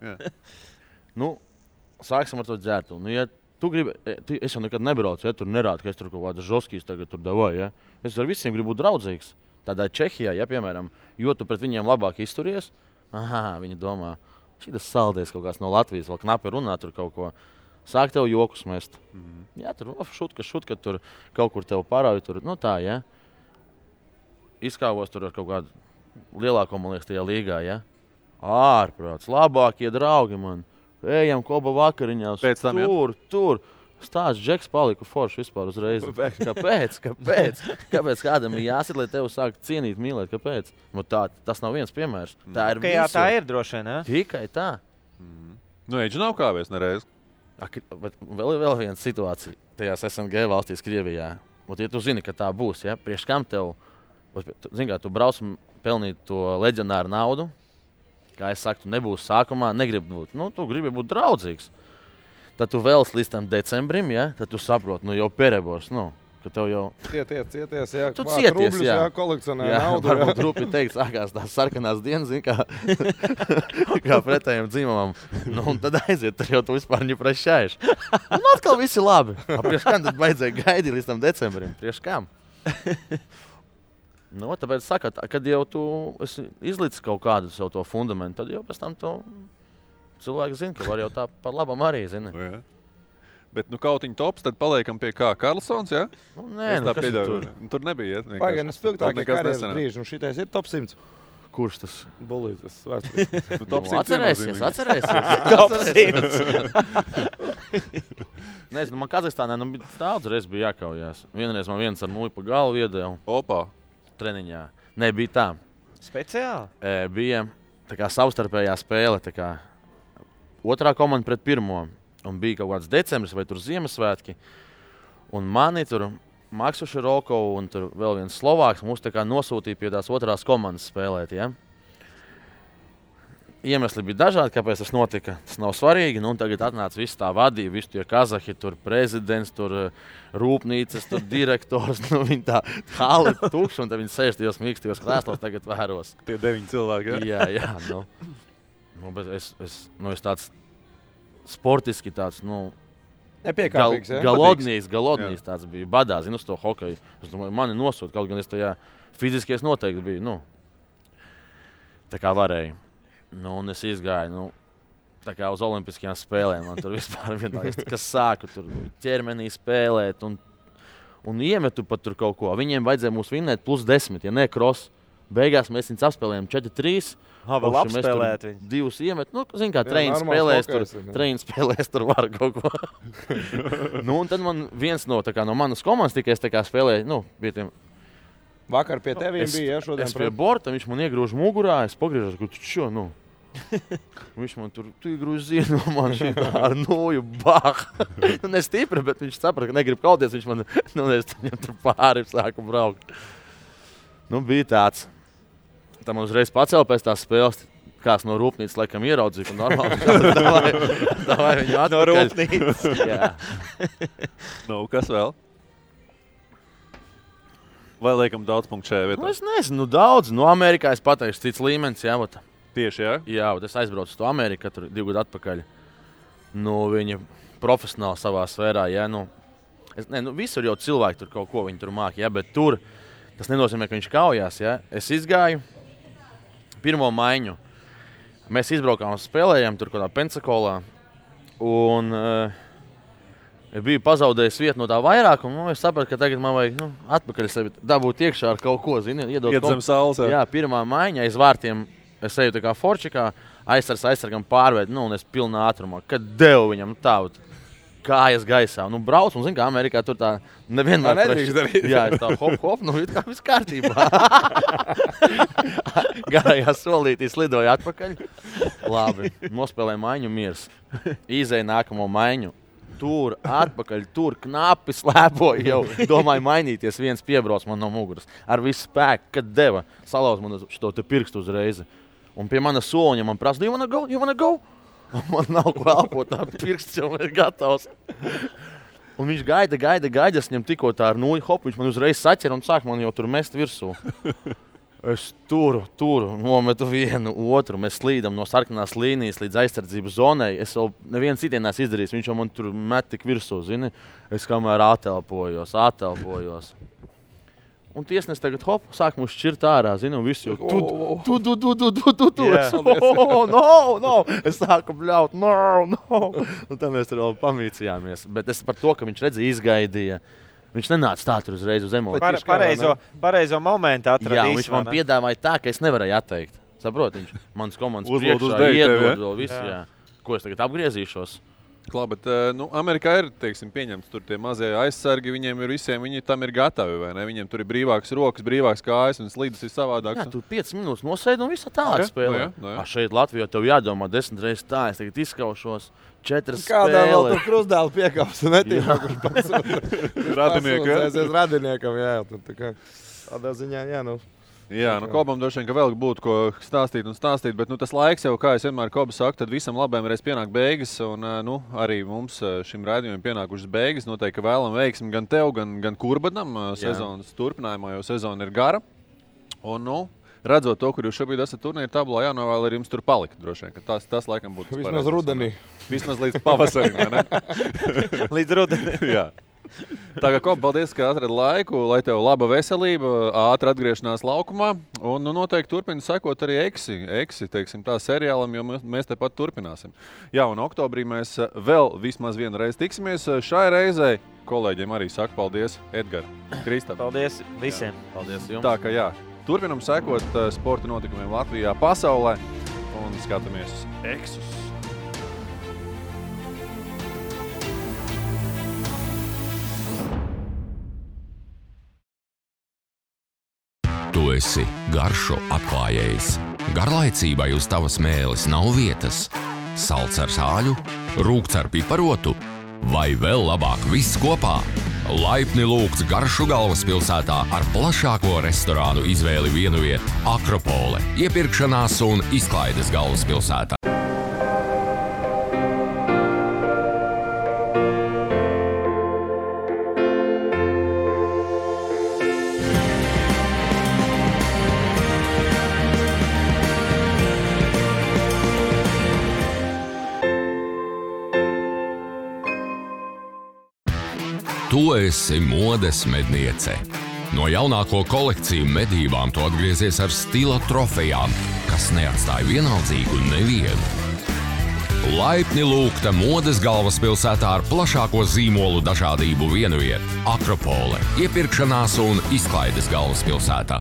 [SPEAKER 9] Sāksim ar to dzērtu. Ja tu gribi, es jau nekad nebraucu, ja tur nerādu, ka es tur kaut kādas žoskīs tagad tur davāju, ja? Es ar visiem gribu būt draudzīgs. Tādā Čehijā, ja, piemēram, jo tu pret viņiem labāk izturies, viņi domā, šitas saldēs kaut kāds no Latvijas, vēl knapi runā tur kaut ko. Sāk tev jokus mest. Jā, tur šutka, tur kaut kur tev parauj, tur, tā, ja. Izkāvos tur ar kaut kādu lielāko, man liekas, tajā līgā, ja. Ārprāts, labākie draugi man. Ejam koba vakariņās, tur. Stāsts Džeks paliku forši vispār uzreiz. Kāpēc? Kāpēc kādam ir jāsit, lai tev sāk cienīt, mīlēt? Kāpēc? Tas nav viens piemērs. Tā ir
[SPEAKER 10] visur. Tā ir droši, ne?
[SPEAKER 9] Tikai tā.
[SPEAKER 2] Eģi nav kāvies nereiz.
[SPEAKER 9] Bet vēl viena situācija tajās SNG valstīs Krievijā. Ja tu zini, ka tā būs, ja? Priekš kam tev, tu brauc pelnīt to leģionāru naudu, kā es saku, tu nebūsi sākumā, negribi būt, tu gribi būt draudzīgs. Tad tu vēlas līdz tam decembrim, ja? Tad tu saproti, jau perebors, ka tev jau...
[SPEAKER 5] Cieties, jā.
[SPEAKER 9] Tu cieties,
[SPEAKER 5] rubļus, jā. Kolekcionē naudu.
[SPEAKER 9] Varbūt rupi teikt, sākās tās sarkanās dienas, kā pretējiem dzimumam. Un tad aiziet, tur jau tu vispār neprašājies. Un atkal viss ir labi. Prieš kam tad vajadzēja gaidīt līdz tam decembrim? Prieš kam? Tāpēc saka, kad jau tu izlicis kaut kādu savu to fundamentu, tad jau pēc tam to cilvēki zina, ka var jau tā par labam arī zina.
[SPEAKER 2] Jā. Bet kautiņu tops, tad paliekam pie kā Karlsons, ja?
[SPEAKER 9] Nē,
[SPEAKER 2] kas tur? Tur nebija,
[SPEAKER 5] Pagaidām, spilgtākie karjeras brīži, un šitais ir top 100.
[SPEAKER 9] Kurš tas?
[SPEAKER 5] Bulītis, svārts.
[SPEAKER 9] Atcerēsies.
[SPEAKER 10] Top 100.
[SPEAKER 9] Nezinu, man Kazahstānā daudz reiz bija jākaujās. Vienreiz man viens ar muļu pa galvu iedēja.
[SPEAKER 2] Opā.
[SPEAKER 9] Treniņā. Nē, bija tā.
[SPEAKER 10] Speciāli?
[SPEAKER 9] Bija tā kā savstarpējā spēle. Tā kā otrā komanda pret pirmo. Un bija kaut kāds decembris vai tur Ziemassvētki. Un mani tur Maksu Širokovu un tur vēl viens Slovāks mūs tā kā nosūtīja pie tās otrās komandas spēlēt. Ja? Iemesli bija dažādi, kāpēc tas notika. Tas nav svarīgi. Nu, tagad atnāca viss tā vadība, visi tie kazahi, tur prezidents, tur rūpnīcas, tur direktors. Nu, viņi tā hali tukši, un tad viņi sēž tajos mīkstajos krēslos tagad vēros.
[SPEAKER 2] Tie 9 cilvēki, ja?
[SPEAKER 9] Jā. Bet es tāds sportiski tāds,
[SPEAKER 5] Nepiekāpīgs,
[SPEAKER 9] galodnīs tāds bija. Badā, zinu, uz to hokeju. Es domāju, mani nosūt, kaut gan es tajā fiziski noteikti biju. Tā kā varēju. Un es izgāju, tā kā uz olimpiskajām spēlēm. Man tur vispār vienkārši, kas sāku tur ķermenī spēlēt un iemetu pat tur kaut ko. Viņiem vajadzēja mūs vinnēt +10, ja ne cross. Beigās mēs viņus apspēlējām 4-3.
[SPEAKER 10] Vēl apspēlēt viņu.
[SPEAKER 9] 2 iemet. Zin kā, treņi spēlēs tur var kaut ko. Un tad man viens no manas komandas tikai es tā kā spēlēju, pie tiem.
[SPEAKER 5] Vakar pie teviem bija, ja, šodien.
[SPEAKER 9] Es pie borta, viņš man iegrūž mugurā, es pagriežos, ka tu čo, Viņš man tur iegrūž zienu, man šitā ar noju, bah. Ne stipri, bet viņš saprata, ka negrib kauties, viņš man, es viņam tur pāri sāku braukt. Bija tāds. Tā man uzreiz pacēla pēc tās spēles, kāds no rūpnīcas laikam ieraudzīja, ka normāli. Davai viņu atpakaļ.
[SPEAKER 10] No rūpnīcas.
[SPEAKER 9] Jā.
[SPEAKER 2] Kas vēl? Vai liekam daudz punktu šajā vietā?
[SPEAKER 9] Es nezinu, daudz. Amerikā es pateikšu cits līmenis, jā.
[SPEAKER 2] Tieši, jā?
[SPEAKER 9] Jā, es aizbraucu uz to Ameriku, tur 2 gadu atpakaļ. Viņi profesionāli savā sfērā, jā. Visur jau cilvēki tur kaut ko viņi tur māki, jā, bet tur tas nenozīmē, ka viņš kaujās, jā. Es izgāju pirmo maiņu. Mēs izbraukām un spēlējām tur kādā Pensakolā. Un biju pazaudējis vietu no tā vairākuma. Es sapratu, ka tagad man vajag atpakaļ sevi dabūt iekšā ar kaut ko,
[SPEAKER 2] iet zem saules.
[SPEAKER 9] Jā, pirmā maiņa aiz vārtiem. Es eju tā kā forčikā, aizsargam pārveidu, un es pilnā ātrumā. Kad devu viņam tādu kājas gaisā. Brauc, un zin kā Amerikā tur tā nevienmēr
[SPEAKER 5] nedrīkst darīt.
[SPEAKER 9] Jā, es tā hop, it kā viss kārtībā. Garajā solītī slidoju atpakaļ. Labi, nospēlēju maiņu miers. Izēju nākamo maiņu. Tur, atpakaļ, tur knapi slēpoju jau. Domāju mainīties, viens piebrauc man no muguras. Ar visu spēku, kad deva, salauz man šo te pirkstu uzreizi. Un pie mana soliņa man prasa, you wanna go? Man nav ko elpot, tā pirksts jau ir gatavs. Un viņš gaida, es viņam tikko tā ar nūju, viņš man uzreiz saķer un sāk man jau tur mest virsū. Es turu, nometu vienu, otru, mēs slīdam no sarkanās līnijas līdz aizsardzības zonai. Es vēl neviens citienās izdarījis, viņš jau man tur met tik virsū, zini. Es kamēr atelpojos. Un tiesnes tagad, sāk mūs šķirt ārā, zini, un visu jau tu. No. Es sāku bļaut, no. Un tad mēs tur vēl pamīcījāmies. Bet es par to, ka viņš redzēja, izgaidīja. Viņš nenāca tā tur uzreiz uz emociju.
[SPEAKER 10] Pareizo momentu atradīs.
[SPEAKER 9] Jā, viņš man piedāvāja tā, ka es nevarēju atteikt. Saprot, viņš manas komandas priekšā iedod vēl visu, jā. Ko es tagad apgriezīšos?
[SPEAKER 2] Klā, bet Amerikā ir, pieņemts tur tie mazie aizsargi, viņiem ir visiem, viņi tam ir gatavi, vai ne? Viņiem tur ir brīvākas rokas, brīvākas kājas un slīdas ir savādāks.
[SPEAKER 9] Jā, tu 5 minūtes nosēdi un visu tālāk spēlē. Šeit Latvijā tev jādomā 10 reizes tā, es tagad izskaušos 4 spēles.
[SPEAKER 5] Kādā vēl tu krustdēlu piekāps un netīmā, kurš pats radiniekam, jā. Tādā ziņā, jā,
[SPEAKER 2] Jā, Kobam droši vien, ka vēl būtu ko stāstīt, bet tas laiks jau, kā es vienmēr Koba saku, tad visam labajam reiz pienāk beigas, un arī mums šim raidījumam pienākušas beigas. Noteikti, ka vēlam veiksmi gan tev, gan Kurbadam sezonas turpinājumā, jo sezona ir gara. Un, redzot to, kur jūs šobrīd esat turnīra tablā, jānovēl arī jums tur palikt, droši vien, ka tas laikam būtu
[SPEAKER 5] vismaz rudenī.
[SPEAKER 2] Vismaz līdz pavasarim, vai ne?
[SPEAKER 10] Līdz rudenī.
[SPEAKER 2] Jā. Tā kā, Kob, paldies, ka atradi laiku, lai tev laba veselība, ātra atgriešanās laukumā, un noteikti turpina sekot arī Eksi, tā seriālam, jo mēs tepat turpināsim. Jā, un oktobrī mēs vēl vismaz vienu reizi tiksimies. Šai reizei kolēģiem arī saku paldies, Edgar, Kristap.
[SPEAKER 10] Paldies visiem.
[SPEAKER 9] Jā. Paldies jums.
[SPEAKER 2] Tā kā jā, Turpinam sekot sporta notikumiem Latvijā, pasaulē un skatāmies uz Exus.
[SPEAKER 1] Tu esi garšu atklājējs. Garlaicībai uz tavas mēles nav vietas. Salds ar sāļu, rūgts ar piparotu vai vēl labāk viss kopā. Laipni lūgts garšu galvaspilsētā ar plašāko restorānu izvēli vienvieta Akropole, iepirkšanās un izklaides galvaspilsētā. Tu esi modes medniece. No jaunāko kolekciju medībām tu atgriezies ar stila trofejām, kas neatstāja vienaldzīgu nevienu. Laipni lūgta modes galvaspilsētā ar plašāko zīmolu dažādību vienvieta Akropole, iepirkšanās un izklaides galvaspilsētā.